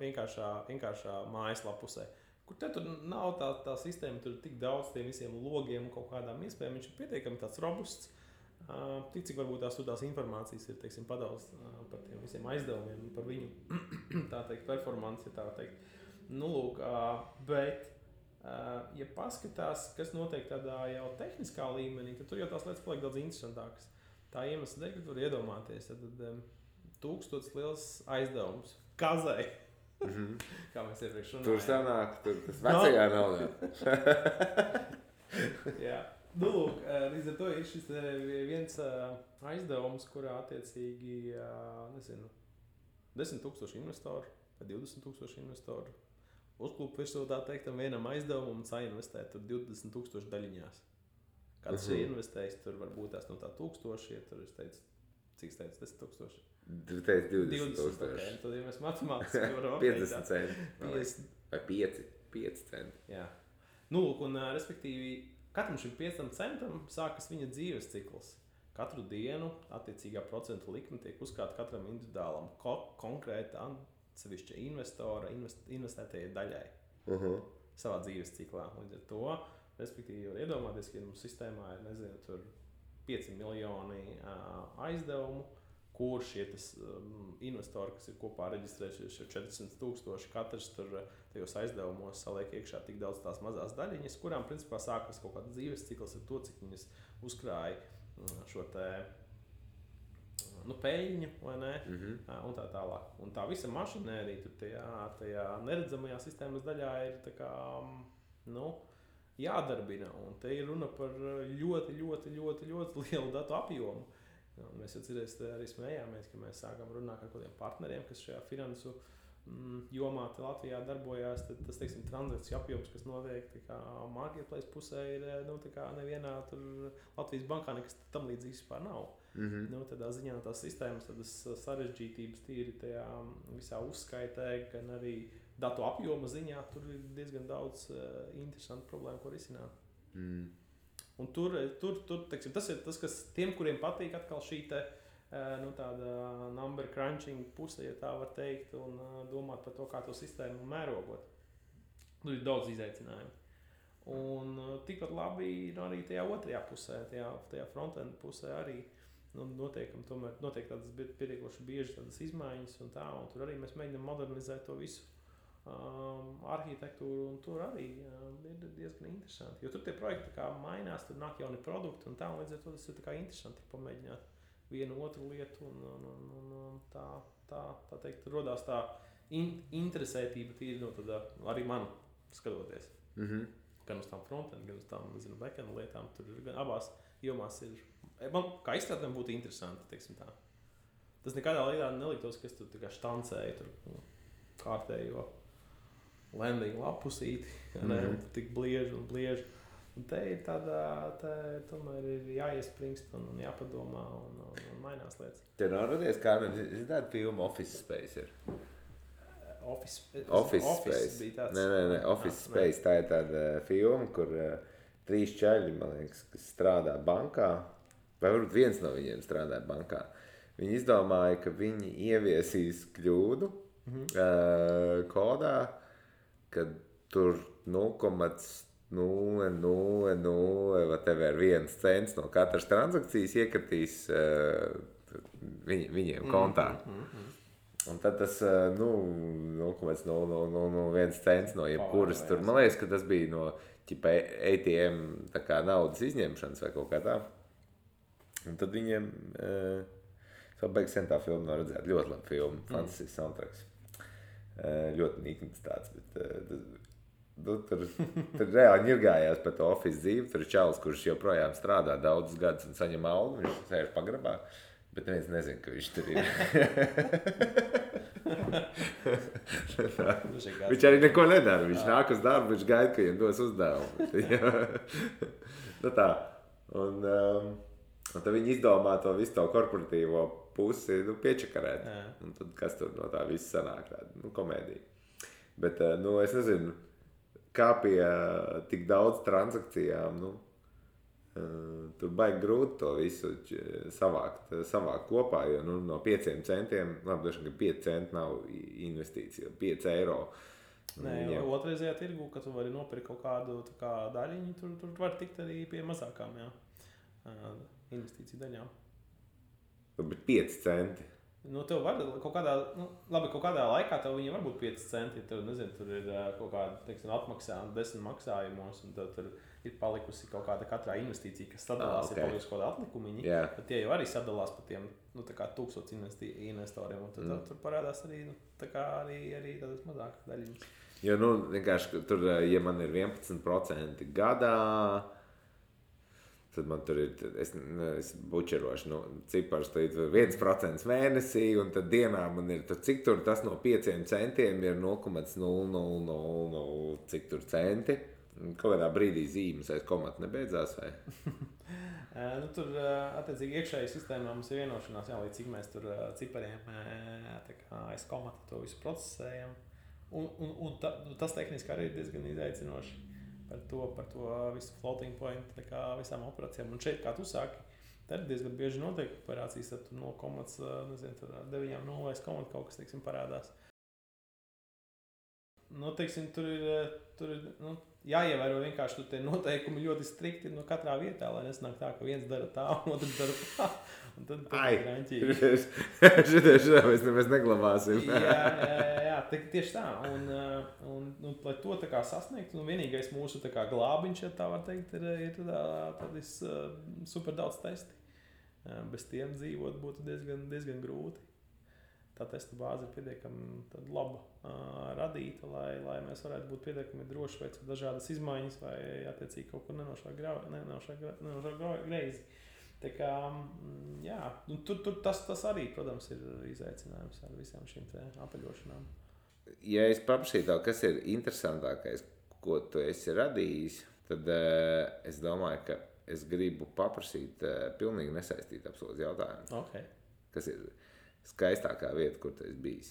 vienkāršā mājaslapusē, kur te tur nav tā sistēma, tur ir tik daudz tiem visiem logiem un kaut kādām iespējām, viņš ir pietiekami tāds robusts, tik cik varbūt tās informācijas ir, teiksim, padals par tiem visiem aizdevumiem, par viņu, tā teikt, performanci, tā teikt. Lūk, bet, ja paskatās, kas notiek tādā jau tehniskā līmenī, tad tur jau tās lietas paliek daudz interesantākas. Tā iemesla dēļ, ka tur iedomāties, tad 1000 liels aizdevums kazai. Kā mēs iepriekš runājām. Tur sanāk, tas vecajā naudā. Jā. Lūk, līdz ar to ir šis viens aizdevums, kurā attiecīgi, 10,000 investoru vai 20,000 investoru uzklupa virsū, tā teiktam, vienam aizdevumam un sainvestē tur 20,000 daļiņās. Kāds ir investējis, tur varbūt tās no tā 1000, ja tur es teicu, cik es teicu, 10,000? Tu teici 20,000. Okay. Tad, ja mēs matemātiski varam 50 centi. Vai 5 centi. Jā. Lūk, un respektīvi, katram šim 5 centam sākas viņa dzīves cikls. Katru dienu attiecīgā procentu likme tiek uzkrāta katram individuālam konkrēta atsevišķa investora investētajai daļai savā dzīves ciklā. Līdz ar to, respektīvi, var iedomāties, ka mums sistēmā ir, nezinu, tur 5 miljoni aizdevumu, kur šie investori, kas ir kopā reģistrējušies jau 400,000, katrs tur tajos aizdevumos saliek iekšā tik daudz tās mazās daļiņas, kurām principā sākas kaut kāds dzīves cikls ar to, cik viņas uzkrāja šo te peļņu, vai ne, un tā tālāk. Un tā visa mašinērija tur tajā neredzamajā sistēmas daļā ir tā kā, jādarbina, un te ir runa par ļoti lielu datu apjomu. Un mēs jau arī smējāmies, ka mēs sākam runāt ar kādiem partneriem, kas šajā finansu jomā Latvijā darbojās. Tad tas, teiksim, transakciju apjoms, kas notiek marketplace pusē, ir nevienā Latvijas bankā nekas tam līdzīgs vispār nav. Tādā ziņā tās sistēmas, tādas sarežģītības tīri tajā visā uzskaitē, gan arī datu apjoma ziņā, tur ir diezgan daudz interesantu problēmu, ko risināt. Un tur teiksim, tas ir tas, kas tiem, kuriem patīk atkal šī tāda number crunching puse, ja tā var teikt, un domāt par to, kā to sistēmu mērogot. Tur ir daudz izaicinājumu. Un tikpat labi ir arī tajā otrajā pusē, tajā frontend pusē arī notiek tādas pietiekoši bieži tādas izmaiņas un tā, un tur arī mēs mēģinām modernizēt to visu. Arhitektūru, un tur arī ir diezgan interesanti. Jo tur tie projekti kā mainās, tur nāk jauni produkti un tā, un līdz ar to tas ir tā interesanti pamēģināt vienu otru lietu un tā teikt, rodās tā interesētība tīri arī man skatoties. Gan uz tām frontend, gan uz tām, backend lietām, tur gan abās jomās ir, man kā izstrādēm būtu interesanti, teiksim tā. Tas nekādā līdā neliktos, kas tur štancēja tur kārtējo landing lapusīti, tik blieži. Un te ir tomēr ir jāiespringst un jāpadomā un mainās lietas. Te nav radies, kā tāda filma Office Space ir? Office Space bija tāds. Nē, Office Space, tā ir tāda filma, kur 3 čaļi, man liekas, kas strādā bankā, vai varbūt viens no viņiem strādā bankā. Viņi izdomāja, ka viņi ieviesīs kļūdu kodā, kad tur 0,001 cents no katras transakcijas iekritīs viņiem kontā. Un tad tas 0,001 cents no jebkuras tur, man liekas, ka tas bija no ATM tā kā naudas izņemšanas vai kaut kā tā. Un tad viņiem, beigas sen tā filma nav redzēt, ļoti labi filma, fantastisks soundtracks. Ļoti nikns tāds, bet tur reāli ņirgājās par to office dzīvi. Tur ir čalis, kurš joprojām strādā daudzus gadus un saņem algu, viņš sēž pagrabā, bet neviens nezina, ka viņš tur ir. Viņš arī neko nedara. Viņš nāk uz darbu, viņš gaida, ka viņam dos uzdevumu. Nu tā. Un tad viņi izdomā to visu to korporatīvo pusi piečakarēt. Un tad kas tur no tā viss sanāk? Tāda komēdija. Bet es nezinu, kā pie tik daudz transakcijām, tur baigi grūti to visu savākt kopā, jo no 5 centiem, labi, došana, ka 5 centi nav investīcija, 5 eiro. Nē, jo otrreizajā tirgu, ka tu vari nopirkt kaut kādu daļiņu, tur var tikt arī pie mazākām, investīciju daļām. Bet 5 centi. Tev var kaut kādā laikā tev viņi var būt 5 centi, tev, nezinu, tur ir kaut kāda, teiksim, atmaksā 10 maksājumos, un tev tur ir palikusi kaut kāda katrā investīcija, kas sadalās, ir palikusi kaut kāda atlikumiņi, bet tie jau arī sadalās pa tiem, 1000 investoriem, un tad tur parādās arī, arī tādas mazākas daļiņas. Jo, vienkārši, tur, ja man ir 11% gadā, tad man tur ir, es bučerošu, cipars, tad ir 1% mēnesī, un tad dienā man ir, cik tur tas no 5 centiem ir 0,0000, cik tur centi. Kaut kādā brīdī zīmes aiz komata nebeidzās, vai? Tur, attiecīgi, iekšēji sistēmā mums ir vienošanās, līdz cik mēs tur cipariem aiz komata to visu procesējam. Un tas tehniski arī ir diezgan izaicinoši. Par to visu floating point, visām operācijām. Un šeit, kā tu sāki, tad diezgan bieži notiek operācijas, tad tur no komats, tur 9.0 komata kaut kas, teiksim, parādās. Teiksim, tur ir jāievēro vienkārši tur tie noteikumi ļoti strikti katrā vietā, lai nesnāk tā, ka viens dara tā, un otrs dara tā. Un tad ir raņķīgi. Šitā mēs neglabāsim. Jā, tieši tā. Un lai to sasniegt, vienīgais mūsu glābiņš, ja tā var teikt, ir tādi super daudz testi. Bez tiem dzīvot būtu diezgan grūti. Tā testa bāze ir pietiekami laba radīta, lai mēs varētu būt pietiekami droši veicot dažādas izmaiņas vai attiecīgi kaut kur nenošā greizi. Tā kā, jā, tur tas arī, protams, ir izaicinājums ar visām šīm apaļošanām. Ja es paprasītu tev, kas ir interesantākais, ko tu esi radījis, tad es domāju, ka es gribu paprasīt pilnīgi nesaistīt absolūti jautājumu. Okay. Kas ir skaistākā vieta, kur tu esi bijis?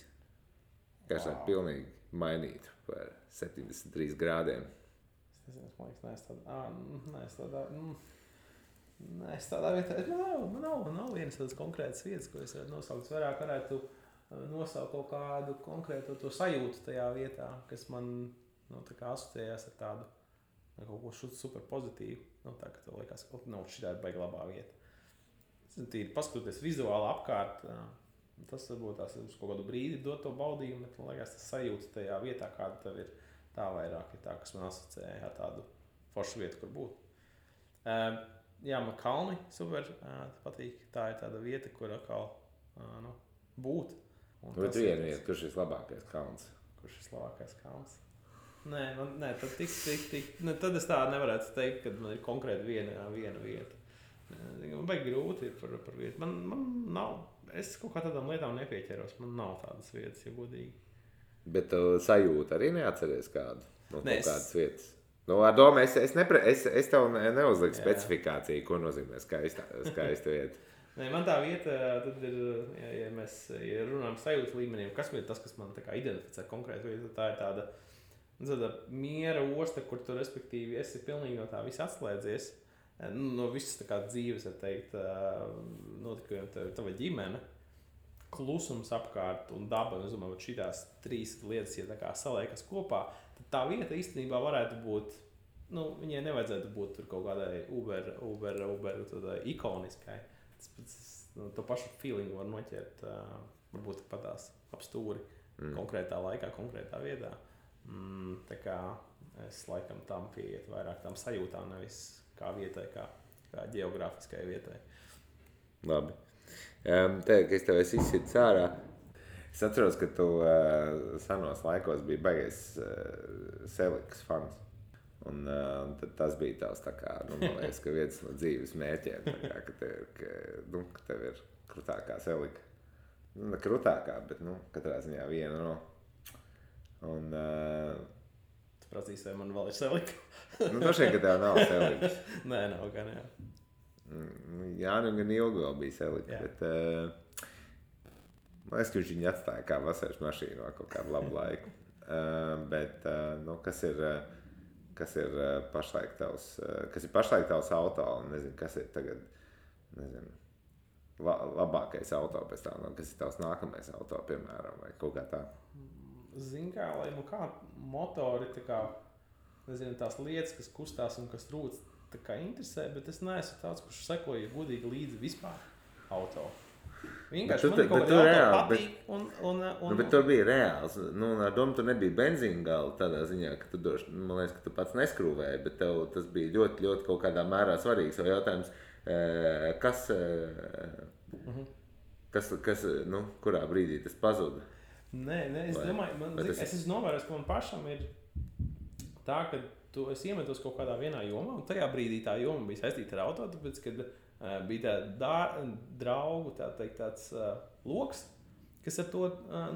Kas ir pilnīgi mainītu par 73 grādiem? Es tādā vietā, man nav vienas tādas konkrētas vietas, ko es varētu nosaukt. Vairāk varētu nosaukt kaut kādu konkrētu to sajūtu tajā vietā, kas man asociējās ar tādu kaut ko super pozitīvu. Tā, ka tev liekas, ka šitā ir baigi labā vieta. Tīri paskatoties vizuāli apkārt, tas varbūt tās uz kaut kādu brīdi dot to baudījumu, bet man liekas, tas sajūta tajā vietā, kāda tev ir, tā vairāk ir tā, kas man asociēja ar tādu foršu vietu, kur būt. Jā, man kalni super patīk. Tā ir tāda vieta, kur atkal būt. Bet viena vieta, kurš ir labākais kalns? Kurš ir labākais kalns? Nē, tad es tā nevarētu teikt, ka man ir konkrēti viena vieta. Man baigi grūti ir par vietu. Man nav, es kaut kā tādām lietām nepieķeros. Man nav tādas vietas, ja godīgi. Bet tu sajūti arī neatceries kādu no kādas vietas? Ar domu, es tev neuzliku specifikāciju, ko nozīmē skaista vieta. Nē, man tā vieta, tad ir, ja mēs runājam sajūtu līmeniem, kas ir tas, kas man identificē konkrēti vietu, tā ir tāda miera osta, kur tu respektīvi esi pilnīgi no tā visa atslēdzies, no visas dzīves, var teikt, notikumiem tava ģimene, klusums apkārt un daba, es domāju, šitās 3 lietas, ja saliekas kopā, tad tā vieta īstenībā varētu būt, viņai nevajadzētu būt tur kaut kādai uber ikoniskai. To pašu feelingu var noķert, varbūt patās ap stūri konkrētā laikā, konkrētā vietā. Tā kā es laikam tam pieiet vairāk tam sajūtām, nevis kā vietai, kā ģeogrāfiskai vietai. Labi. Ka es tev esi izsitis ārā. Es atceros, ka tu senos laikos biji baigais Selikas fans. Un tad tas bija tavs man liekas, ka viens no dzīves mērķiem, ka tev ir krutākā Selika. Krutākā, bet, katrā ziņā viena no. Un, Tu prasīsi, vai man vēl ir selika? Droši vien, ka tev nav selikas. Nē, nav gan, jā. Jānim gan ilgi vēl bija selika, bet man liekas, ka viņš viņu atstāja kā vasaras mašīnu vēl kaut kādu labu laiku. Bet, kas ir pašlaik tavs auto, un nezinu, kas ir tagad, labākais auto pēc tā, kas ir tavs nākamais auto, piemēram, vai kaut kā tā? Zini kā, lai kā motori, tā kā, nezinu, tās lietas, kas kustās un kas rūc, tā kā interesē, bet es neesmu tāds, kurš sekoja godīgi līdzi vispār auto. Vienkārši man kaut kādā auto patīk un... Bet tur bija reāls. Ar domu tu nebija benzīna gala tādā ziņā, ka tu man liekas, ka tu pats neskrūvēji, bet tev tas bija ļoti, ļoti kaut kādā mērā svarīgs. Vai jautājums, kas kurā brīdī tas pazuda? Nē, es domāju, es esmu novērojis, ka man pašam ir tā, ka tu esi iemetos kaut kādā vienā jomā, un tajā brīdī tā joma bija saistīta ar auto, tāpēc, kad bija tā draugu tāds loks, kas ar to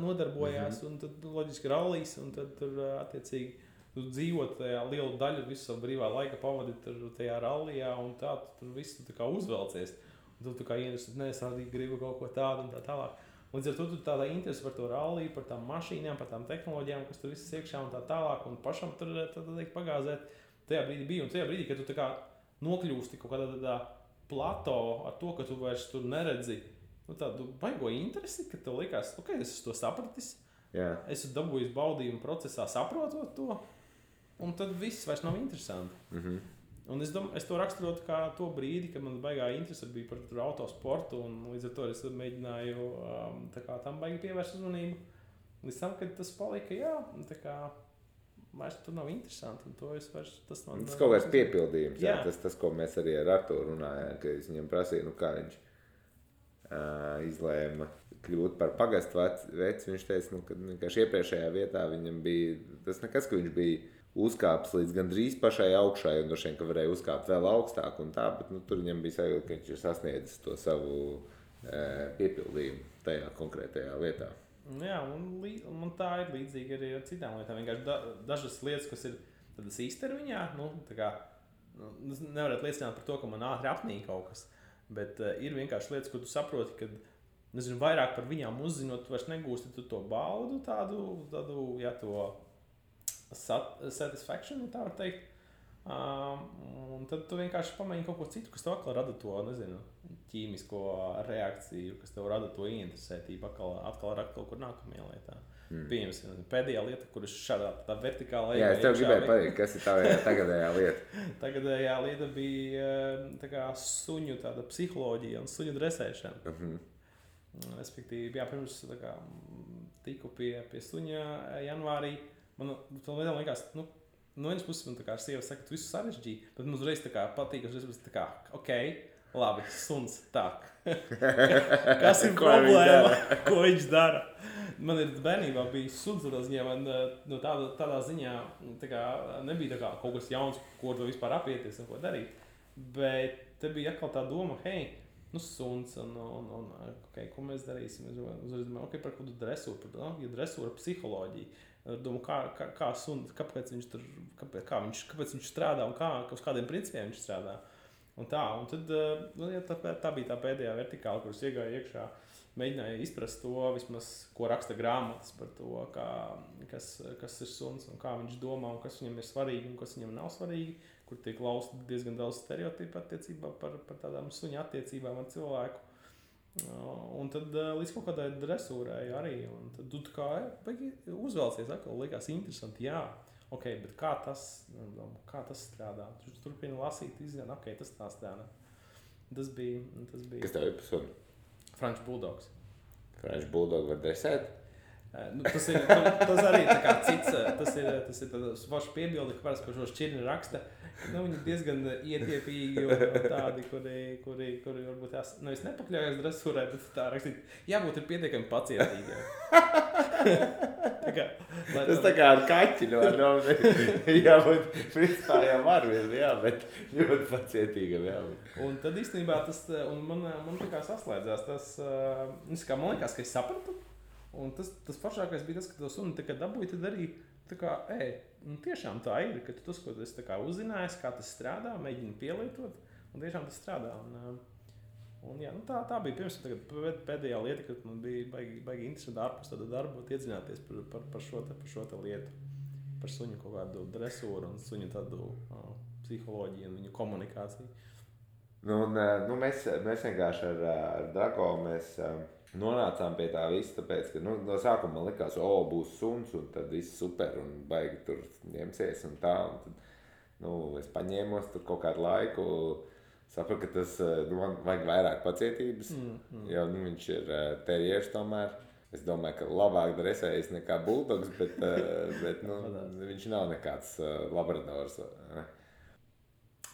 nodarbojās, un tad loģiski rallijas, un tad tur attiecīgi tu dzīvot tajā lielu daļu visu savu brīvā laika pavadi tajā rallijā, un tā tu tur visu tā kā uzvelcies, un tu kā ienesis, es arī gribu kaut ko tādu un tā tālāk. Līdz ar to tu tādā interesi par to ralliju, par tām mašīnām, par tām tehnoloģijām, kas tur viss iekšā un tā tālāk, un pašam tur pagāzēt. Tajā brīdī bija, un tajā brīdī, kad tu tā kā nokļūsti kaut kādā tādā plato ar to, ka tu vairs tur neredzi, tādu baigo interesi, ka tev likās, es esmu to sapratis, esmu dabūjis baudījumu procesā saprotot to, un tad viss vairs nav interesanti. Un es to raksturotu kā to brīdi, kad man baigā interese bija par autosportu, un līdz ar to es mēģināju tam baigi pievērst uzmanību. Līdz tam, kad tas palika, vairs tur nav interesanti, un to es vairs... Tas kaut kāds piepildījums, tas, ko mēs arī ar Arturu runājām, ka es viņam prasīju, kā viņš izlēma kļūt par pagastu veci. Viņš teica, ka vienkārši iepriekšējā vietā viņam bija tas nekas, ka viņš bija uzkāpis līdz gandrīz pašai augšai, un droši vien, ka varēja uzkāpt vēl augstāk un tā, bet tur viņam bija sajūta, ka viņš ir sasniedzis to savu piepildījumu tajā konkrētajā lietā. Jā, un man tā ir līdzīgi arī ar citām lietām. Vienkārši dažas lietas, kas ir tādas īstermiņā, nevarētu liecināt par to, ka man ātri apnīk kaut kas, bet ir vienkārši lietas, ko tu saproti, kad, vairāk par viņām uzzinot, tu vairs negūsti to baudu tādu satisfaction, tā var teikt. Un tad tu vienkārši pamēģini kaut ko citu, kas tev atkal rada to, ķīmisko reakciju, kas tev rada to ieinteresētību atkal ar kaut kur nākamajā lietā. Pieņemsim, pēdējā lieta, kuras šādā tā vertikālā... Jā, es tev gribēju pateikt, kas ir tā tagadējā lieta. Tagadējā lieta bija suņu tāda psiholoģija un suņu dresēšana. Respektīvi, pirms tiku pie suņa janvārī, man liekas, no vienas puses man ar sievu saka, tu visu sarežģīji, bet man uzreiz patīk, labi, suns tak. Kas ir problēma? Ko viņš dara? Man ir bērnībā bija suns, tādā ziņā nebija kaut kas jauns, ko to vispār apieties un ko darīt. Bet te bija atkal tā doma, suns un ko mēs darīsim? Par kādu dresūru, dresūra psiholoģiju. Domāju, kā suns, kāpēc viņš strādā un uz kādiem principiem viņš strādā. Un tad tā bija tā pēdējā vertikāla, kuras iegāja iekšā, mēģināja izprast to, vismaz, ko raksta grāmatas par to, kas ir suns un kā viņš domā un kas viņam ir svarīgi un kas viņam nav svarīgi, kur tiek lausta diezgan daudz stereotipu attiecībā par tādām suņa attiecībām ar cilvēku. Un tad līdz kaut kādai dresūrai arī, un tad tu uzvelcies atkal, likās interesanti, bet kā tas strādā? Tu turpini lasīt, izzina, tas tā strādā. Tas bija... Kas tev ir par suni? French Bulldogs. French Bulldog var dresēt? Tas arī tā kā cits, tas ir tāds vašu piebildi, ka parasti, ko šo šķirni raksta, viņi diezgan ietiepīgi un tādi, kuri varbūt nevis nepakļaujas dresūrai, bet tā rakstīt, jābūt ir pietiekami pacietīgiem. Tas tā kā ar kaķi, jā, bet principā jau var vien, jā, bet ļoti pacietīgam, jā. Un tad īstenībā tas, un man tā kā saslēdzās tas, kā man liekas, ka es sapratu, un tas foršākais bija tas, ka to suni tā kā dabūja, tad arī tā kā, tiešām tā ir, ka tu tas, ko tu esi tā kā uzzinājis, kā tas strādā, mēģini pielietot, un tiešām tas strādā. Un jā, tā bija pirms pēdējā lieta, kad man bija baigi interesanti ārpus tāda darba iedzināties par šo lietu, par suņu kaut kādu dresūru un suņu tādu psiholoģiju un viņu komunikāciju. Mēs vienkārši ar Drago nonācām pie tā visa, tāpēc, ka no sākuma man likās, būs suns un tad viss super un baigi tur ņemsies un tā. Un tad, es paņēmos tur kaut kādu laiku. Sapratu, ka tas man vajag vairāk pacietības, jo viņš ir terjers tomēr. Es domāju, ka labāk dresējas nekā buldogs, bet viņš nav nekāds labradors.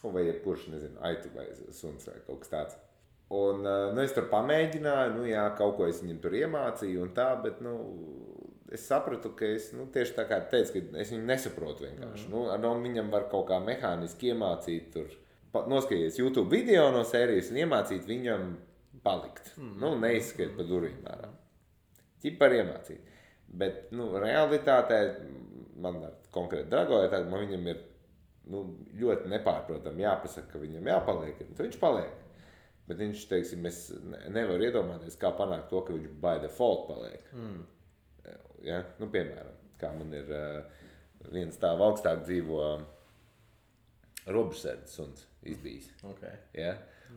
Vai jebkurš, nezinu, aitu vai suns vai kaut kas tāds. Un es tur pamēģināju, kaut ko es viņam tur iemācīju un tā, bet es sapratu, ka es tieši tā kā teicu, ka es viņu nesaprotu vienkārši. Viņam var kaut kā mehāniski iemācīt tur. Noskaties YouTube video no sērijas un iemācīt viņam palikt. Neizskriet pa durvīm ārā. Ķipar iemācīt. Bet, realitātē, man konkrēti Drago ir tāda, man viņam ir ļoti nepārprotam jāpasaka, ka viņam jāpaliek. Tad viņš paliek. Bet viņš, teiksim, es nevaru iedomāties, kā panākt to, ka viņš by default paliek. Ja? Piemēram, kā man ir viens tā augstāk dzīvo robežsardzes suns izbijis. Okay. Ja?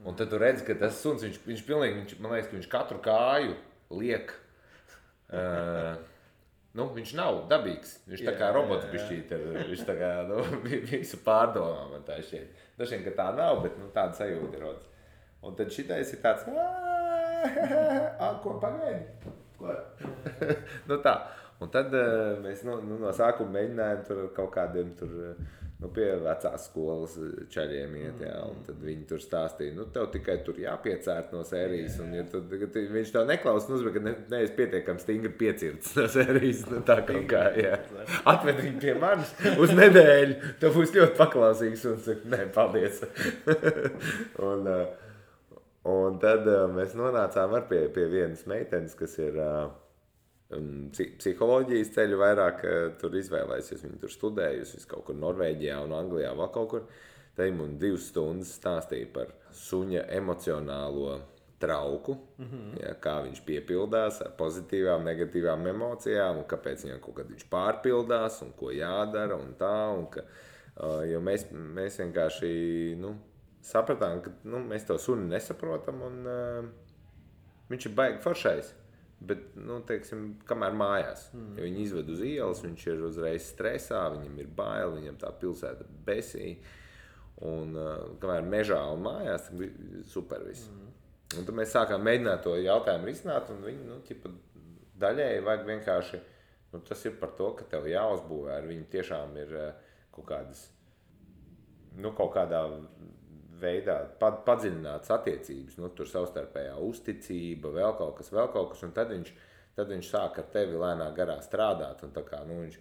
Un tad tu redzi, ka tas suns, viņš pilnīgi, man liekas, ka viņš katru kāju liek. Viņš nav dabīgs. Viņš tā kā robots bišķīt ir. Viņš tā kā visu pārdomā man tā šķiet. Dažiem, ka tā nav, bet tāda sajūta ir rodas. Un tad šitais ir tāds, ko pagaidi? Ko? Tā. Un tad mēs no sākuma mēģinājām tur kaut kādiem tur, pie vecās skolas čaļiem iet, jā, un tad viņi tur stāstīja, tev tikai tur jāpiecērt no sērijas, un ja viņš tev neklaus, bet ka neesi pietiekami stingri piecirts no sērijas, tā kaut kā, jā. Atved viņu pie manis uz nedēļu, tev būs ļoti paklausīgs, un saka, nē, paldies. Un tad mēs nonācām pie vienas meitenes, kas ir psiholoģijas ceļu vairāk tur izvēlējusies. Viņa tur studējusi kaut kur Norvēģijā un Anglijā vēl kaut kur. Te man 2 stundas stāstīja par suņa emocionālo trauku, ja, kā viņš piepildās ar pozitīvām, negatīvām emocijām un kāpēc viņam kaut kad viņš pārpildās un ko jādara un tā. Un ka, jo mēs vienkārši sapratām, ka mēs to suni nesaprotam un viņš ir baigi foršais. Bet, teiksim, kamēr mājās, ja viņi izved uz ielas, viņš ir uzreiz stresā, viņam ir bail, viņam tā pilsēta besī, un kamēr mežā un mājās, tad bija super viss. Un tad mēs sākām mēģināt to jautājumu risināt, un viņi, daļēji vajag vienkārši, tas ir par to, ka tev jāuzbūvē, ar viņu tiešām ir kaut kādas, kaut kādā veidā padziļinātas attiecības, tur savstarpējā uzticība, vēl kaut kas, un tad viņš sāk ar tevi lēnā garā strādāt, un tā kā, viņš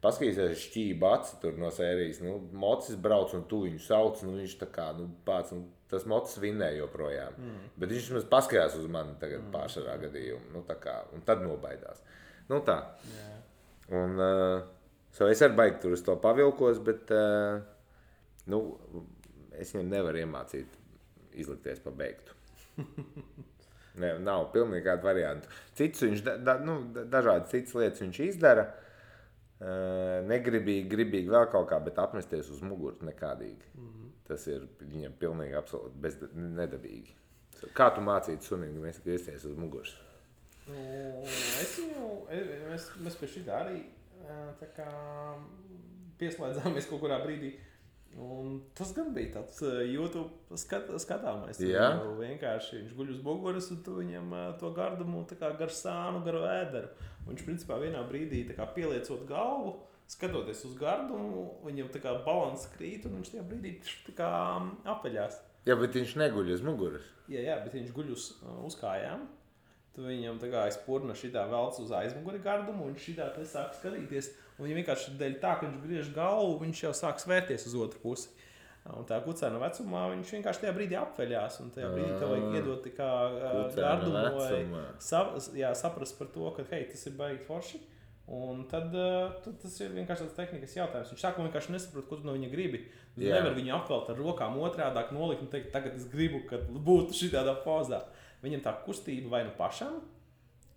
paskatīsies šķība aci tur no sērijas, mocis brauc, un tu viņu sauc, viņš tā kā, pāc, tas mocis vinnē joprojām, bet viņš maz paskatījās uz mani tagad pārsvarā gadījumu, tā kā, un tad nobaidās. Tā. Un, es arī baigi tur uz to pavilkos, bet, es viņam nevaru iemācīt izlikties pa beigtu. Nav pilnīgi kādu variantu. Citus viņš, dažādas citas lietas viņš izdara. Negribīgi vēl kaut kā, bet apmesties uz muguru nekādīgi. Tas ir viņam pilnīgi absolūti nedabīgi. Kā tu mācītu sunim, mēs griezties uz muguras? Mēs pie šitā arī tā kā pieslēdzāmies kaut kurā brīdī. Un tas gan bija tāds YouTube skatāmais. Vienkārši viņš guļ uz muguras un tu viņam to gardumu tā kā gar sānu, gar ēderu. Viņš principā vienā brīdī tā kā pieliecot galvu, skatoties uz gardumu, viņam tā kā balans krīt un viņš tajā brīdī tā kā apeļās. Jā, bet viņš neguļ uz muguras. Jā, bet viņš guļ uz kājām. tu viņam tā kā aizpurna šitā velc uz aizmuguri gardumu, un šitā te sāk skatīties. Un viņa vienkārši dēļ tā, ka viņš griež galvu, viņš jau sāk svērties uz otru pusi. Un tā kucēna vecumā viņš vienkārši tajā brīdī apveļās, un tajā brīdī tev vajag iedot tā kā gardumu vai saprast par to, ka, hei, tas ir baigi forši. Un tad tas ir vienkārši tāds tehnikas jautājums. Viņš sākumā vienkārši nesaprot, ko tu no viņa gribi. Tu nevar viņu apvelt ar rokām otrādāk nolikt un teikt, tagad es gribu, ka būtu šitādā pozā. Viņam tā kustība vai nu pašam,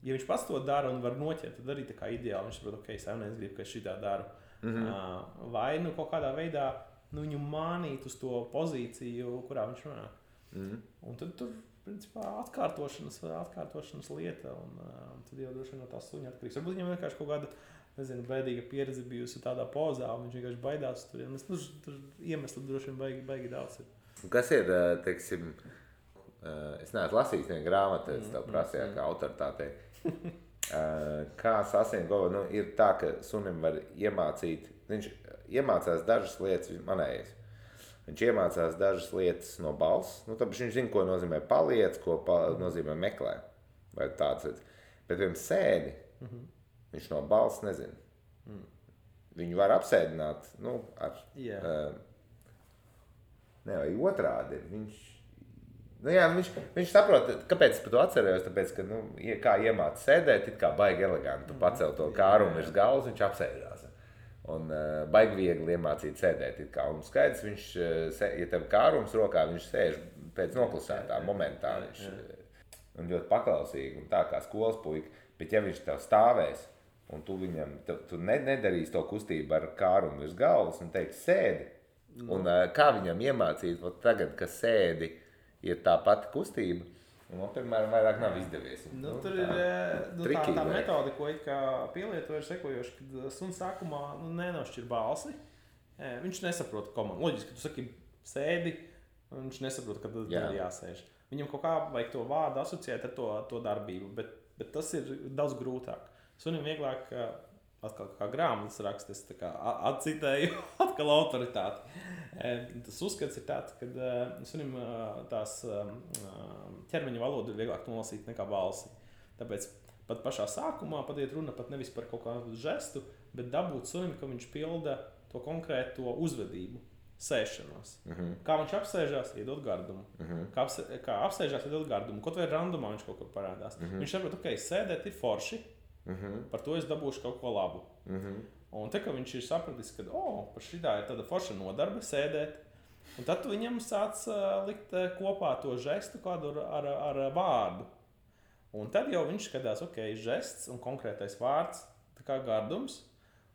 ja viņš pats to dara un var noķert, tad arī tā kā ideāli. Viņš saprot, ok, saimnieks grib, ka es šitā daru. Vai nu kaut kādā veidā viņu mānīt uz to pozīciju, kurā viņš runā. Un tad tur, principā, atkārtošanas lieta, un tad jau droši vien no tā suņa atkarīgs. Varbūt viņam vienkārši kaut kāda, nezinu, bēdīga pieredze bijusi tādā pozā, un viņš vienkārši baidās tur. Tur iemesli droši vien baigi daudz ir. Kas ir, teiksim, es neesmu lasījis vienu grāmatu, es tev prasīju kā autoritātei. Kā sasniegt govu, ir tā, ka sunim var iemācīt, viņš iemācās dažas lietas, manējais. Viņš iemācās dažas lietas no balss, tāpēc viņš zina, ko nozīmē paliec, ko nozīmē meklē, vai tāds lietas. Bet vienam sēdi, viņš no balss nezina. Viņu var apsēdināt, vai otrādi. Viņš saprot, kāpēc es par to atcerējos, tāpēc, ka, kā iemāca sēdēt, it kā baigi eleganti, tu pacel to kārumu virs galvas, viņš apsēdās. Un baigi viegli iemācīt sēdēt. Un skaidrs, viņš, ja tev kārums rokā, viņš sēž pēc noklusētā momentā. Un ļoti paklausīgi, un tā kā skolas puika. Bet ja viņš tev stāvēs, un tu viņam, tu nedarīsi to kustību ar kārumu virs galvas, un teiks sēdi. Un kā viņam iemācīt, tagad, ka sēdi ir tā pati kustība, un, piemēram, vairāk nav izdevies. Tur ir tā metode, ko pielieto, ir sekojoši, kad suns sākumā nenošķir balsi. Viņš nesaprot komandu. Loģiski, ka tu saki sēdi, un viņš nesaprot, kad ir jāsēž. Viņam kaut kā vajag to vārdu asociēt ar to darbību, bet tas ir daudz grūtāk. Sunim vieglāk, atkal kā grāmatas raksta, es tā kā atcitēju atkal autoritāti. Tas uzskats ir tāds, ka sunim tās ķermeņa valodu ir vieglāk nolasīt nekā balsi. Tāpēc pat pašā sākumā iet runa pat nevis par kaut kādu žestu, bet dabūt sunim, ka viņš pilda to konkrēto uzvedību, sēšanos. Kā viņš apsēžās, iedod gardumu. Kā apsēžās, iedod gardumu. Kaut vai randumā viņš kaut kur parādās. Viņš saprot, ok, sēdēt ir forši, par to es dabūšu kaut ko labu. Un te, ka viņš ir sapratis, ka par šitā ir tāda forša nodarbe sēdēt, un tad tu viņam sāc likt kopā to žestu kādu ar vārdu. Un tad jau viņš skatās, ok, žests un konkrētais vārds, tā kā gardums,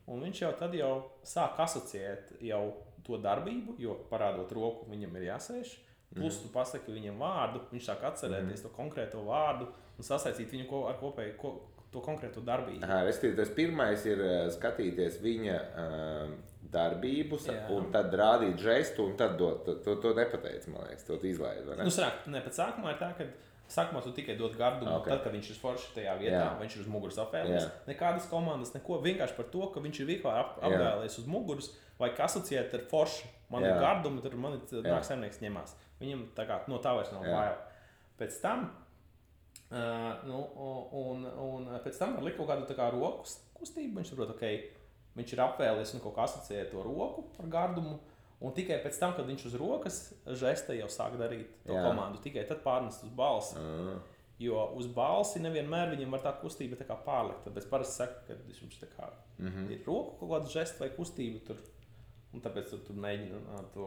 un viņš jau tad jau sāk asociēt jau to darbību, jo parādot roku viņam ir jāsēž, plus tu pasaki viņam vārdu, viņš sāk atcerēties to konkrēto vārdu un sasaistīt viņu ar kopēju to konkrēto darbību. Tas pirmais ir skatīties viņa darbības, un tad rādīt žestu, un tad to nepateic, man liekas, to izlaid, vai ne? Pēc sākumā ir tā, ka sākumā tu tikai dod gardumu, tad, kad viņš ir forši tajā vietā, viņš ir uz muguras apvēlies. Nekādas komandas, neko, vienkārši par to, ka viņš ir vieglā apvēlies uz muguras, vai asociēt ar forši. Man ir gardumi, tad man nāk saimnieks ņemās. Viņam tā kā no tā vairs nav bail. Pēc tam un pēc tam var likt kaut kādu tā kā roku kustību, viņš saprot, ok, viņš ir apvēlies un kaut kā asociē to roku ar gardumu, un tikai pēc tam, kad viņš uz rokas žesta jau sāk darīt to komandu, tikai tad pārnest uz balsi. Jo uz balsi nevienmēr viņam var tā kustība tā kā pārlikt, tāpēc parasti saka, ka viņš tā kā ir roku kaut kādu žestu vai kustību tur, un tāpēc tu mēģini to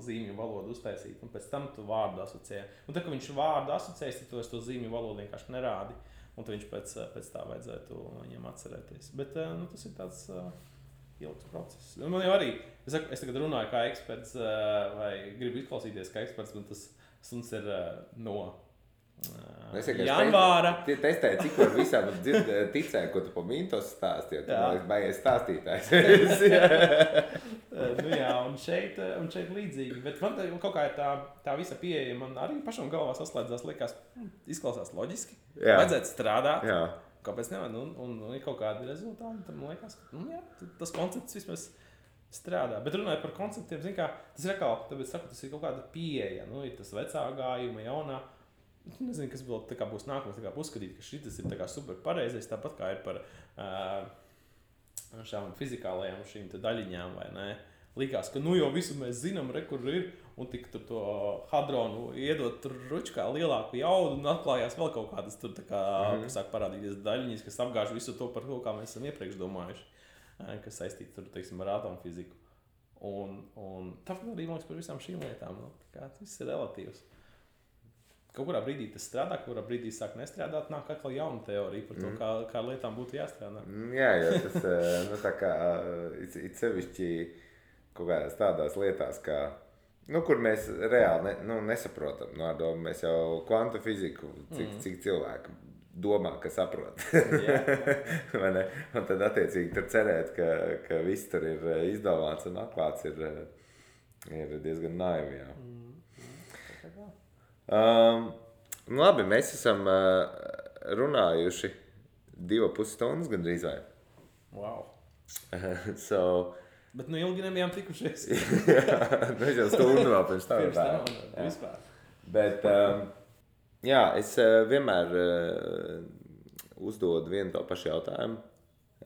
zīmju valodu uztaisīt, un pēc tam tu vārdu asociē. Un tad, kad viņš vārdu asociēs, tad tu to zīmju valodu vienkārši nerādi, un tad viņš pēc tā vajadzētu viņam atcerēties. Bet tas ir tāds ilgs process. Man jau arī, es tagad runāju kā eksperts, vai gribu izklausīties kā eksperts, un tas suns ir no janvāra. Testēju, cik var visām ticēju, ko tu pa Mintos stāstīji, tu man liekas baigies stāstītājs. Un šeit līdzīgi, bet man kaut kā ir tā visa pieeja, man arī pašam galvā saslēdzās, liekas, izklausās loģiski, vajadzētu strādāt, kāpēc nevar, un ir kaut kādi rezultāti, tad man liekas, ka tas koncepts vismaz strādā, bet runājot par konceptiem, zin kā, tas ir atkal, tāpēc saku, tas ir kaut kāda pieeja, ir tas vecā gājuma, jaunā. nezinu, kas vēl tā kā būs nākamais, tā kā uzskatīt, ka šis ir tā kā super pareizais, tāpat kā ir par šām fizikālajām šīm te daļiņām, vai ne? Likās, ka nu jau visu mēs zinām, kur ir, un tik tur to hadronu iedot tur ručkā lielāku jaudu, un atklājās vēl kaut kādas tur tā kā, kas sāk parādīties daļiņas, kas apgāž visu to par to, kā mēs esam iepriekš domājuši, kas saistīti tur, teiksim, ar atomfiziku. Un tāpēc arī mums par visām šīm lietām, nu, tā kā tas ir relatīvs. Kaut kurā brīdī tas strādā, kaut kurā brīdī sāk nestrādāt, nāk atkal jauna teorija par to, kā lietām būtu jāstrādā. Jā, jo tas, nu tā kā, it sevišķi kaut kādās tādās lietās, kā, nu, kur mēs reāli nesaprotam, no ar domu mēs jau kvantu fiziku, cik cilvēki domā, ka saprot. Vai ne? Un tad attiecīgi tur cerēt, ka viss tur ir izdomāts un atklāts ir diezgan naivi, jā. Nu labi, mēs esam runājuši 2,5 stundas gandrīz vai. Wow. Bet nu ilgi nebijām tikušies. Mēs jau stundu vēl pirms tam. Vispār. Bet, jā, es vienmēr uzdodu vienu to pašu jautājumu.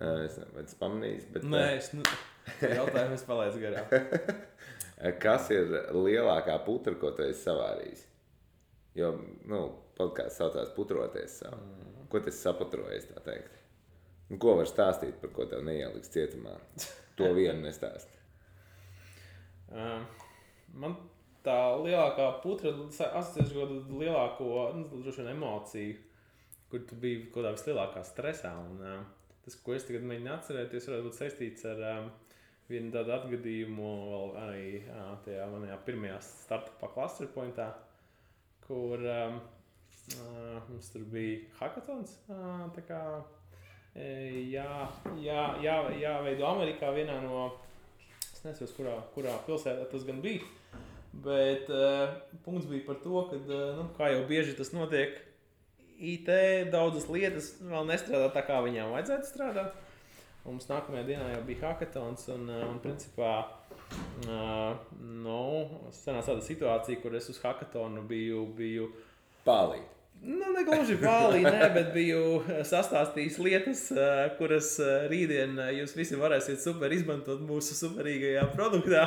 Es nezinu, vai tas pamanījis, bet... Nē, jautājumu es palaidu garām. Kas ir lielākā putra, ko tu esi savārījis? Jo, nu, podkāsts saucās putroties savu. Ko tas saputrojies, tā teikt? Nu, ko var stāstīt, par ko tev neieliks cietumā? To vienu nestāst. Man tā lielākā putra asociēs kādu lielāko, droši vien emociju, kur tu biji kaut kādā vislielākā stresā. Un tas, ko es tagad mēģinu atcerēties, varētu būt saistīts ar vienu tādu atgadījumu vēl arī tajā manajā pirmajā startupā Cluster Pointā, kur mums tur bija hackathons, tā kā jāveido Amerikā vienā no, es nezinu, kurā pilsētā tas gan bija, bet punkts bija par to, ka, nu, kā jau bieži tas notiek, IT daudzas lietas vēl nestrādā tā, kā viņām vajadzētu strādāt. Un mums nākamajā dienā jau bija hackathons un principā, sanāca tāda situācija, kur es uz hackathonu biju Pālīt. Nu, negluži pālī, bet biju sastāstījis lietas, kuras rītdien jūs visi varēsiet super izmantot mūsu superīgajā produktā.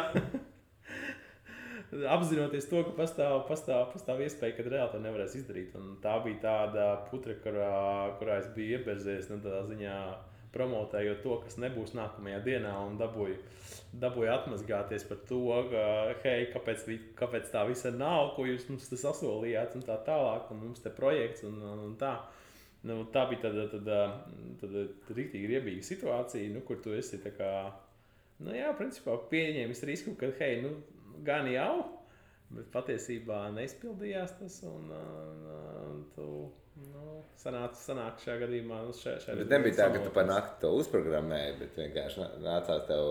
Apzinoties to, ka pastāv iespēja, ka reāli to nevarēs izdarīt. Un tā bija tāda putra, kurā es biju ieberzies, tādā ziņā promotējot to, kas nebūs nākamajā dienā, un dabūju atmazgāties par to, ka, hei, kāpēc tā visa nav, ko jūs mums te sasolījāt, un tā tālāk, un mums te projekts, un tā. Nu, tā bija tāda riktīgi riebīga situācija, nu, kur tu esi tā kā, nu jā, principā pieņēmis risku, ka, hei, nu, gan jau, bet patiesībā neizpildījās tas, un tu, nu, sanāk šajā gadījumā. Bet nebija tā, ka tu par nakti to uzprogrammēji, bet vienkārši nācās tev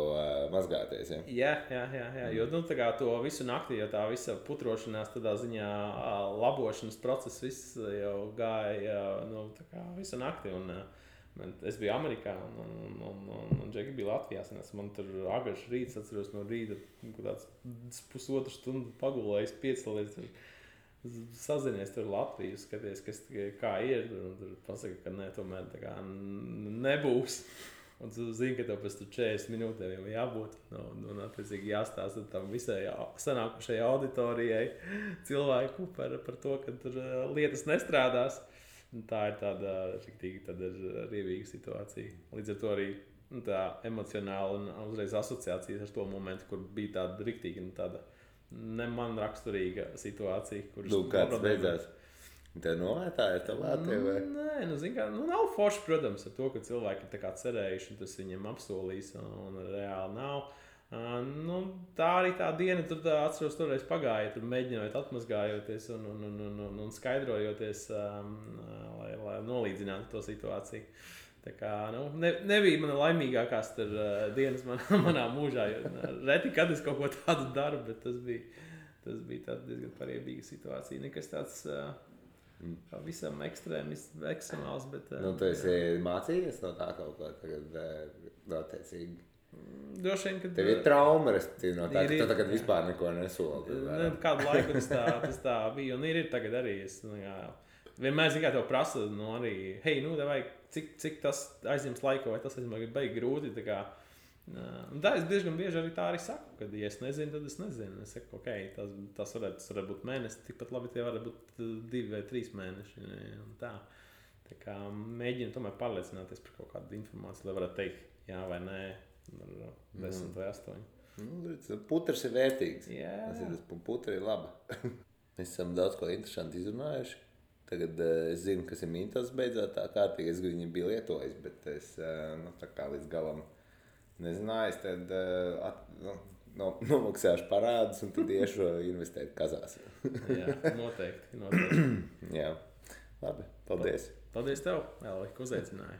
mazgāties, ja? Jā, jo, nu, tā kā to visu nakti, jo tā visa putrošanās tādā ziņā labošanas process viss jau gāja, nu, tā kā visu nakti, un es biju Amerikā, un Džeki bija Latvijā, man tur agrš rīts, atceros no rīta, tāds pusotru stundu pagulējis, piecēlies, sazinies tur Latviju, skaties, kā ir, un tur pasaka, ka ne, tomēr tā kā nebūs. Un tu zini, ka tev pēc 40 minūtēm jau jābūt, un attiecīgi jāstāsta tam visai sanākušai auditorijai cilvēku par to, ka tur lietas nestrādās. Un tā ir tāda riebīga situācija. Līdz ar to arī tā emocionāla un uzreiz asociācijas ar to momentu, kur bija tāda riktīgi un tāda ne man raksturīga situācija, kuras... Kāds beidzās? Tev novērtāja ar tavā vai? Nē, zin kā, nav forši, protams, ar to, ka cilvēki ir tā kā cerējuši, un tas viņiem apsolīs, un reāli nav. Tā arī tā diena, tur atceros, toreiz pagāja, tur mēģinājot atmazgājoties un skaidrojoties, lai nolīdzinātu to situāciju. Tā kā, nebija mana laimīgākās dienas manā mūžā, jo reti, kad es kaut ko tādu daru, bet tas bija tāds diezgan pariebīga situācija. Nekas tāds visam ekstremāls, bet... Tu esi mācījies no tā kaut ko tagad attiecīgi? Droši vien, ka Tev ir trauma, respektīvi, no tā, ka tu tagad vispār neko nesoli. Kādu laiku tas tā bija, un ir tagad arī. Vienmēr, zin kā tev prasa, arī, hei, vai cik tas aizņems laiku, vai tas aizņems baigi grūti, tā kā. Tā es diezgan bieži arī tā arī saku, kad, ja es nezinu, tad es nezinu. Es saku, ok, tas varētu būt mēnesis, tikpat labi tie varētu būt 2 vai 3 mēneši, un tā. Tā kā mēģinu tomēr pārliecināties par kaut kādu informāciju, lai varētu teikt, jā vai nē, ar 10 vai 8. Putrs ir vērtīgs. Jā. Putra ir laba. Mēs esam daudz ko interesanti izrunājuši. Tagad es zinu, kas ir Mintos beidzot tā kārtīgi. Es viņu biju lietojis, bet es tā kā līdz galam nezināju. Es tad nomaksāšu parādus un tad iešu investēt kazās. Jā, noteikti. Jā, labi. Paldies. Paldies tev, Elvi, ka uzaicināji.